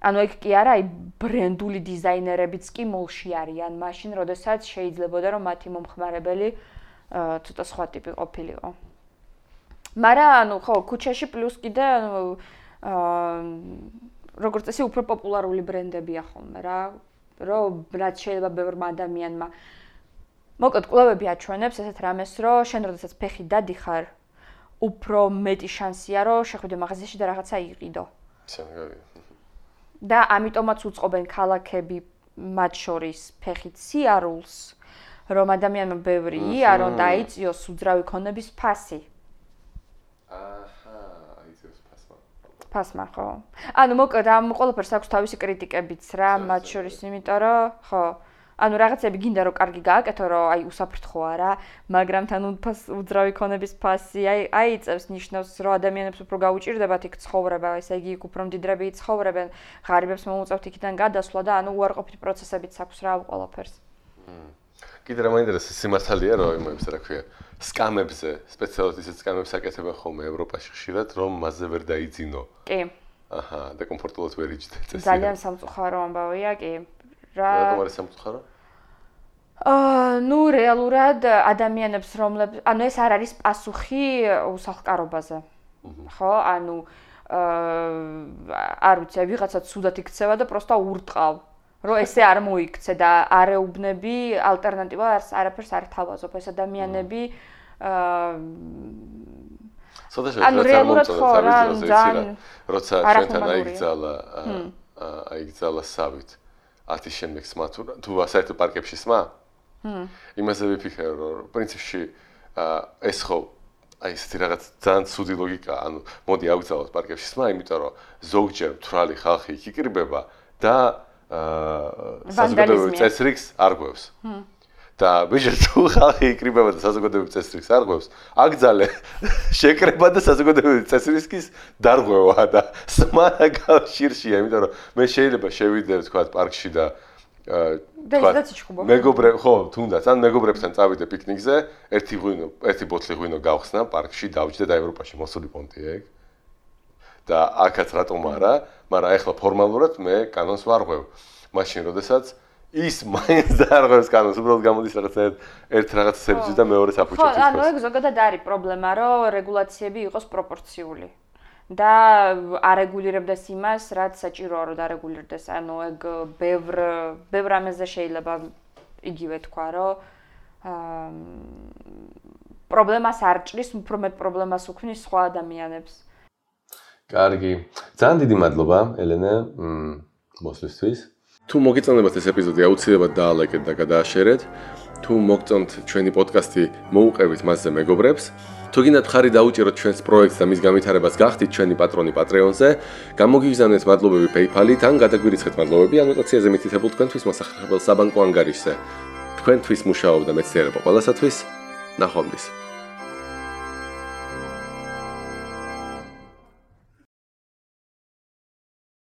ანუ ეგ კი არა, ბრენდული დიზაინერებიც კი მოლში არიან, მაშინ როდესაც შეიძლებოდა რომ მათი მომხმარებელი ცოტა სხვა ტიპი ყოფილიყო. მაგრამ ხო, ქუჩაში პლუს კიდე როგორც წესი უფრო პოპულარული ბრენდებია ხოლმე რა, რომ რაც შეიძლება ბევრმა ადამიანმა. მოკლედ კვლევები აჩვენებს ესეთ რამეს, რომ შენ როდესაც ფეხი დადიხარ, უფრო მეტი შანსია, რომ შეხვიდე მაღაზიაში და რაღაცა იყიდო. და ამიტომაც უწყობენ ქალაქები მათ შორის ფეხით სიარულს, რომ ადამიანმა ბევრი იარო და აიწიოს უძრავი ქონების ფასი. ფასმა, ხო. ანუ მოკლედ ამ ყველაფერს აქვს თავისი კრიტიკებიც რა, მათ შორის, იმიტომ რომ ხო, ანუ რაღაცები გინდა რომ კარგი გააკეთო, რომ აი უსაფრთხოა რა, მაგრამ თან უძრავი ქონების ფასი აიწევს ნიშნავს, რომ ადამიანებს უფრო გაუჭირდებათ იქ ცხოვრება, ესე იგი იქ უფრო მდიდრები ცხოვრებენ, ღარიბებს მოუწევთ იქიდან გადასვლა და ანუ უარყოფითი პროცესებიც აქვს რა ყველაფერს. კიდე რა მაინტერესებს სიმართალეა რომ იმებს რა ქვია სკამებზე, სპეციალურად ისეთ სკამებს აკეთებენ ხოლმე ევროპაში ხშირად, რომ მასზე ვერ დაიძინო. კი. აჰა, და კომფორტულად ვერ იჯდე წესი. ძალიან სამწუხარო ამბავია, კი. რატომ არის სამწუხარო? ნუ რეალურად ადამიანებს რომლებიც, ანუ ეს არ არის პასუხი უსახლკარობაზე. ხო, ანუ არ ვიცი, ვიღაცა ცუდად იქცევა და პროსტა ურტყავ. რომ ესე არ მოიქცე და არ ეუბნები ალტერნატივა არაფერს არ თავაზობ ეს ადამიანები ანუ რეალურად ხო რა როცა ჩვენთან აიგზალა სავით 10 შემდეგ სმა თუ საერთოდ პარკებში სმა იმაზე ვიფიქრე რომ პრინციპში ეს ხო აი ესეთი რაღაც ძალიან ცუდი ლოგიკაა ანუ მოდი აიგზალოთ პარკებში სმა იმიტომ რომ ზოგჯერ მთვრალი ხალხი იქ იკრიბება და საზოგადოებრივ წესრიგს არ გვევს. და ბიჭო თუ ხალხი იკრიბება და საზოგადოებრივ წესრიგს არ გვევს, აგძალე შეკრება და საზოგადოებრივ წესრიგის დარღვევა და სმა კავშირშია, იმიტომ რომ მე შეიძლება შევიდე თქვა პარკში და მეგობრებ ხო თუნდაც ან მეგობრებთან წავიდე პიკნიკზე, ერთი ბოთლი ღვინო გავხსნა პარკში დავჯდე და ევროპაში მოსული პონტია ეგ. და აქაც რატომ არა, მაგრამ ახლა ფორმალურად მე კანონს ვარღვევ. მაშინ როდესაც ის მაინც დაარღვევს კანონს, უბრალოდ გამოდის ერთ რაღაცებიც და მეორეს აფუჭებს. ხო, ანუ ეგ ზოგადად არის პრობლემა, რომ რეგულაციები იყოს პროპორციული. და არეგულირებდეს იმას, რაც საჭიროა რომ დარეგულირდეს. ანუ ეგ ბევრ ამაზე შეიძლება იგივე თქვა, რომ პრობლემას არ ჭრის, უფრო მეტ პრობლემას უქმნის სხვა ადამიანებს. კარგი. ძალიან დიდი მადლობა, ელენე, მოსვლისთვის. თუ მოგეწონებათ ეს ეპიზოდი, აუცილებლად დაალაიქეთ და გადააშერეთ. თუ მოგწონთ ჩვენი პოდკასტი, მოუყევით მასზე მეგობრებს. თუ გინდათ ხარი დაუჭიროთ ჩვენს პროექტს და მის განვითარებას გახდით ჩვენი პატრონი Patreon-ზე, გამოგიგზავნეთ მადლობები PayPal-ით ან გადაგვირიცხეთ მადლობები ანოტაციაზე მითითებულ თქვენთვის მოსახერხებელ საბანკო ანგარიშზე. თქვენთვის მუშაობდა მეცნიერება ყველასათვის. ნახვამდის.